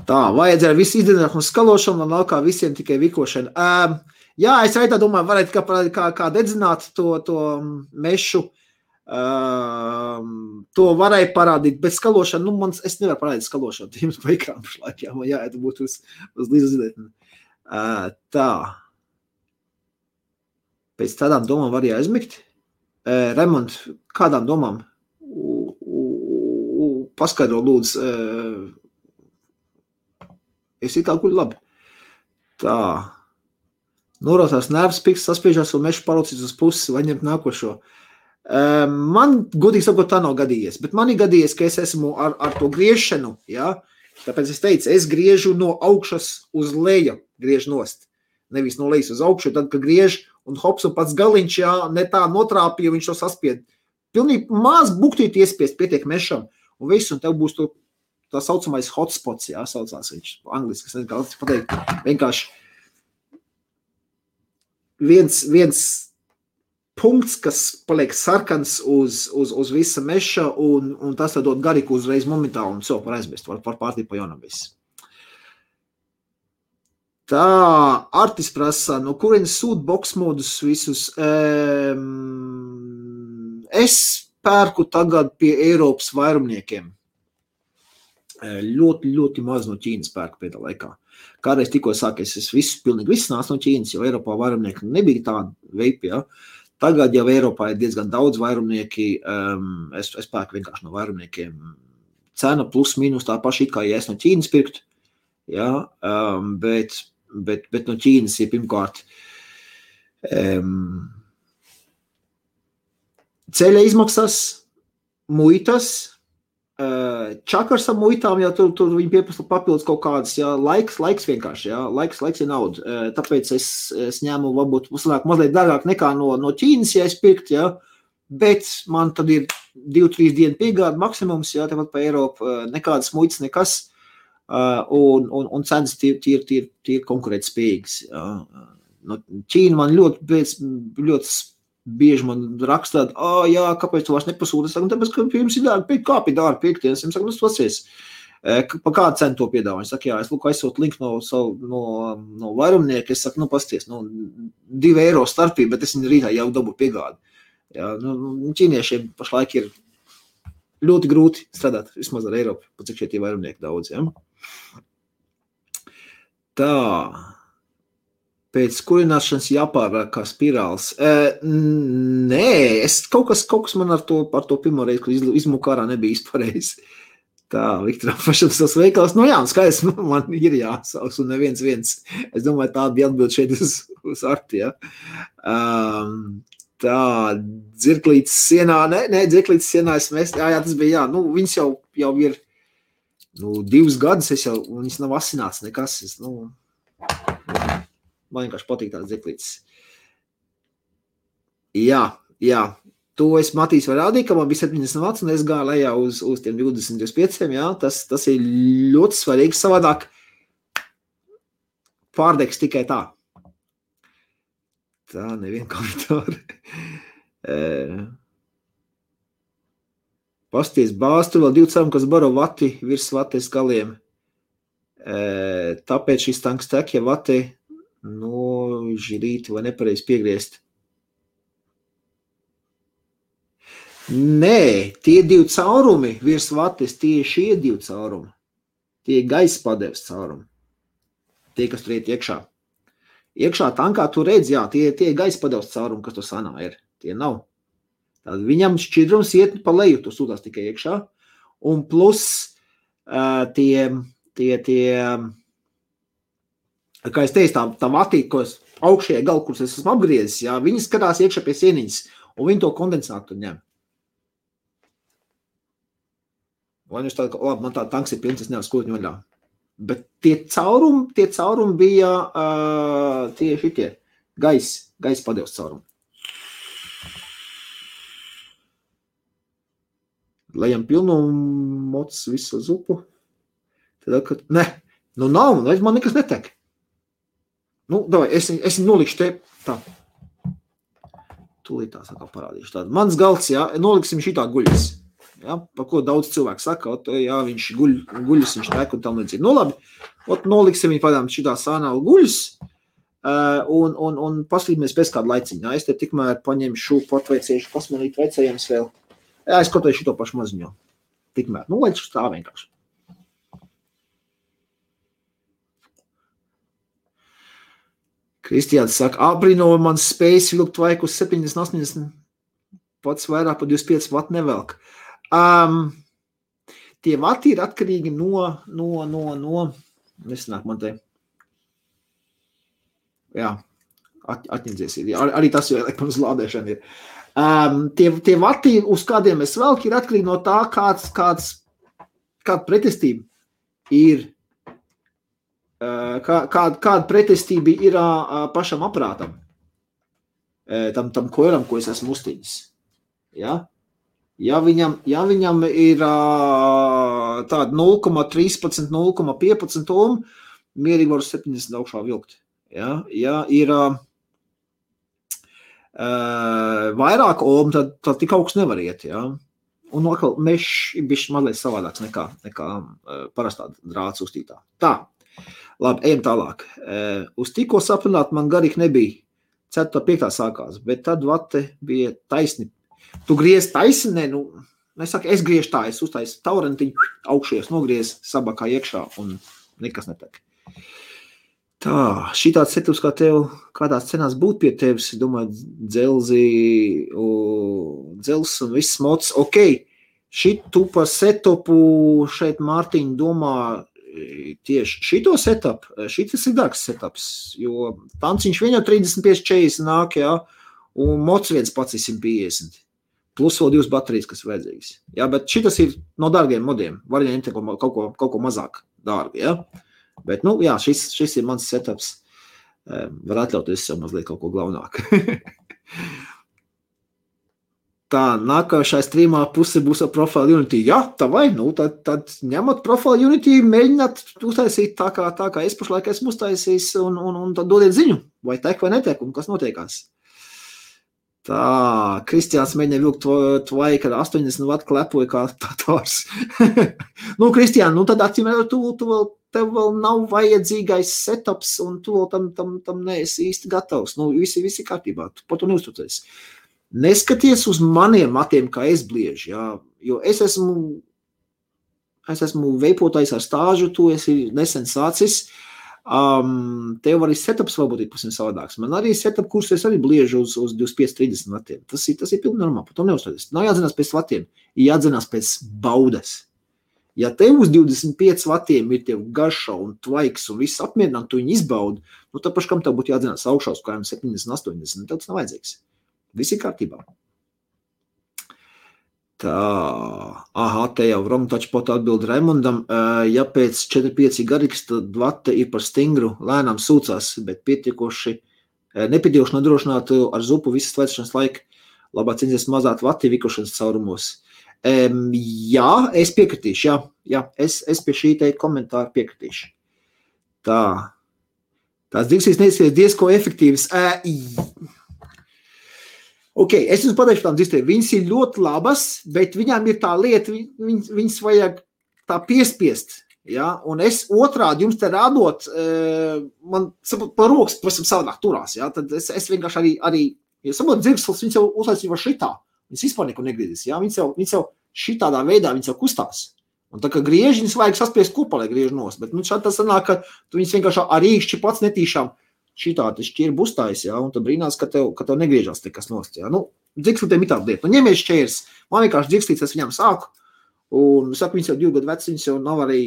Tā, vajadzēja visu izdarīt un skalošanu, un laukā visiem tikai vikošana. Es arī tā domāju, varētu kā dedzināt to mešu, to varēja parādīt, bet skalošana, es nevaru parādīt skalošanu, jums pa ekrānu pašlaik, man jāiet būt uz līdz zinētni. Tā. Pēc tādām domām var jāizmigt. Raimond, kādām domām? Paskaidro lūdzu. Es ir tā guļu labi. Tā. Norotās nervs, piks, saspiežās un mešu parocīs uz pusi, vai ņemt nākošo. Man, godīgi sakot, tā nav gadījies, bet man ir gadījies, ka es esmu ar to griešanu, tāpēc es teicu, es griežu no augšas uz leju, griežu nost, nevis no lejas uz augšu, tad, kad griež un hops un pats galiņš, ne tā notrāpīja, viņš to saspied. Pilnīgi maz buktīt iespiest, pietiek mešam, un viss, un tev būs tā saucamais hotspots, jā, saucās viņš angliski, es nezinu, kā pateikt, vienkārši viens punkts, kas paliek sarkans uz visa meša, un tas dod gariku uzreiz momentā, un var aizmest, var pārtīt pa jaunam viss. Tā, Artis prasa, no kurienes sūt box modus visus? Es pērku tagad pie Eiropas vairumniekiem. Ļoti maz no Ķīnas pērku pēdā laikā. Kādreiz tikko sākies, pilnīgi viss nāc no Ķīnas, jo Eiropā vairumnieki nebija tāda veipi, ja. Tagad jau Eiropā ir diezgan daudz vairumnieki, es pērku vienkārši no vairumniekiem. Cena plus mīnus tā paša, it kā ja es no Ķīnas pirkt, ja, bet no Ķīnas ir pirmkārt ceļa izmaksas, muitas, čakars ar muitām, ja tur viņi pieprasa papildus kaut kādas, ja, laiks vienkārši, ja, laiks ir nauda, tāpēc es ņēmu varbūt mazliet dārgāk nekā no Ķīnas, ja es pirkt, ja, bet man tad ir 2-3 dienu piegāda maksimums, ja, tepat pa Eiropu, nekādas muitas, nekas, un cenas tie konkurēt spējīgas, ja. No Ķīna man ļoti bieži man rakstāt, jā, kāpēc tu vairs nepasūti? Es saku, tāpēc, ka jums ir dārgi pirkt, kāpēc dārgi pirkt? Es saku, nu, pasies, pa kādu cenu to piedāvā? Es saku, jā, es lūk, aizsūt linku no vairumnieka, es saku, nu, pasties, nu, 2 eiro starpība, bet es viņu rītā jau dabu piegādi. Jā, nu, ķīniešiem pašlaik ir ļoti grūti strādāt, vismaz ar Eiropu, pa cik šie tie vairumnieki daudz, jā. Tā. Pēc kurināšanas jāpārāk kā spirāls. Nē, kaut kas man ar to pirmo reizi, kad izmuku ārā nebija izpareizi. Tā, Viktoram pašam savs veikals. Nu jā, skaidrs, man ir jāsauks un neviens. Es domāju, tā bija atbild šeit uz Arti, ja. Tā, dzirklītes sienā, nē, dzirklītes sienā es mēs, jā, tas bija, jā. Nu, viņas jau ir, 2 gadus, viņas nav asināts nekas, man vienkārši patīk tāds dziklītis. Jā, to es Matīs var rādīt, ka man bija 70 vats, un es gāju lejā uz tiem 20-25, jā, tas ir ļoti svarīgi, savādāk pārdegs tikai tā. Tā, nevien komentāri. Pasties bāz, tur vēl 2 cēlumi, kas baro vati virs vates galiem. Tāpēc šis tanks tek, ja vati žilīti vai nepareizi piegriezt. Nē, tie 2 caurumi virs vates, tie šie 2 caurumi. Tie gaisa padeves caurumi. Tie, kas tur iet iekšā. Iekšā tankā tu redz, jā, tie gaisa padeves caurumi, kas tur sanā ir. Tie nav. Tad viņam šķidrums iet pa leju, tu sūtās tikai iekšā. Un plus tie kā es teicu, tā vatīte, ko es augšējā galu, kuras es esmu apgriezis, jā, viņi skatās iekšā pie sieniņas, un viņi to kondensātu ņem. Vai viņš tāda, labi, man tā tanks ir pilns, es nevaru skūtņu vaļā. Bet tie caurumi bija tie šitie gaisa padevs caurumi. Lejam pilnu mocs visu zupu. Tad, kad, nav, man nekas netek. Davai, es viņu nolikšu te, tā. Tūlīt tā sakā parādīšu tādu. Mans galds, jā, noliksim šitā guļas. Jā, par ko daudz cilvēku saka, jā, viņš guļas, viņš tek un tam līdzīgi. Labi, noliksim viņu padām šitā sānālu guļas un paslīdmies pēc kādu laiciņu. Jā, es te tikmēr paņemšu patveiciešu, pasmanīt veicējams vēl. Jā, es kaut vai šito pašu maziņo. Tikmēr, lai tā vienkārši. Kristiāns saka, abrino mans spējas vilkt vaiku uz 70-80, pats vairāk par 25 vatu nevelk. Tie vati ir atkarīgi no nesanāk man te. Jā, atņemdzies ir. Arī tas jau elektronas lādēšana ir. Tie vati, uz kādiem es velku, ir atkarīgi no tā, kāda pretestība ir. Kāda pretestība ir pašam aparātam, tam koilam, ko es esmu uztīnis. Ja? Ja viņam ir tāda 0,13, 0,15 ohm, mierīgi var 70 augšā vilkt. Ja ir vairāk ohm, tad tik augsts nevar iet. Ja? Un atkal mešs ir bišķi mazliet savādāks nekā parastā drāts uztītā. Tā, labi, ejam tālāk. Uz tikko saprināt man garīgi nebija. 4. 5. sākās, bet tad vate bija taisni. Tu griez taisni, es griežu tā, es uztaisu taurentiņu, augšies nogriez, sabakā iekšā un nekas netek. Tā, šitāds setups kā tev, kādās cenās būt pie tevis, domāju, dzels un viss mods. Ok, šitu par setupu šeit Mārtiņa domā tieši šito setup, šitas ir dārgs setups, jo tanciņš vien jau 35-40 nāk, jā, un mods viens pats ir 150. Plus vēl 2 baterijas, kas vajadzīgas. Jā, bet šitas ir no dārgiem modiem, var ņemt kaut ko mazāk dārgu, jā. Bet, jā, šis ir mans setups. Var atļauties sev mazliet kaut ko glaunāk. Tā, nākošai streamā puse būs ar Profile Unity. Jā, tā vai, tad ņemot Profile Unity, mēģināt uztaisīt tā kā es pašlaik esmu uztaisījis un tad dodiet ziņu, vai tek vai netek, un kas notiekās. Tā, Kristiāns mēģina vilkt tvai, kad 80 watt klepoja kā tārs. Kristiān, tad atcīm, tev vēl nav vajadzīgais setups, un tu vēl tam neesi īsti gatavs. Visi kārtībā, tu par to neuztucies. Neskaties uz maniem matiem, kā es bliežu, jā, jo es esmu veipotājs ar stāžu, tu esi nesen sācis. Tev arī setups varbūt ir pasim savādāks. Man arī setup kursu es arī bliežu uz 25-30 vatiem. Tas ir pilnīgi normāli, par to neuzstāties. Nav jādzinās pēc vatiem, ir jādzinās pēc baudas. Ja tev uz 25 vatiem ir tev garša un tvaiks un viss apmierināt, tu viņu izbaudi, tad paškam tev būtu jādzinās augšā uz kājām 70-80, tev tas nav vajadzīgs. Viss ir kārtībā. Tā, te jau wrong touchpot atbild Raimondam. Ja pēc 4-5 garīgs, tad vate ir par stingru, lēnām sūcās, bet nepietiekoši nodrošināt ar zupu visas vēršanas laika. Labāk centies mazāt vati vikošanas caurumos. Jā, es piekritīšu, jā, es pie šī te komentāra piekritīšu. Tā, tās digsīs neizskies diezko efektīvas. Ok, es jums pateikšu tām dzistēm, viņas ir ļoti labas, bet viņām ir tā lieta, viņas vajag tā piespiest, ja, un es otrādi jums te rādot, man pa rokas pavisam savādāk turās, ja, tad es vienkārši arī ja saprot, dzirkslis, viņas jau uzlaicīja šitā, viņas vispār neko negriezīs, ja, viņas jau šitādā veidā, viņas jau kustās, un tā kā griež, viņas vajag saspiest kopā, lai griež nos, bet šādi tas sanāk, ka tu viņas vienkārši ar īkšķi pats netīšām šitā te šķirbu uztais, ja, un tad brīnās, ka tev negriežās nekas nost, ja. Dzirkslītiem ir tāda lieta. Ņemies šķērs, man vienkārši dzirkslīts, es viņam sāku, un saku, viņas jau 2 gadu veci, viņas jau nav arī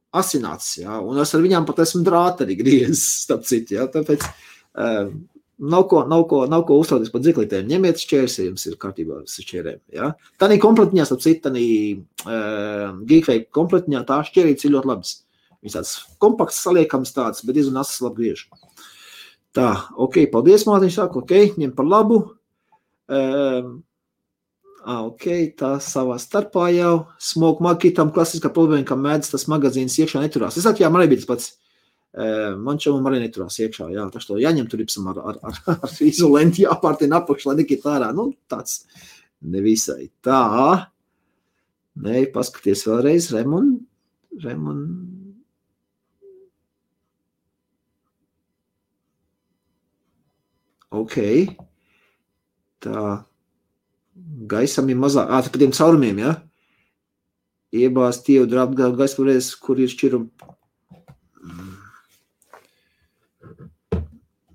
asināts, ja, un es ar viņām pat esmu drāti arī griezis, starp citu, ja, tāpēc nav ko uzstāties par dzirkslītiem. Ņemiet šķērs, ja jums ir kārtībā ar šķērēm, ja. Tādī kompletiņā, starp citu, tādī Geekway kompletiņā, tā šķērīts ir ļoti labas. Viņas tāds kompakts saliekams tāds, bet diezgan asas labi griež. Tā, ok, paldies, Mārtiņš saka, ok, ņem par labu. Ok, tā savā starpā jau. Smoke marketam klasiskā problēma, ka mēdz tas magazīns iekšā neturās. Es jā, man arī bija tas pats. Man čomam arī neturās iekšā, jā, taču to jāņem tur ipsam ar izolenti jāpārtina apakš, lai nekīt ārā. Tāds nevisai. Tā, paskaties vēlreiz, Raimond. Ok, tā, gaisam ir mazāk, tā pa tiem caurumiem, ja? Iebāz tievu drābu gaisa varēs, kur ir šķirum.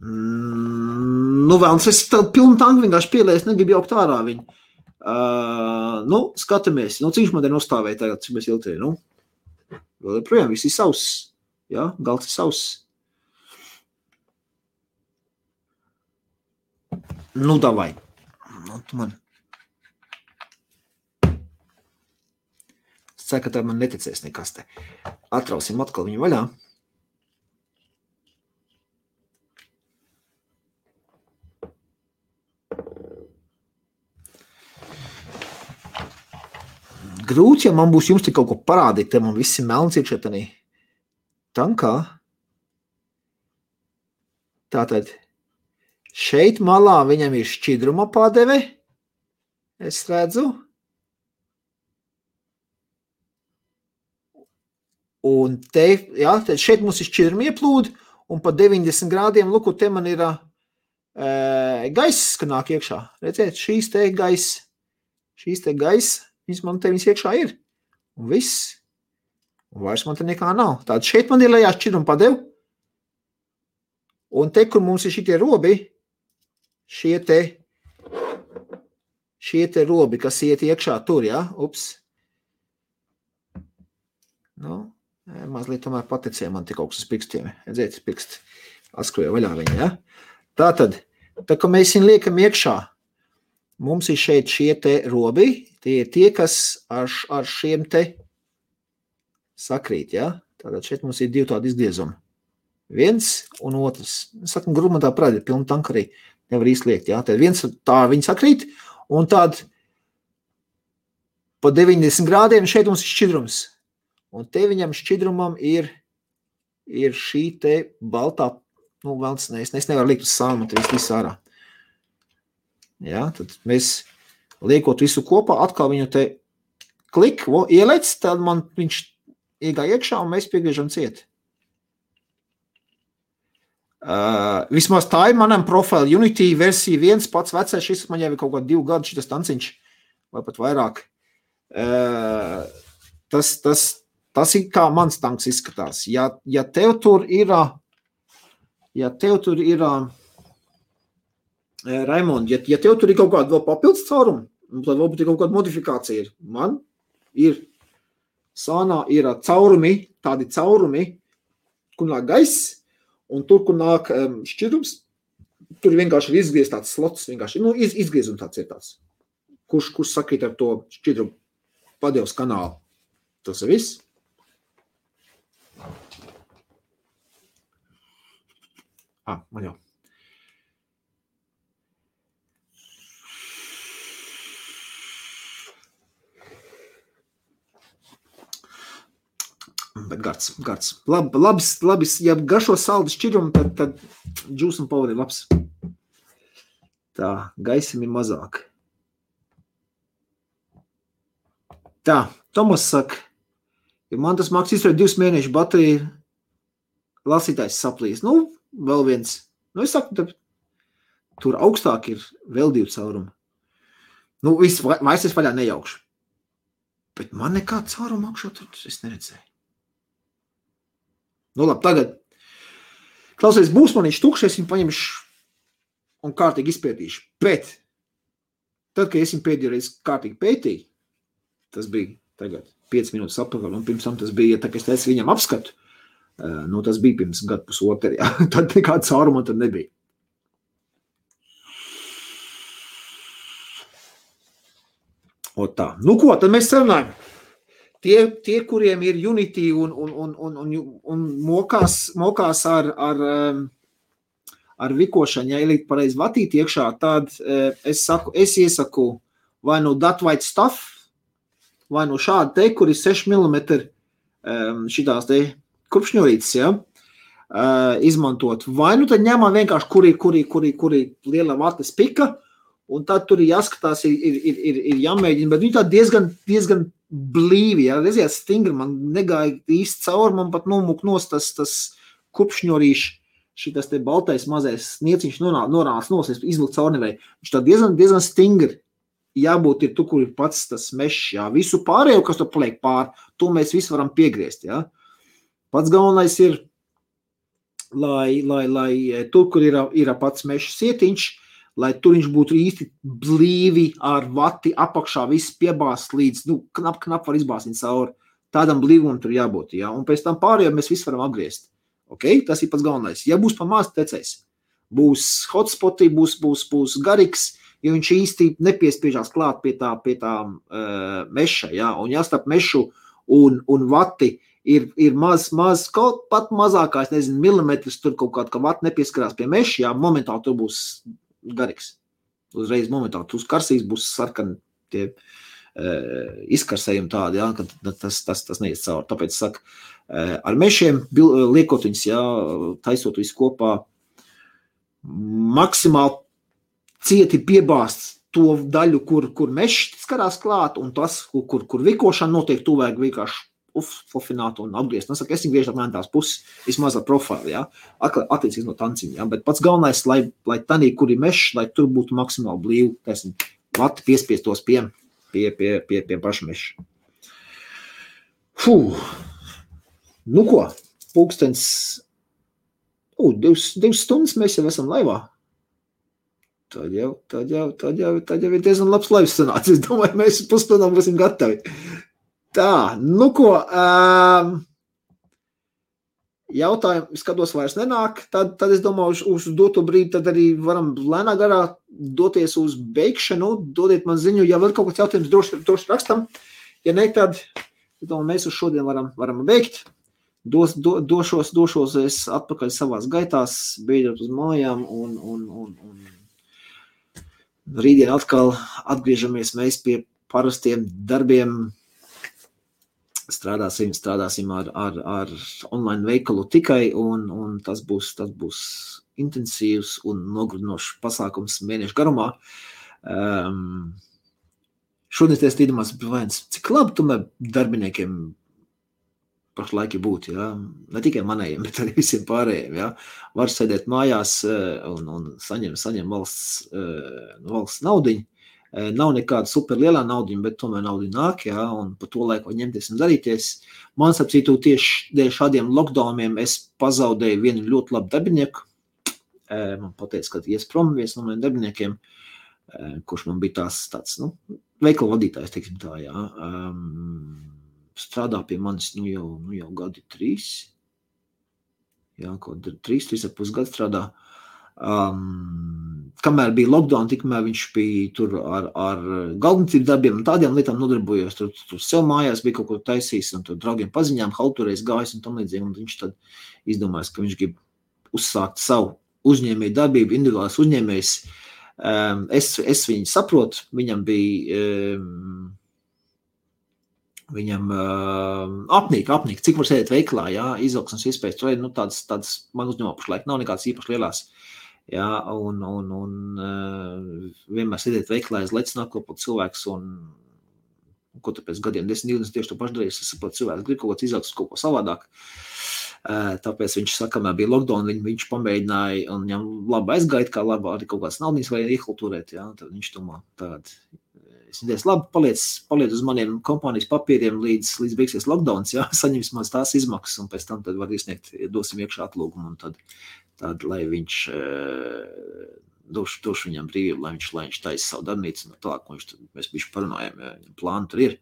Vēlams, es pilnu tanku vienkārši pielēs, negribu jaukt ārā viņu. Skatamies, cik man te nostāvēja tagad, cik mēs iltēji, vēl projām viss ir sauss, ja? Galds ir sauss. Davai. Tu man. Es ceru, ka tā man neticēs nekas te. Atrausim atkal viņu vaļā. grūti, ja man būs jums tik kaut ko parādīt, te man visi melns ir šetanī. Tankā. Tātad, šeit malā viņam ir šķidruma padeve. Es redzu. Un te, jā, šeit mums ir šķidruma ieplūdi, un pa 90 grādiem, luku, te man ir gaiss, ka nāk iekšā. Redziet, šīs te gaiss, viņas iekšā ir. Un viss. Un vairs man te nekā nav. Tātad šeit man ir lejā šķidruma padevu. Un te, kur mums ir šitie robi, šie te robi, kas iet iekšā tur, jā, ups. Nu, mazliet tomēr paticēja man tik augsts pirkstiem. Redzēt, pirksti atskroja vaļā viņa, jā. Tātad, tā kā mēs viņu liekam iekšā, mums ir šeit šie te robi, tie ir tie, kas ar šiem te sakrīt, jā. Tātad šeit mums ir divi tādi izgriezumi. Viens un otrs. Sakam, grūmatā prādi ir pilna tanka arī. Nevar īsti jā. Tad viens tā viņi sakrīt, un tād pa 90 grādiem šeit mums ir šķidrums. Un te viņam šķidrumam ir šī te baltā, nu, velns, es nevaru likt uz sānu, tad visu ārā. Jā, tad mēs liekot visu kopā, atkal viņu te klik, ielec, tad man viņš iegāja iekšā, un mēs piegriežam ciet. Vismaz tā ir manam profile Unity versija 1, pats vecais, šis man jau ir kaut kā 2 gadu šitas tanciņš, vai pat vairāk. Tas ir kā mans tanks izskatās. Ja tev tur ir, Raimond, ja tev tur ir kaut kāda vēl papildus caurumu, tad varbūt ir kaut kāda modifikācija ir. Man ir, sānā ir tādi caurumi, kur nāk gaiss, un tur, kur nāk šķidrums, tur vienkārši ir izgriezts tāds slots, vienkārši, nu, izgriezums tāds ir tāds, kurš sakrīt ar to šķidrumu padevs kanālu. Tas ir viss. Man jau. Bet gards. Labi, ja garšo saldu šķidrumu, tad juice un power ir labs. Tā, gaisim ir mazāk. Tā, Tomas saka, ja man tas māks izturēt 2 mēnešu bateriju, lasītājs saplīs. Nu, vēl viens. Nu, es saku, tur augstāk ir vēl 2 caurumi. Nu, vairs es vaļā nejaukšu. Bet man nekā cauruma augšā tur es neredzēju. Nu, labi, tagad. Klausies, būs man viņš tukšs, es viņu paņemšu un kārtīgi izpētīšu. Bet, tad, kad es viņu pēdējo reizi kārtīgi pētīju, tas bija tagad 5 minūtes apakaļ, un pirms tam tas bija, tā kā es teicu viņam apskatu, nu, tas bija pirms gadu pusotru, jā. Tad nekāda cauruma tad nebija. O tā. Nu ko, tad mēs sarunājam. Tie, kuriem ir Unity un mokās ar vikošanu, ja ielikt pareizi vatīt iekšā, tad es iesaku vai no that white stuff, vai no šāda te, kur ir 6 mm šitās te kurpšņorītes, ja, izmantot. Vai nu tad ņemam vienkārši, kuri liela vates pika, un tad tur ir jāskatās, ir jāmēģina, bet viņi tā diezgan blīvi, ja, redziet, stingri, man negāja īsti cauri, man pat nomuk nos tas kurpšņorīši, šitas te baltais mazais nieciņš norāns nos, es izvilku cauri nevēju. Viņš tā diezgan stingri jābūt ir tu, kur ir pats tas mešs, jā. Visu pārējo, kas tu paliek pār, to mēs visu varam piegriezt, jā. Pats galvenais ir, lai tur, kur ir pats mešs sietiņš, lai tur viņš būtu īsti blīvi ar vati apakšā, viss piebāst līdz, nu, knap var izbāst viņu cauri. Tādam blīvumam tur jābūt, jā. Un pēc tam pārējo mēs visu varam apgriezt. Ok? Tas ir pats galvenais. Ja būs pa maz tecējs, būs hotspoti, būs garīgs, jo viņš īsti nepiespiežās klāt pie tā meša, jā. Un jāstarp mešu un vati ir maz, kaut pat mazākais, nezinu, milimetrs, tur kaut kāda, ka vati nepieskarās pie meša, jā, momentāli tur būs garīgs. Uzreiz momentāli, uz karsīs būs sarkani tie izkarsējumi tādi, jā, ka tas neies cauri. Tāpēc saku, ar mešiem liekot viņus, jā, taisot visu kopā, maksimāli cieti piebāst to daļu, kur mešs skarās klāt, un tas, kur vikošana notiek, tu vajag vienkārši fofināt un apgriezt. Es viņu griežu apmēram tās puses, vismaz ar profilu, jā, attiecīgi no tanciņa, jā, bet pats galvenais, lai tanī, kur ir mešs, lai tur būtu maksimāli blīvi, taisim, vati piespiestos pie paša meša. Nu ko, pulkstens, 2 stundas mēs jau esam laivā. Tad jau ir diezgan labs laivs sanācis. Es domāju, mēs pusstundām būsim gatavi. Tā, nu ko, jautājumi, skatos vairs nenāk, tad es domāju, uz doto brīdi tad arī varam lēnā garā doties uz beigšanu, dodiet man ziņu, ja vēl kaut kāds jautājums droši rakstam, ja ne, tad domāju, mēs uz šodien varam beigt, došos es atpakaļ savās gaitās, beidzot uz mājām un rītdien atkal atgriežamies mēs pie parastiem darbiem, strādāsim ar online veikalu tikai, un tas būs intensīvs un nogurdinošs pasākums mēnešu garumā. Šodien es tīdomās, cik labi tomēr darbiniekiem pašlaik būt, jā? Ne tikai manējiem, bet arī visiem pārējiem. Jā? Var sēdēt mājās un saņem valsts naudiņu. Nav nekāda super lielā naudiņa, bet tomēr naudiņa nāk, jā, un pa to laiku ņemties un darīties. Man sapcītu tieši dēļ šādiem lockdowniem es pazaudēju vienu ļoti labu darbinieku. Man pateica, ka ies prom viens no maniem darbiniekiem, kurš man bija tāds, veikala vadītājs, teiksim tā, jā. Strādā pie manis, jau gadi 3. Jā, kaut 3,5 gadu strādā. Kamēr bija lockdown, tikmēr viņš bija tur ar galvnicību darbiem un tādiem lietām nodarbojos. Tur sev mājās bija kaut ko taisījis un tur draugiem paziņām, halturēs gājis un tam līdzīgi. Un viņš tad izdomājis, ka viņš grib uzsākt savu uzņēmēju darbību, individuālais uzņēmējs. Es viņu saprotu, viņam apnīk, cik var sēdēt veiklā, jā, izaugsmes iespējas, tur ir, tāds man uzņēmā pašlaik nav nekāds īpaši lielās, jā, un vienmēr sēdēt veiklā, es lec nākopot cilvēks, un ko tu pēc gadiem 10-20 tieši to pašu darījis, es saprotu, cilvēks grib kaut ko izaugsmes, kaut ko savādāk, tāpēc viņš saka, kamēr bija lockdown, viņš pamēģināja, un viņam labi aizgaita, kā labi arī kaut kāds naudiņas vajag iekultūrēt, jā, tad viņš domā tādu. Es teicu, labi, paliec uz maniem kompānijas papīriem līdz beigsies lockdowns, jā, saņems maz tās izmaksas, un pēc tam tad var izsniegt, dosim iekšā atlūgumu, un tad lai viņš došu viņam brīvību, lai viņš taisa savu darbnīcu, un tālāk, mēs bišķi parunājam, ja plāni tur ir.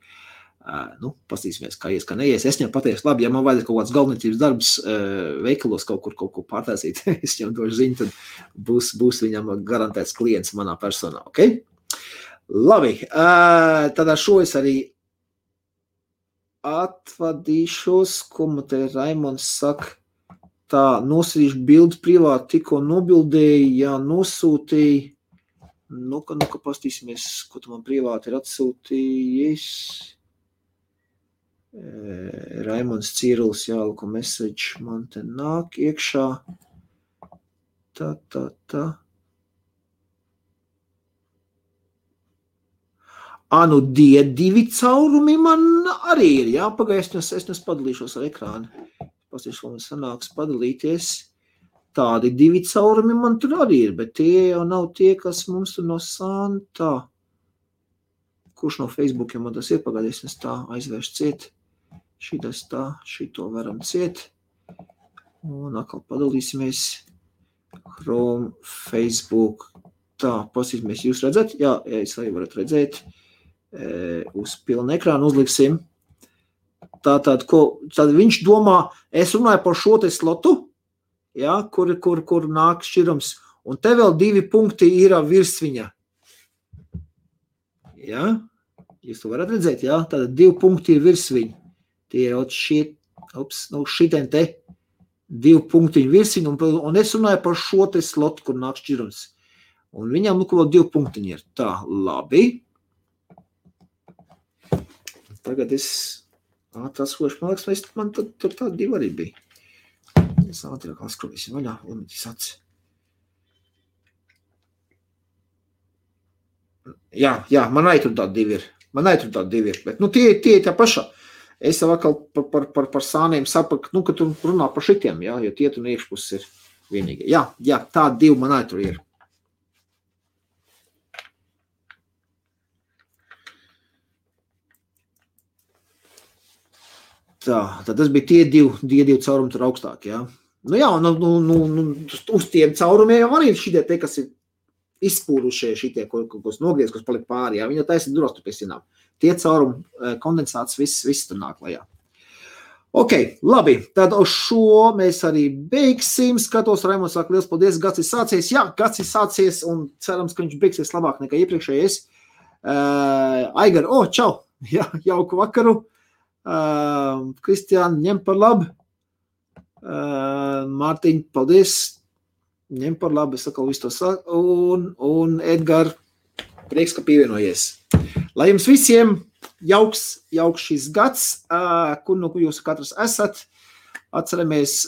Pastīsimies, kā ies, kā neies. Es viņam pateicu, labi, ja man vajadzētu kaut kāds galvniecības darbs veikalos kaut ko pārtaisīt, es viņam došu ziņu, tad būs viņam garantēts klients manā personā, ok? Labi, tad ar šo es arī atvadīšos, ko man te Raimonds saka, tā nosīšu bildi privāti, tikko nobildēju, jā, nosūtīju, ka pastīsimies, ko tu man privāti ir atsūtījis. Raimonds Cīrulis, jā, ko message man te nāk iekšā, tā. Divi caurumi man arī ir, jā, pagaid, es padalīšos ar ekrānu. Pastīšu, ko man sanāks padalīties. Tādi 2 caurumi man tur arī ir, bet tie jau nav tie, kas mums tur no Santā. Kurš no Facebookiem man tas ir pagaidīs, es tā aizvēršu ciet. Šitas tā, šito varam ciet. Un atkal padalīsimies. Chrome, Facebook. Tā, pasīsimies, jūs redzat? Jā, es arī varat redzēt. Uz pilnu ekrānu uzliksim. Tātad viņš domā, es runāju par šo te slotu, jā, kur nāk šķirums, un te vēl 2 punkti ir virs viņa. Jā, jūs to varat redzēt, jā, tātad 2 punkti ir virs viņa. Tie ir šitien te 2 punktiņi virs viņa, un es runāju par šo te slotu, kur nāk šķirums. Un viņam vēl 2 punktiņi ir. Tā, labi. tagad es ātrās skošu, man liekas, man tur tādi 2 arī bija. Es ātrāk skrotīsim vaļā, limiti saci. Jā, man arī tur tādi 2 ir. Bet, tie tā pašā. Es jau atkal par sāniem sapratu, ka tu runā par šitiem, jā, jo tie tu iekšpuses ir vienīgi. Jā, tādi 2 man arī tur ir. Tā, tad tas bija tie 2 caurumi tur augstāk, jā. Uz tiem caurumiem jau arī šitie te, kas ir izspūrušie šitie, kas nogriez, kas palika pāri, jā. Viņi jau taisa duros tur pie sienām. Tie caurumi, kondensāts, viss tur nāk lejā. Ok, labi, tad uz šo mēs arī beigsim. Skatos, Raimonds saka, liels paldies, gads ir sācies. Jā, gads ir sācies un cerams, ka viņš beigsies labāk nekā iepriekšējais. Aigar, čau, jā, jauku vakaru. Kristiāna, ņem par labu. Mārtiņ, paldies. Ņem par labu, es atkal visu to saku. Un Edgar, prieks, ka pievienojies. Lai jums visiem jauks šis gads, kur jūs katrs esat. Atceramies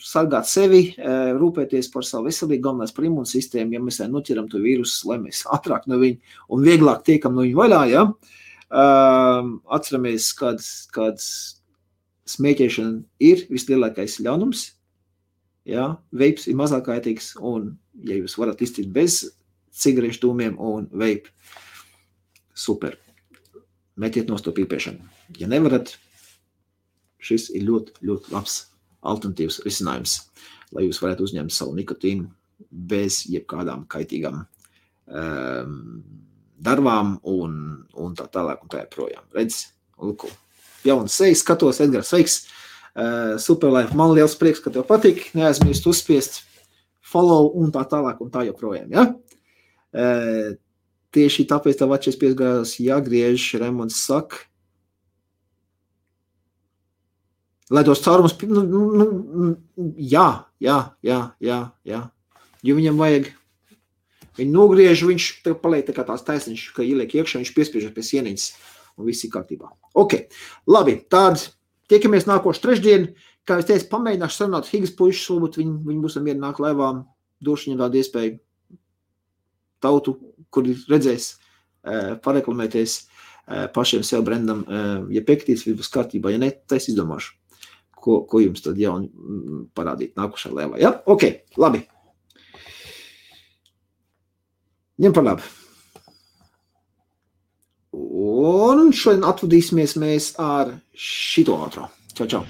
sargāt sevi, rūpēties par savu veselību, galvenais par imūnsistēmu, ja mēs noķeram to vīrusu, lai mēs ātrāk no viņa un vieglāk tiekam no viņa vaļā, ja? Atceramies, kad smēķēšana ir vislielākais ļaunums, ja? Veips ir mazāk kaitīgs, un ja jūs varat iztikt bez cigarešu dūmiem un veipu, super. Metiet nost to pīpēšanu. Ja nevarat, šis ir ļoti, ļoti labs alternatīvs risinājums, lai jūs varētu uzņemt savu nikotīnu bez jebkādām kaitīgām darbām un tā tālāk un tā joprojām. Redz, lūko, jauns sejas, skatos, Edgars, sveiks, Superlife, man liels prieks, ka tev patīk, neaizmirst uzspiest follow un tā tālāk un tā joprojām, ja? Tieši tāpēc tev atšies piesgājās jāgriež, Raimonds saka, lai tos caurumus, jā, jo viņam vajag, viņi nogriež, viņš paliek tā kā tās taisniņš, ka ieliek iekšā, viņš piespiežas pie sieniņas un viss ir kārtībā. Ok, labi, tād, tiekamies nākošu trešdien, kā es teicu, pamēģināšu sarunāt Higas puišus, varbūt viņi būs mieru nāk laivā, došu viņam tādu iespēju tautu, kuri redzēs, pareklamēties pašiem sev brendam, ja piektīs, viss būs kārtībā, ja ne, tad es izdomāšu, ko jums tad jauni parādīt nākošā laivā. Ja? Ok, labi. Ņem par labu. Un šodien atvadīsimies mēs ar šito ātro. Čau, čau.